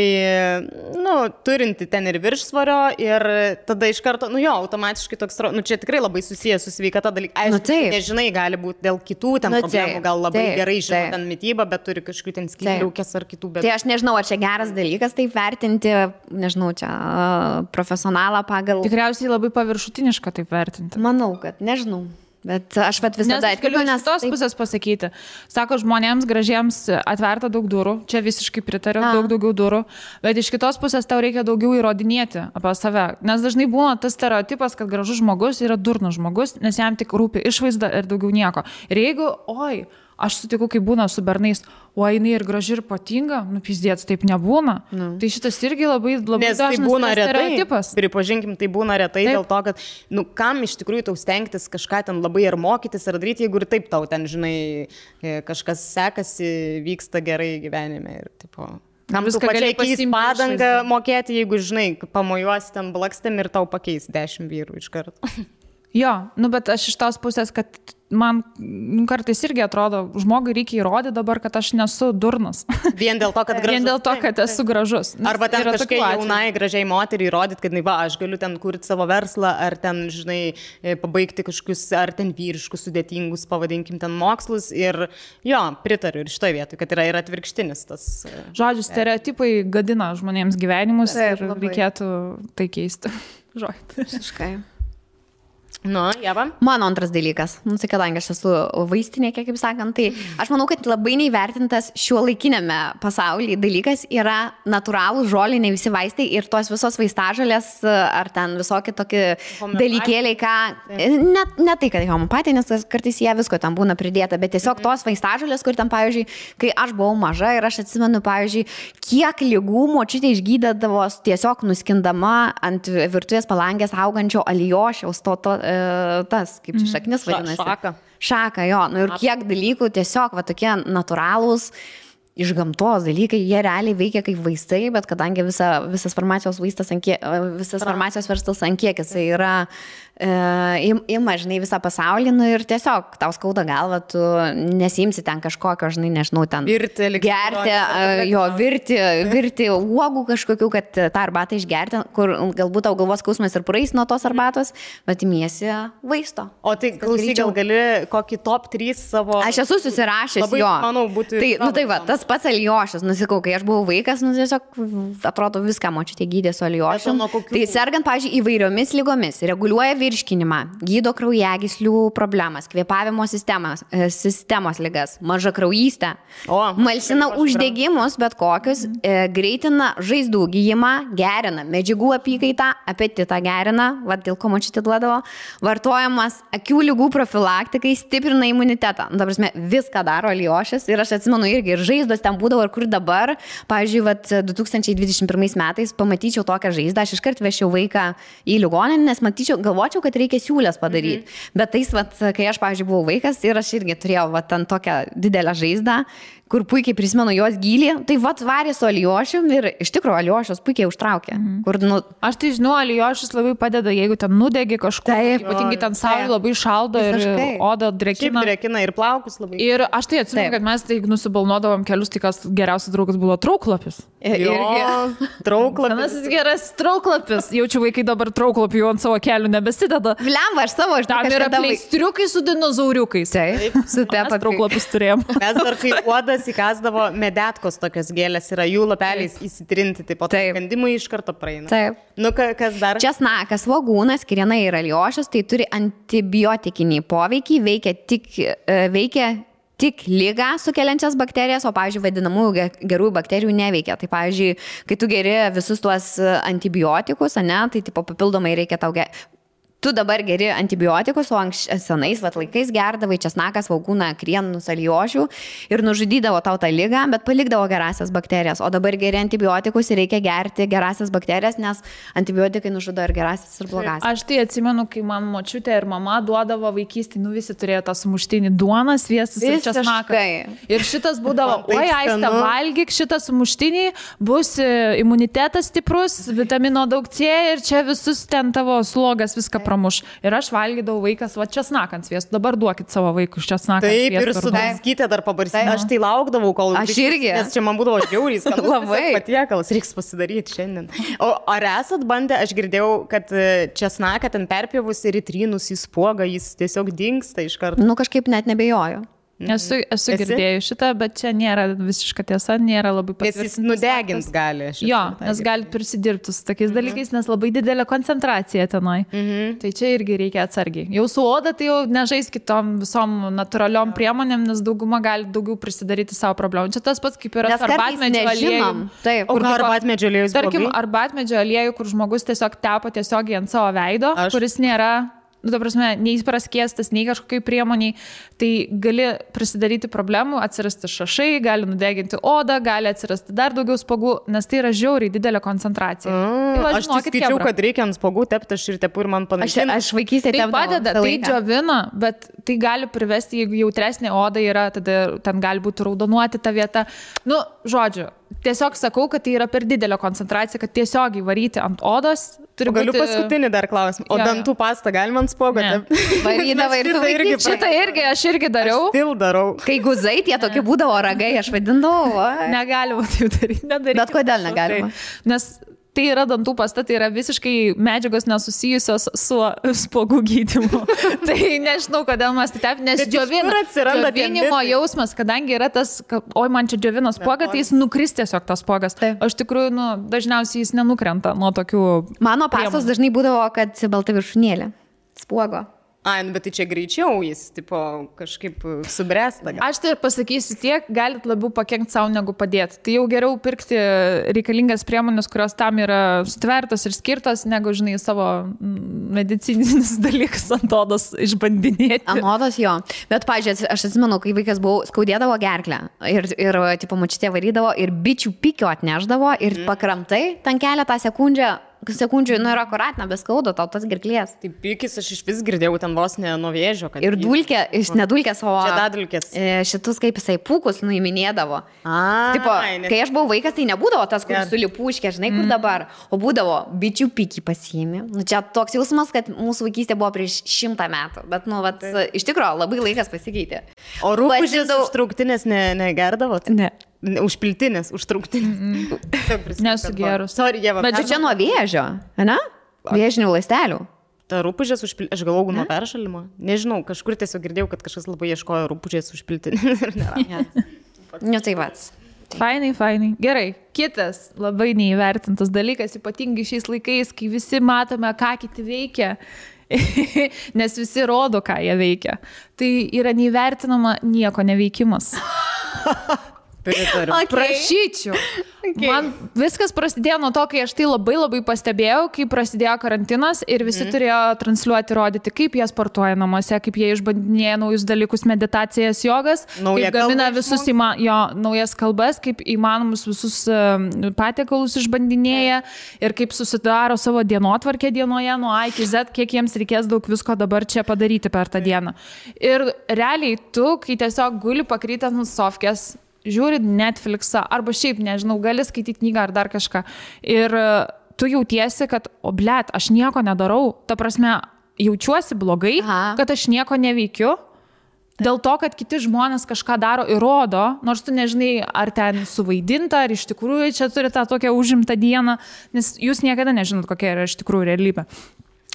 turinti ten ir viršsvorio ir tada iš karto, automatiškai toks, čia tikrai labai susijęs su sveikata dalykai. Aišku, nežinai, gali būti dėl kitų ten problemų, gal labai gerai žino ten mitybą, bet turi kažkokių ten skydliaukės ar kitų. Tai aš nežinau, ar čia geras dalykas taip vertinti, nežinau, čia profesionalą pagal. Tikriausiai labai paviršutiniška taip vertinti. Manau, kad nežinau. Bet aš visada atkreipiu, nes tos pusės pasakyti. Sako, žmonėms gražiems atverta daug durų, čia visiškai pritariu, daug daugiau durų, bet iš kitos pusės tau reikia daugiau įrodinėti apie save. Nes dažnai būna tas stereotipas, kad gražus žmogus yra durnas žmogus, nes jam tik rūpi išvaizda ir daugiau nieko. Ir jeigu, aš sutiku, kai būna su bernais, jinai ir graži ir patinga, pizdėts, taip nebūna. Tai šitas irgi labai dažnas tai stereotipas. Pripažinkim, tai būna retai dėl to, kad, kam iš tikrųjų tau stengtis kažką ten labai ar mokytis ar daryti, jeigu ir taip tau ten, žinai, kažkas sekasi, vyksta gerai gyvenime ir tipo. Kam tu pačiai keis padangą mokėti, jeigu, žinai, pamojuosi ten blakstėm ir tau pakeis 10 vyrų iš karto. Jo, bet aš iš tos pusės, kad man kartais irgi atrodo, žmogui reikia įrodyti dabar, kad aš nesu durnas. Vien dėl to, kad gražus. Vien dėl to, kad esu gražus. Arba ten kažkai jaunai, gražiai moteriai įrodyti, kad, aš galiu ten kurti savo verslą, ar ten, žinai, pabaigti kažkokius, ar ten vyriškus, sudėtingus, pavadinkim, ten mokslus. Ir pritariu ir šitoje vietoje, kad yra ir atvirkštinis tas. Žodžiu, stereotipai gadina žmonėms gyvenimus ir reikėtų tai keisti. Visiškai. Jeva. Mano antras dalykas, kadangi aš esu vaistinė, kaip sakant, tai aš manau, kad labai neįvertintas šiuolaikinėme pasaulyje dalykas yra natūralūs žoliniai visi vaistai ir tos visos vaistažolės ar ten visokie tokie dalykėliai, ką, ne tai, kad homeopatija, nes kartais jie visko ten būna pridėta, bet tiesiog tos vaistažolės, kur ten, pavyzdžiui, kai aš buvau maža ir aš atsimenu, pavyzdžiui, kiek ligų močiutė išgydydavo tiesiog nuskindama ant virtuvės palangės augančio alijošiaus tas, kaip čia šaknis vadinasi. Šaka, jo. Ir kiek dalykų tiesiog tokie natūralūs iš gamtos dalykai, jie realiai veikia kaip vaistai, bet kadangi visas farmacijos vaistas, visas farmacijos verslas ant kiek jisai yra ima, žinai, visą pasaulį, ir tiesiog tau skauda galva, tu nesimsi ten kažkokio, žinai, nežinau, ten virti uogų kažkokių, kad tą arbatą išgerti, kur galbūt tau galvos skausmas ir praeis nuo tos arbatos, bet imiesi vaisto. O tai klausyk, gal gali kokį top 3 savo... Aš esu susirašęs, labai, manau, būtų... Tai tas pats alijošas, nusikau, kai aš buvau vaikas, tiesiog atrodo viską močiutė gydė su alijošu. Tai sergant, pavyzdžiui, įvairiomis lygomis, reguliuoja virškinimą, gydo kraujagyslių problemas, kvėpavimo sistemos ligas, mažakraujystę, malšina uždegimus, bet kokius, greitina žaizdų gijimą, gerina medžiagų apykaitą, apetitą gerina, dėl ko močiutė duodavo, vartojamas akių ligų profilaktikai, stiprina imunitetą. Ta prasme, viską daro alijošas ir aš atsimenu irgi, ir žaizdos ten būdavo, ir kur dabar, pavyzdžiui, 2021 metais pamatyčiau tokią žaizdą, aš iškart vešiau vaiką į ligoninę, nes galvočiau, kad reikia siūlės padaryti. Bet tais, kai aš, pavyzdžiui, buvau vaikas ir aš irgi turėjau ten tokią didelę žaizdą, kur puikiai prisimenu jos gylį, tai varė su alijošium ir iš tikrųjų alijošius puikiai užtraukė. Aš tai žinau, alijošius labai padeda, jeigu ten nudegi kažkur, ypatingai ten saulė labai šaldo ir oda drėkina. Drėkina ir plaukus labai. Ir aš tai atsimenu, kad mes tai nusibalnuodavom kelius, tai kas geriausias draugas buvo trauklapis. Trauklapis. Senasis geras trauklapis. Jaučiu, vaikai dabar trauklapį ant savo kelių nebesideda. Vlemba, aš savo tam yra pleistriukai su dinozauriukais. Taip, su tepa trauklapis turėjom. Mes dar kai uodas įkasdavo medetkos tokios gėlės, yra jų lapeliais įsitrinti, taip pat kandimui iš karto praeina. Taip. Kas dar? Česnakas, svogūnas, kirena ir alijošius, tai turi antibiotikinį poveikį, veikia tik ligą sukeliančias bakterijas, o, pavyzdžiui, vadinamųjų gerųjų bakterijų neveikia. Tai, pavyzdžiui, kai tu geri visus tuos antibiotikus, tai tipo papildomai reikia tau tu dabar geri antibiotikus, o senais laikais gerdavai česnaką, svogūną, krienus, alijošių ir nužudydavo tau tą ligą, bet palikdavo gerasias bakterijas. O dabar geri antibiotikus ir reikia gerti gerasias bakterijas, nes antibiotikai nužudo ir gerasias, ir blogasias. Aš tai atsimenu, kai man močiutė ir mama duodavo vaikystį, visi turėjo tą sumuštinį duoną, sviestas ir česnakas. Ir šitas būdavo, oi, Aiste, valgyk šitą sumuštinį, bus imunitetas stiprus, vitamino daug C ir čia visus ten tavo slogas viską pramuš. Ir aš valgydavau vaikas, va, česnaką ant sviestų. Dabar duokit savo vaikus česnaką ant sviestų. Taip, ir su daskytė dar pabarsyti. Aš tai laukdavau, kol... Aš irgi. Nes čia man būdavo žiauriai skanus. Labai. Patiekalas, reiks pasidaryti šiandien. O ar esat bandę, aš girdėjau, kad česnaką ten perpjovus ir įtrynus į spuogą, jis tiesiog dingsta iš karto. Kažkaip net nebejoju. Esu girdėjus šitą, bet čia nėra visiška tiesa, nėra labai patvirtintas. Nes jis nudegins gali. Jo, nes gali prisidirbti su tokiais dalykais, nes labai didelė koncentracija tenai. Tai čia irgi reikia atsargiai. Jau su oda tai jau nežais kitom visom natūraliom priemonėm, nes dauguma gali daugiau prisidaryti savo problemų. Čia tas pats kaip yra arbatmedžio aliejų. Taip, o arbatmedžio aliejus. Tarkim, arbatmedžio aliejų, kur žmogus tiesiog tepa tiesiogiai ant savo veido, kuris nėra... ta prasme, nei praskiestas, nei kažkokiai priemoniai, tai gali prisidaryti problemų, atsirasti šašai, gali nudeginti odą, gali atsirasti dar daugiau spogų, nes tai yra žiauriai didelė koncentracija. Aš tik skaičiau, kad reikia ant spogų tepti, aš ir tepu ir man panašiai. Aš vaikystėje tai padeda, tai džiovina, bet tai gali privesti, jeigu jautresnė oda yra, tada ten gali būti raudonuoti ta vieta. Žodžiu, tiesiog sakau, kad tai yra per didelė koncentracija, kad tiesiogiai varyti ant odos. Galiu paskutinį dar klausimą. O dantų pastą galima ant spogo? Varydavai ir tu vaikyti. Šitą irgi, aš irgi dariau. Aš still darau. Kai guzai, tie tokie būdavo ragai, aš vadindavau. Negalima taip daryti. Bet kodėl negalima? Nes tai yra dantų pasta, tai yra visiškai medžiagos nesusijusios su spogų gydymu. Tai nežinau, kodėl mes tai taip, nes džiovinimo jausmas, kadangi yra tas, oi, man čia džiovino spogą, tai jis nukris tiesiog tas spogas. O iš tikrųjų, dažniausiai jis nenukrenta nuo tokių... Mano pastos dažnai būdavo, kad balta viršūnėlė spogo. Bet tai čia greičiau jis, tipo, kažkaip subręsta. Aš tai pasakysiu tiek, galit labiau pakenkti savo negu padėti. Tai jau geriau pirkti reikalingas priemonės, kurios tam yra sutvertos ir skirtos, negu, žinai, savo medicininis dalykas ant odos išbandinėti. Ant odos jo. Bet, pažiūrėjau, aš atsimenu, kai vaikas buvau, skaudėdavo gerklę ir tipo, močiutė varydavo ir bičių pikio atneždavo ir pakramtai ten keletą sekundžių, yra akuratina, be skaudo, tau tas gerklės. Tai pikis aš iš vis girdėjau ten vos ne nuo vėžio. Ir dulkė, nedulkės, o žiedadulkės. Šitus kaip jisai pūkus nuiminėdavo. Tipo, kai aš buvau vaikas, tai nebūdavo tas, kur sulipuškė, žinai, kur dabar, o būdavo bičių pikį pasiėmė. Čia toks jausmas, kad mūsų vaikystė buvo prieš 100 metų, bet, iš tikrųjų, labai laikas pasikeitė. O rūpužės užtrauktinės negerdavot? Ne. Užpiltinės, užtrauktinės. Nesu gerus. Bet čia nuo vėžio, ne? Vėžinių ląstelių. Ta rūpužės užpiltinės, aš galvoju nuo peršalimo. Nežinau, kažkur tiesiog girdėjau, kad kažkas labai ieškojo rūpužės užpiltinės. Tai pats. Fainai. Gerai. Kitas labai neįvertintas dalykas, ypatingai šiais laikais, kai visi matome, ką kiti veikia. Nes visi rodo, ką jie veikia. Tai yra neįvertinama nieko neveikimas. Prašyčiau. Man viskas prasidėjo nuo to, kai aš tai labai pastebėjau, kai prasidėjo karantinas ir visi turėjo transliuoti, rodyti, kaip jie sportuoja namuose, kaip jie išbandinėja naujus dalykus, meditacijas, jogas, kaip gamina visus naujas kalbas, kaip įmanomus visus patiekalus išbandinėja ir kaip susidaro savo dienotvarkę dienoje nuo A iki Z, kiek jiems reikės daug visko dabar čia padaryti per tą dieną. Ir realiai tu, kai tiesiog guli pakrytęs nuo sofkės, žiūri Netflixą, arba šiaip, nežinau, gali skaityti knygą ar dar kažką. Ir tu jautiesi, kad, aš nieko nedarau. Ta prasme, jaučiuosi blogai, kad aš nieko neveikiu. Dėl to, kad kiti žmonės kažką daro ir rodo, nors tu nežinai, ar ten suvaidinta, ar iš tikrųjų čia turi tą tokią užimtą dieną, nes jūs niekada nežinot, kokia yra iš tikrųjų realybė.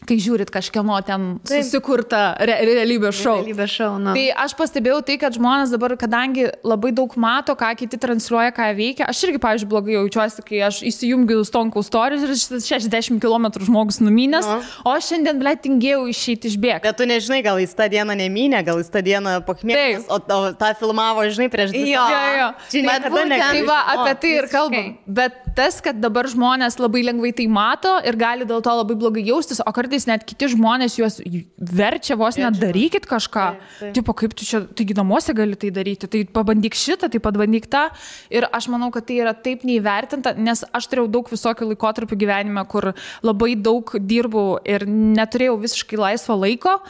Kai žiūrit kažkieno ten susikurtą realybės šou. Tai aš pastebėjau tai, kad žmonės dabar, kadangi labai daug mato, ką kiti transliuoja, ką veikia, aš irgi, pavyzdžiui, blogai jaučiuosi, kai aš įsijungiu Stonkaus stories ir 60 km žmogus numynęs, o aš šiandien, tingėjau išeiti išbėgti. Bet tu nežinai, gal jis tą dieną nemynė, gal jis tą dieną pakmėgęs, o tą filmavo, žinai, prieš 2 savaitės. Tai va, apie tai ir kalbam. Bet tas, kad dabar žmonės labai lengvai tai mato ir gali dėl to labai blogai jaustis, o kartais net kiti žmonės juos verčia vos net darykit kažką. Tipo, kaip tu čia, taigi namuose gali tai daryti, tai pabandyk šitą, tai pabandyk tą. Ir aš manau, kad tai yra taip neįvertinta, nes aš turėjau daug visokių laikotarpių gyvenime, kur labai daug dirbau ir neturėjau visiškai laisvo laiko.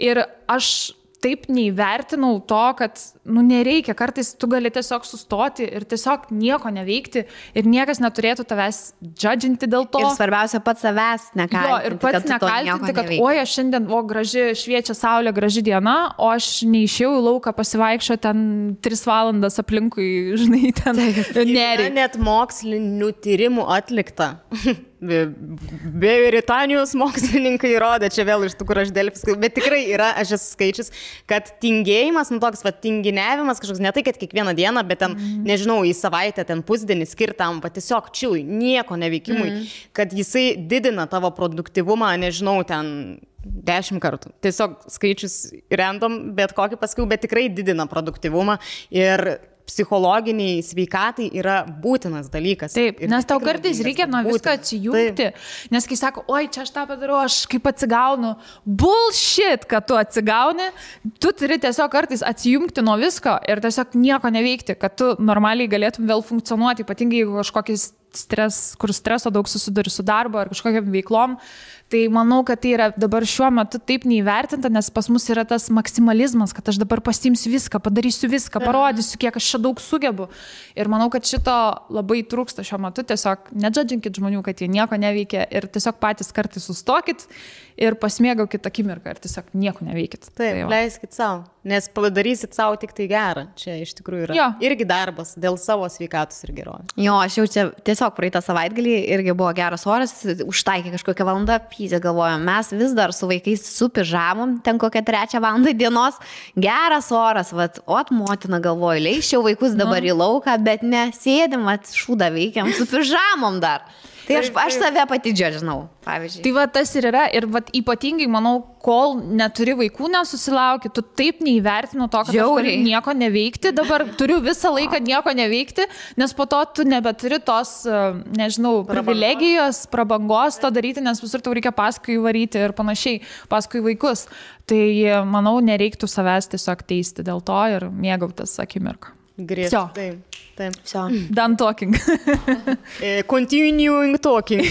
Ir aš taip neįvertinau to, kad, nereikia, kartais tu gali tiesiog sustoti ir tiesiog nieko neveikti ir niekas neturėtų tavęs judginti dėl to. Ir svarbiausia, pats savęs nekaltinti. Jo, ir pats nekaltinti, kad aš šiandien, graži šviečia saulė, graži diena, o aš neišėjau į lauką pasivaikščio ten 3 valandas aplinkui, žinai, ten nerį. Net mokslinių tyrimų atlikta. Britanijos mokslininkai įrodė, čia vėl iš tų, kur aš Delfis, bet tikrai yra, aš esu skaičius, kad tingėjimas, toks tinginiavimas kažkoks, ne tai, kad kiekvieną dieną, bet ten, nežinau, į savaitę, ten pusdienį skirtam, tiesiog čilui, nieko neveikimui, kad jisai didina tavo produktyvumą, nežinau, ten 10 kartų. Tiesiog skaičius random, bet kokį pasakiau, bet tikrai didina produktyvumą ir psichologiniai sveikatai yra būtinas dalykas. Taip, nes tau kartais reikia nuo viską atsijungti, nes kai sako, oi, čia aš tą padarau, aš kaip atsigaunu. Bullshit, kad tu atsigauni, tu turi tiesiog kartais atsijungti nuo visko ir tiesiog nieko neveikti, kad tu normaliai galėtum vėl funkcionuoti, ypatingai jeigu kažkokis kur streso daug susiduri su darbo ar kažkokiam veiklom. Tai manau, kad tai yra dabar šiuo metu taip neįvertinta, nes pas mus yra tas maksimalizmas, kad aš dabar pasiimsiu viską, padarysiu viską, parodysiu, kiek aš čia daug sugebu. Ir manau, kad šito labai trūksta šiuo metu. Tiesiog nedžadžinkit žmonių, kad jie nieko neveikia ir tiesiog patys kartais sustokit ir pasimėgaukit akimirką ir tiesiog nieko neveikit. Taip, leiskit savo, nes padarysit savo tik tai gerą. Čia iš tikrųjų yra irgi darbas dėl savo sveikatos ir gerovės. Jo, aš jau čia tiesiog praeitą savaitgalį irgi buvo geras oras, užtaikė kažkokią valandą, pyzė galvojom, mes vis dar su vaikais su pižamom, ten kokią 3 valandą dienos, geras oras, motina galvoju, leiščiau vaikus dabar į lauką, bet ne, sėdim, šūdą veikiam su pižamom dar. Tai aš save pati džiadžinau, pavyzdžiui. Tai tas ir yra. Ir ypatingai, manau, kol neturi vaikų, nesusilauki, tu taip neįvertinu to, kad aš galiu nieko neveikti. Dabar turiu visą laiką nieko neveikti, nes po to tu nebeturi tos, nežinau, privilegijos, prabangos to daryti, nes visur tau reikia paskui varyti ir panašiai, paskui vaikus. Tai, manau, nereiktų savęs tiesiog teisti dėl to ir mėgautis akimirką. Griežtai. Taip. Done talking. Continuing talking.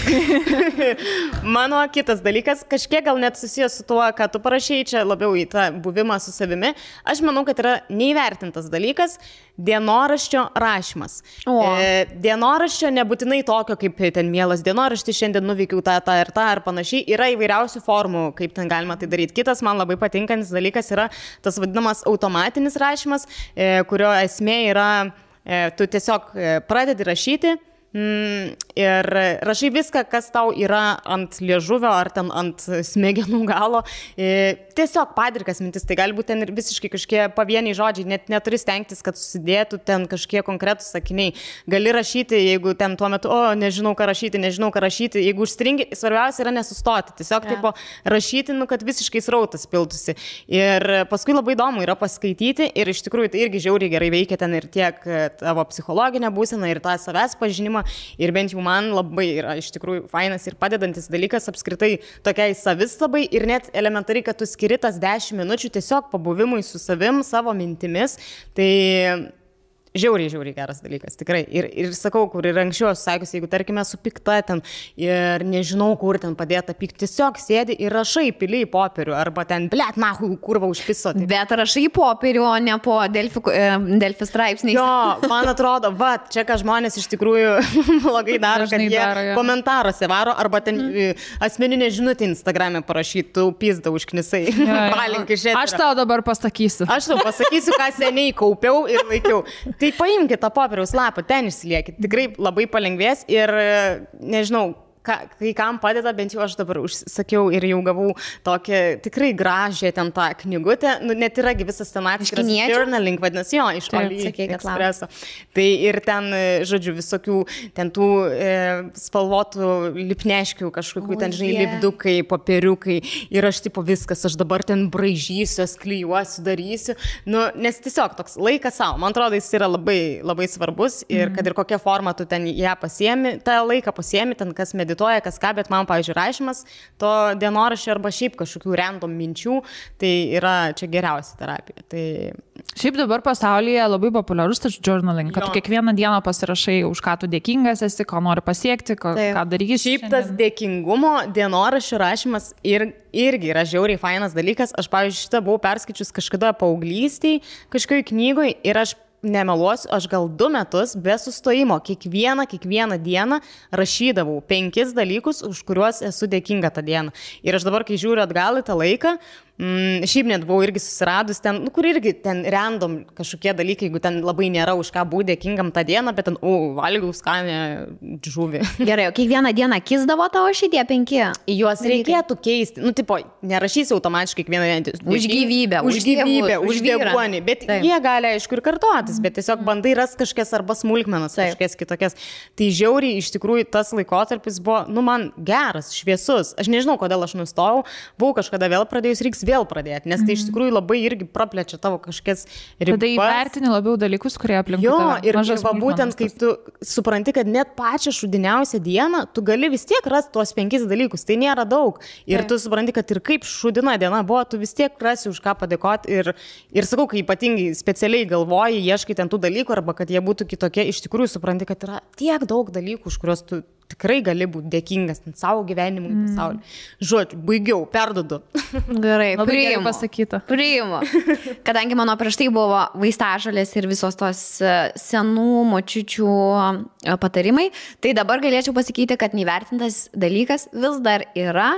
Mano kitas dalykas, kažkiek gal net susijęs su tuo, ką tu parašėjai, čia labiau į tą buvimą su savimi. Aš manau, kad yra neįvertintas dalykas dienoraščio rašymas. Dienoraščio nebūtinai tokio, kaip ten mielas dienoraštis, šiandien nuveikiau tą ir tą ar panašiai. Yra įvairiausių formų, kaip ten galima tai daryti. Kitas man labai patinkantis dalykas yra tas vadinamas automatinis rašymas, kurio esmė yra tu tiesiog pradedi rašyti ir rašai viską, kas tau yra ant liežuvio ar ten ant smegenų galo. Tiesiog padrikas mintis, tai gali būti ten ir visiškai kažkokie pavieniai žodžiai, net neturi stengtis, kad susidėtų ten kažkokie konkretūs sakiniai. Gali rašyti, jeigu ten tuo metu, nežinau ką rašyti, jeigu užstringi, svarbiausia yra nesustoti, tiesiog tipo rašyti, kad visiškai srautas piltųsi. Ir paskui labai įdomu yra paskaityti ir iš tikrųjų tai irgi žiauriai gerai veikia ten ir tiek tavo psichologinę būseną ir tą savęs pažinimą. Ir bent jau man labai yra iš tikrųjų fainas ir padedantis dalykas apskritai tokiai savistabai ir net elementariai, kad tu skiri tas 10 minučių tiesiog pabuvimui su savim, savo mintimis. Tai žiauriai geras dalykas, tikrai. Ir sakau, kur ir anksčiau esu sakius, jeigu tarkime su pikta ten ir nežinau, kur ten padėta pykti, tiesiog sėdi ir rašai pili į popierių arba ten, blet, nahui, kurva užpiso. Taip. Bet rašai į popierių, o ne po Delfi straipsniais. Jo, man atrodo, čia ką žmonės iš tikrųjų blogai daro, kad jie komentaruose varo arba ten asmeninė žinutė Instagram'e parašytų, pizda užknisai. Aš tau dabar pasakysiu. Aš tau pasakysiu, ką seniai kaupiau ir laikiau. Tai paimkite tą popieriaus lapą, ten išsiliekit. Tikrai labai palengvės ir nežinau, kai kam padeda, bent jau aš dabar užsakiau ir jau gavau tokią tikrai gražią ten tą knygutę. Net yragi visas ten atskiras journaling, vadinasi, jo, iš AliExpresso. Tai ir ten, žodžiu, visokių ten tų spalvotų lipneškių, kažkokių ten, žinai, lipdukai, popieriukai. Ir aš tipo viskas, aš dabar ten braižysiu, klijuosiu, darysiu. Nes tiesiog toks laikas savo. Man atrodo, jis yra labai, labai svarbus ir kad ir kokią formą tu ten ją pasiemi, tą laiką pasiemi, ten kas medituoja medituoja, kas ką, bet man, pavyzdžiui, rašymas to dienoraščio arba šiaip kažkokių random minčių, tai yra čia geriausia terapija. Tai... Šiaip dabar pasaulyje labai populiarus tas journaling, kad kiekvieną dieną pasirašai, už ką tu dėkingas esi, ko nori pasiekti, ką darysi. Šiaip tas dėkingumo dienoraščio rašymas irgi yra žiauriai fainas dalykas. Aš, pavyzdžiui, šitą buvau perskaičius kažkada paauglystėj, kažkokioj knygoj ir aš nemeluosiu, aš gal 2 metus be sustojimo kiekvieną dieną rašydavau 5 dalykus, už kuriuos esu dėkinga tą dieną. Ir aš dabar, kai žiūriu atgal į tą laiką, šiaip net buvau irgi susiradus ten, kur irgi ten random kažkokie dalykai, jeigu ten labai nėra už ką būti dėkingam tą dieną, bet ten, valgiau skanę žuvį. Gerai, o kiekvieną dieną kisdavo tavo šitie 5? Juos reikėtų keisti. Tipo, nerašysi automatiškai kiekvieną dieną. Už gyvybę, už deguonį. Bet jie gali, aišku, ir kartotis, bet tiesiog bandai ras kažkokias arba smulkmenas, kažkokias kitokias. Tai žiauriai, iš tikrųjų, tas laikotarpis buvo, man geras, šviesus. Aš nežinau, kodėl aš nustojau. Buvau kažkada vėl pradėjus, reiks vėl pradėti, nes tai iš tikrųjų labai irgi praplečia tavo kažkokias ribas. Tada įvertini labiau dalykus, kurie aplinkui tave. Ir va, būtent, kai tu supranti, kad net pačią šudiniausią dieną, tu gali vis tiek rasti tuos 5 dalykus, tai nėra daug. Ir tu supranti, kad ir kaip šudina diena buvo, tu vis tiek rasi už ką padėkoti. Ir sakau, kai ypatingai specialiai galvoji, ieškai ten tų dalykų, arba kad jie būtų kitokie, iš tikrųjų supranti, kad yra tiek daug dalykų, už kuriuos tu tikrai gali būti dėkingas savo gyvenimui, pasauliu. Žodžiu, baigiau, perduodu. Gerai, labai gerai pasakyta. Priimu. Kadangi mano prieš tai buvo vaistažolės ir visos tos senų močiučių patarimai, tai dabar galėčiau pasakyti, kad neįvertintas dalykas vis dar yra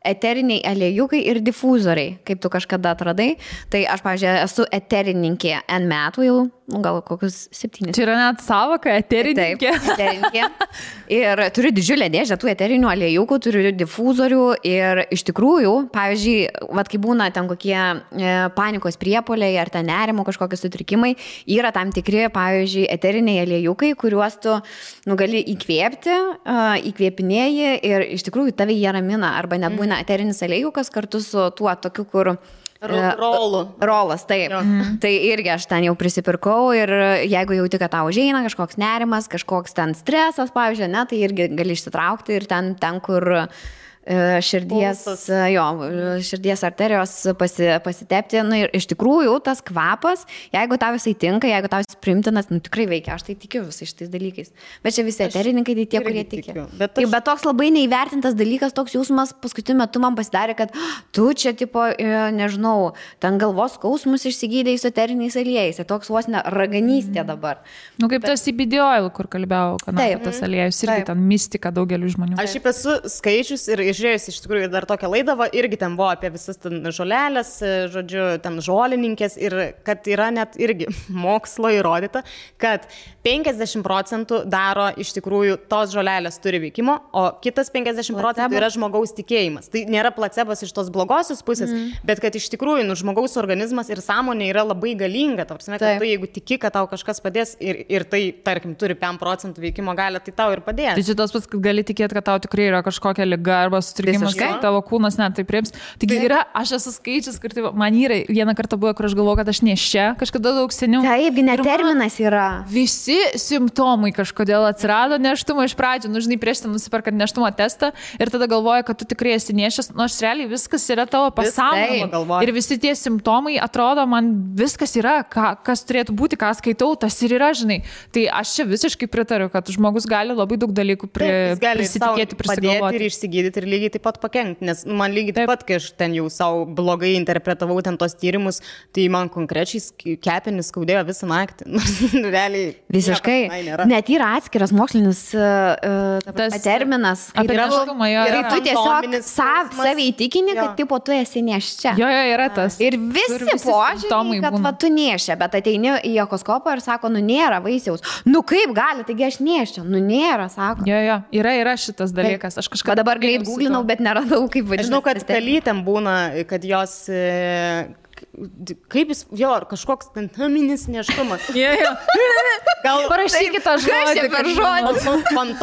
eteriniai aliejukai ir difuzoriai, kaip tu kažkada atradai. Tai aš, pavyzdžiui, esu eterininkė N metų jau, gal kokius 7. Čia yra net savoka, eterininkė. Taip, eterininkė. Ir turiu didžiulę dėžę tų eterinių aliejukų, turiu difuzorių ir iš tikrųjų, pavyzdžiui, kai būna ten kokie panikos priepuoliai ar ten nerimo kažkokie sutrikimai, yra tam tikri, pavyzdžiui, eteriniai aliejukai, kuriuos tu gali įkvėpti, įkvėpinėji ir iš tikrųjų tave jie ramina arba net būna eterinis aliejukas kartu su tuo tokiu, kur rolas, taip. Tai irgi aš ten jau prisipirkau ir jeigu jauti, kad tau užeina kažkoks nerimas, kažkoks ten stresas, pavyzdžiui, tai irgi gali išsitraukti ir ten kur širdies arterijos pasitepti. Ir iš tikrųjų tas kvapas, jeigu tau jisai tinka, jeigu tau jis primtinas, tikrai veikia, aš tai tikiu visais šitais dalykais. Bet čia visi eterininkai, tai tie, kurie tiki. Bet toks labai neįvertintas dalykas, toks jausmas paskutiniu metu man pasidarė, kad tu čia, nežinau, ten galvos skausmus išsigydai su eteriniais aliejais. Toks vos ne raganystė dabar. Kaip tas CBD oil, kur kalbėjau, kad tas aliejus irgi ten mistika daugeliu žmonių. Aš šiaip esu skaičius ir žiūrėjus iš tikrųjų dar tokią laidą, irgi ten buvo apie visas ten žolelės, žodžiu, ten žolininkės ir kad yra net irgi mokslo įrodyta, kad 50% daro iš tikrųjų tos žolelės turi veikimo, o kitas 50% yra žmogaus tikėjimas. Tai nėra placebas iš tos blogosios pusės, bet kad iš tikrųjų žmogaus organizmas ir sąmonė yra labai galinga. Tarpsime, kad tu jeigu tiki, kad tau kažkas padės ir tai, tarkim, turi 5% veikimo galią, tai tau ir padės. Tai šitas pats, kad gali tikėti, kad tau tikrai yra kažkokia liga arba sutrikimas, tavo kūnas net tai priims. Taigi yra, aš esu skaičius, kur man yra vieną kartą buvo, kur aš galvoju, kad aš neščia, kažkada daug seniau. Taip, net terminas yra. Visi simptomai kažkodėl atsirado neštumo iš pradžių, žinai, prieš tai nusiperkat neštumo testą ir tada galvoji, kad tu tikrai esi nešęs, nors realiai viskas yra tavo pasąmonė. Ir visi tie simptomai atrodo, man viskas yra, kas turėtų būti, ką skaitau, tas ir yra, žinai. Tai aš čia visiškai pritariu, kad žmogus gali labai daug dalykų prisitikėti, prisigalvoti. Ir išsigydyti ir lygiai taip pat pakengti, nes man lygiai taip pat, kai aš ten jau savo blogai interpretavau ten tos tyrimus, tai man konkrečiai kepenis skaudėjo visą naktį. Realiai. Visiškai. Net yra atskiras mokslinis terminas. Ir tu tiesiog savai įtikini, kad tipo tu esi neščia. Jo, yra tas. Ir visi požiūrį, kad tu neščia, bet ateini į echoskopą ir sako, nėra vaisiaus. Kaip gali, taigi aš neščia. Nėra, sako. Jo, yra šitas dalykas. Aš kažką dabar greit googlinau, bet neradau, kaip vadinasi. Aš žinau, kad pelytėm būna, kad jos kaip jis, jo, kažkoks naminis neštumas. Gal parašykite tą žodį.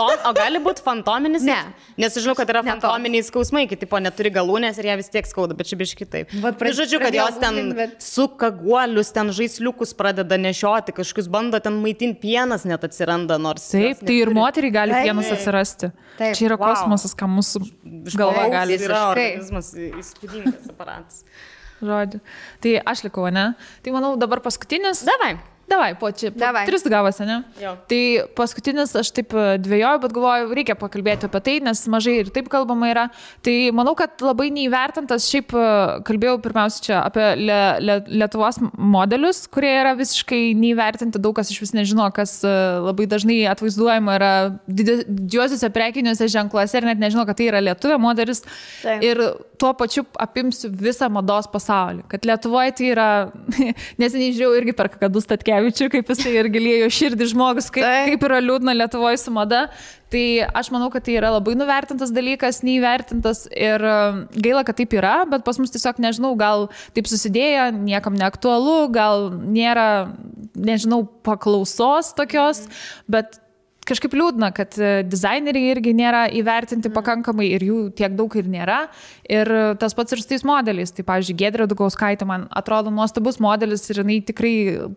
O gali būti fantominis? Ne. Nes žinau, kad yra fantominiai skausmai, kai tipo neturi galūnės ir jie vis tiek skauda, bet čia biškai taip. Žodžiu, kad jos ten suka guolius, ten žaisliukus pradeda nešioti, kažkokius bando ten maitinti, pienas net atsiranda, nors... Taip, tai ir moteriai gali pienas atsirasti. Čia yra kosmosas, ką mūsų galva gali. Tai yra organizmas įspūdingas aparatas. Žodžiu. Tai aš likau, ne? Tai manau dabar paskutinis. Davai, po 3 gavosi, ne? Jo. Tai paskutinis aš taip dvėjoju, bet galvoju, reikia pakalbėti apie tai, nes mažai ir taip kalbama yra. Tai manau, kad labai neįvertintas, šiaip kalbėjau pirmiausia čia apie Lietuvos modelius, kurie yra visiškai neįvertinti, daug kas iš vis nežino, kas labai dažnai atvaizduojama yra didžiuosiuose prekiniuose ženkluose ir net nežino, kad tai yra lietuvė modelis. Taip. Ir tuo pačiu apimsiu visą mados pasaulį. Kad Lietuvoje tai yra, neseniai žiūrėjau irgi per Kakadu Statkevičių, kaip jisai ir gilėjo širdį žmogus, kaip yra liūdna Lietuvoje su mada. Tai aš manau, kad tai yra labai nuvertintas dalykas, neįvertintas ir gaila, kad taip yra, bet pas mus tiesiog, nežinau, gal taip susidėjo, niekam neaktualu, gal nėra, nežinau, paklausos tokios, bet kažkaip liūdna, kad dizaineriai irgi nėra įvertinti pakankamai ir jų tiek daug ir nėra. Ir tas pats ir su tais modeliais. Tai, pavyzdžiui, Giedrė Dugauskaitė man atrodo nuostabus modelis ir jinai tikrai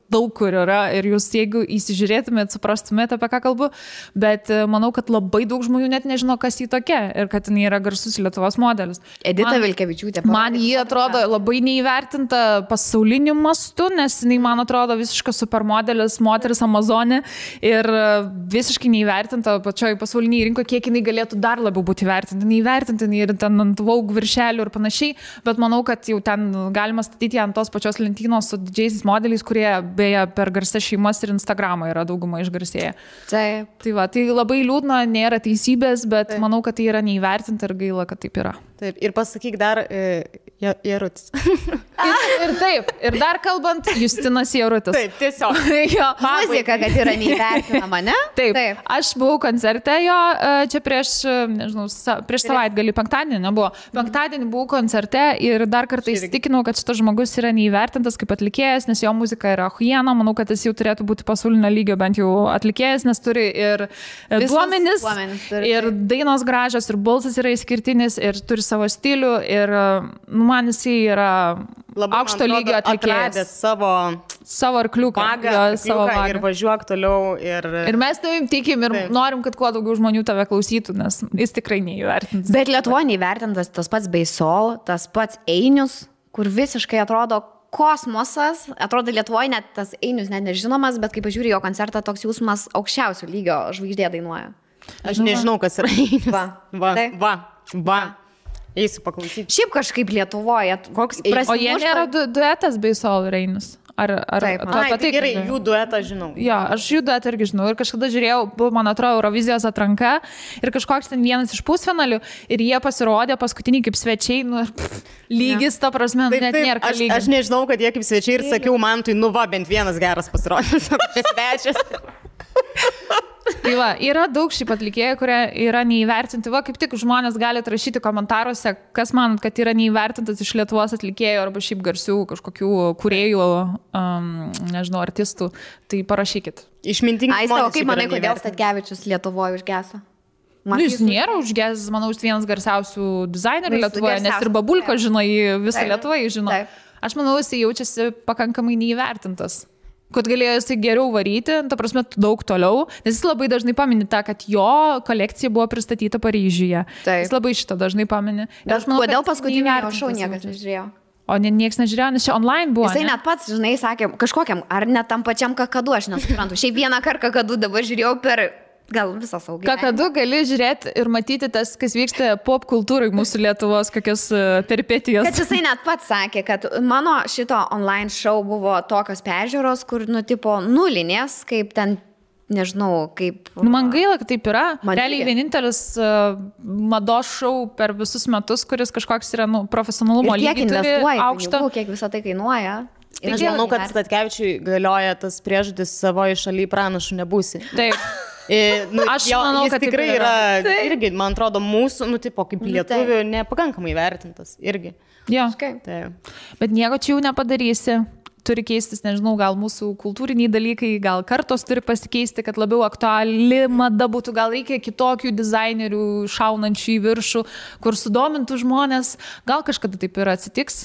daug kur yra. Ir jūs, jeigu įsižiūrėtumėt, suprastumėt, apie ką kalbu. Bet manau, kad labai daug žmonių net nežino, kas jį tokia ir kad jinai yra garsus Lietuvos modelis. Edita Vilkevičiūtė. Man jį atrodo labai neįvertinta pasauliniu mastu, nes jinai, man atrodo, visiškas supermodelis, moteris Amazonė ir visiškai neįvertinta pačioj pasauliniai rinkoje, kiek jinai galėtų dar labiau būti įvertinta. Neįvertinta ir ten ant Vogue viršelių ir panašiai, bet manau, kad jau ten galima statyti ant tos pačios lentynos su didžiaisiais modeliais, kurie beje per garsias šeimas ir Instagramą yra dauguma išgarsėję. Taip. Tai va, tai labai liūdna, nėra teisybės, bet manau, kad tai yra neįvertinta ir gaila, kad taip yra. Taip, ir pasakyk dar Jarutis. Ir taip, ir dar kalbant, Justinas Jarutis. Taip, tiesiog. Muzika, kad yra neįvertinama, ne? Taip. Aš buvau koncerte jo, čia prieš savaitgalį, penktadienį nebuvo. Penktadienį buvau koncerte ir dar kartą įsitikinau, kad šitas žmogus yra neįvertintas kaip atlikėjas, nes jo muzika yra huiena. Manau, kad jis jau turėtų būti pasaulinio lygio bent jau atlikėjas, nes turi ir duomenis, ir dainos gražios, ir balsas yra išskirtinis, ir turi savo stilių ir man jisai yra labai aukšto lygio atlikėjas. Savo arkliuką. Ir važiuok toliau. Ir mes tavim tikim ir norim, kad kuo daugiau žmonių tave klausytų, nes jis tikrai neįvertintas. Bet Lietuvoje neįvertintas tas pats Beisol, tas pats Einius, kur visiškai atrodo kosmosas. Atrodo Lietuvoje net tas Einius net nežinomas, bet kai pažiūrė jo koncertą, toks jausmas aukščiausio lygio žvaigždė dainuoja. Aš nežinau, kas yra Einius. Va. Eisiu paklausyti. Šiaip kažkaip Lietuvoje. O jie nėra duetas Beisol ir Einius? Taip, tai gerai, jų duetą žinau. Jo, aš jų duetą irgi žinau. Ir kažkada žiūrėjau, buvo, man atrodo, Eurovizijos atranka ir kažkoks ten vienas iš pusfinalių ir jie pasirodė paskutinį kaip svečiai, lygis, ta prasme, net nėra ką lygis. Aš nežinau, kad jie kaip svečiai ir sakiau, man tai bent vienas geras pasirodys, svečias. Tai va, yra daug šiaip atlikėjų, kurie yra neįvertinti. Va, kaip tik žmonės gali rašyti komentaruose, kas manot, kad yra neįvertintas iš Lietuvos atlikėjų arba šiaip garsių kažkokių kūrėjų, nežinau, artistų. Tai parašykit. Išmintingi žmonės. O kaip manai, kodėl Statkevičius Lietuvoje užgeso? Jis nėra užgesęs, manau, jis vienas garsiausių dizainerių Lietuvoje, nes ir Babulko žino, visą Lietuvą žino. Aš manau, jis jaučiasi pakankamai neįvertintas. Kad galėjo jisai geriau varyti, ta prasme, daug toliau, nes jis labai dažnai pamini tą, kad jo kolekcija buvo pristatyta Paryžiuje. Taip. Jis labai šitą dažnai pamini. Bet kodėl paskutinį šou niekas nežiūrėjo? O niekas nežiūrėjo, nes čia online buvo. Jisai net pats, žinai, sakė, kažkokiam, ar net tam pačiam Kakadu, aš nesuprantu. Šiaip vieną kartą Kakadu dabar žiūrėjau per... Gal visą saugį. Kakadu gali žiūrėti ir matyti tas, kas vyksta pop kultūrai mūsų Lietuvos, kokios peripetijos. Kad jisai net pats sakė, kad mano šito online show buvo tokios peržiūros, kur, tipo, nulinės, kaip ten, nežinau, kaip... Man gaila, kad taip yra. Realiai vienintelis mados show per visus metus, kuris kažkoks yra, profesionalumo lygį turi aukštą. Kiek visą tai kainuoja. Aš manau, kad Statkevičiui galioja tas priežodis savoje šalyje pranašų nebūsi. Taip. Aš manau, kad tikrai yra, irgi, man atrodo, mūsų, tipo, kaip lietuvių, nepakankamai vertintas, irgi. Jo, bet nieko čia jau nepadarysi. Turi keistis, nežinau, gal mūsų kultūriniai dalykai, gal kartos turi pasikeisti, kad labiau aktuali mada būtų, gal reikia kitokių dizainerių šaunančių į viršų, kur sudomintų žmonės, gal kažkada taip ir atsitiks.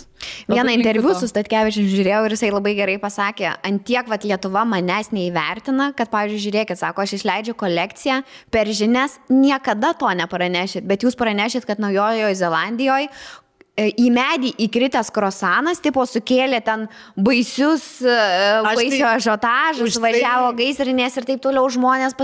Vieną interviu su Statkevičium žiūrėjau ir jisai labai gerai pasakė, ant tiek Lietuva manęs neįvertina, kad, pavyzdžiui, žiūrėkit, sako, aš išleidžiu kolekciją, per žinias niekada to nepranešit, bet jūs pranešit, kad Naujojoje Zelandijoje į medį įkritęs krosanas, tipo sukėlė ten baisių ažiotažus, važiavo gaisrinės ir taip toliau, žmonės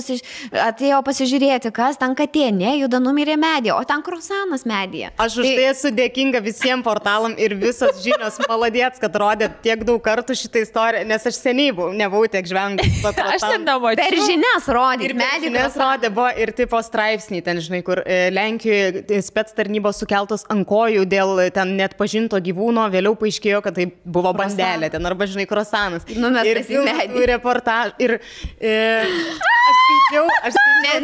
atėjo pasižiūrėti, kas ten katė, nejuda, numirė medį, o ten krosanas medyje. Aš už tai esu dėkinga visiems portalam ir visos žinios maladėts, kad rodė tiek daug kartų šitą istoriją, nes aš seniai nebuvau tiek žvengus. Aš ten nemačiau. Per žinias rodė. Ir medį rodė, buvo ir tipo straipsniai ten, žinai, kur Lenkijoje spec tarnybos sukeltos ant kojų dėl ten net pažinto gyvūno, vėliau paaiškėjo, kad tai buvo bandelė ten, arba, žinai, krosanas. Numestas į medį. Ir reportaž. Ir aš skaičiau.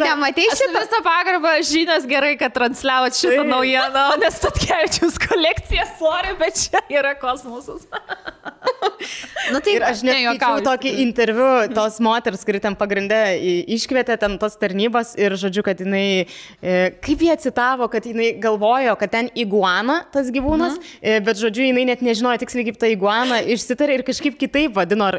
Nematai šitą visą pagarbą, žinios gerai, kad transliavot šitą naujieną, nes Statkevičiaus kolekcija, sorry, bet čia yra kosmosas. Ir aš nejuokauju tokį interviu tos moters, kuri ten pagrinde iškvietė ten tos tarnybos ir, žodžiu, kad jinai, kaip jie citavo, kad jinai galvojo, kad ten iguana tas gyvūnas, bet, žodžiu, jinai net nežinojo tiksliai, kaip ta iguana išsitarė ir kažkaip kitaip vadino,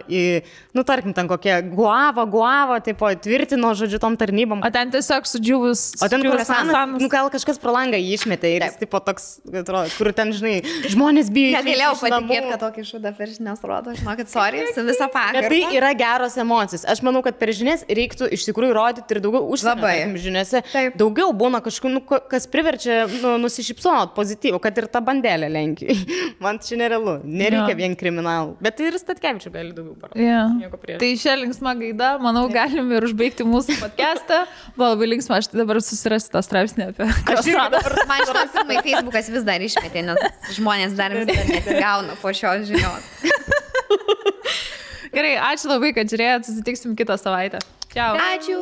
tarkim, ten kokie guava, tipo, tvirtino, žodžiu, tom tarnybom. O ten tiesiog sudžiūvus. O ten krosanas, gal kažkas pro langą išmetė ir jis, tipo, toks, kur ten, žinai, žmonės bijo. Negalėjau patikėti, kad tokį šūdą per žinias rodo, žinokit, sorry, su visą pagarbą. Bet tai yra geros emocijos. Aš manau, kad per žinias reiktų iš tikrųjų rodyti ir daugiau užsienio žiniose. Daugiau būna kažkokių, kas priverčia nusišypsot pozityvų, kad ir ta bandelė Lenkijoje. Man čia nerealu. Nereikia vien kriminalų. Bet tai ir Statkevičių gali daugiau parodyti. Tai šią linksmą gaidą, manau, galim ir užbaigti mūsų podcastą. Buvo labai linksma, aš tai dabar susirasiu tą straipsnį apie krosaną. Man šitas pirmai Facebookas vis dar išmetė, nes žmonės dar vis dar nesigauna po šios žinios. Gerai, ačiū labai, kad žiūrėjot, susitiksim kitą savaitę. Čiau. Ačiū.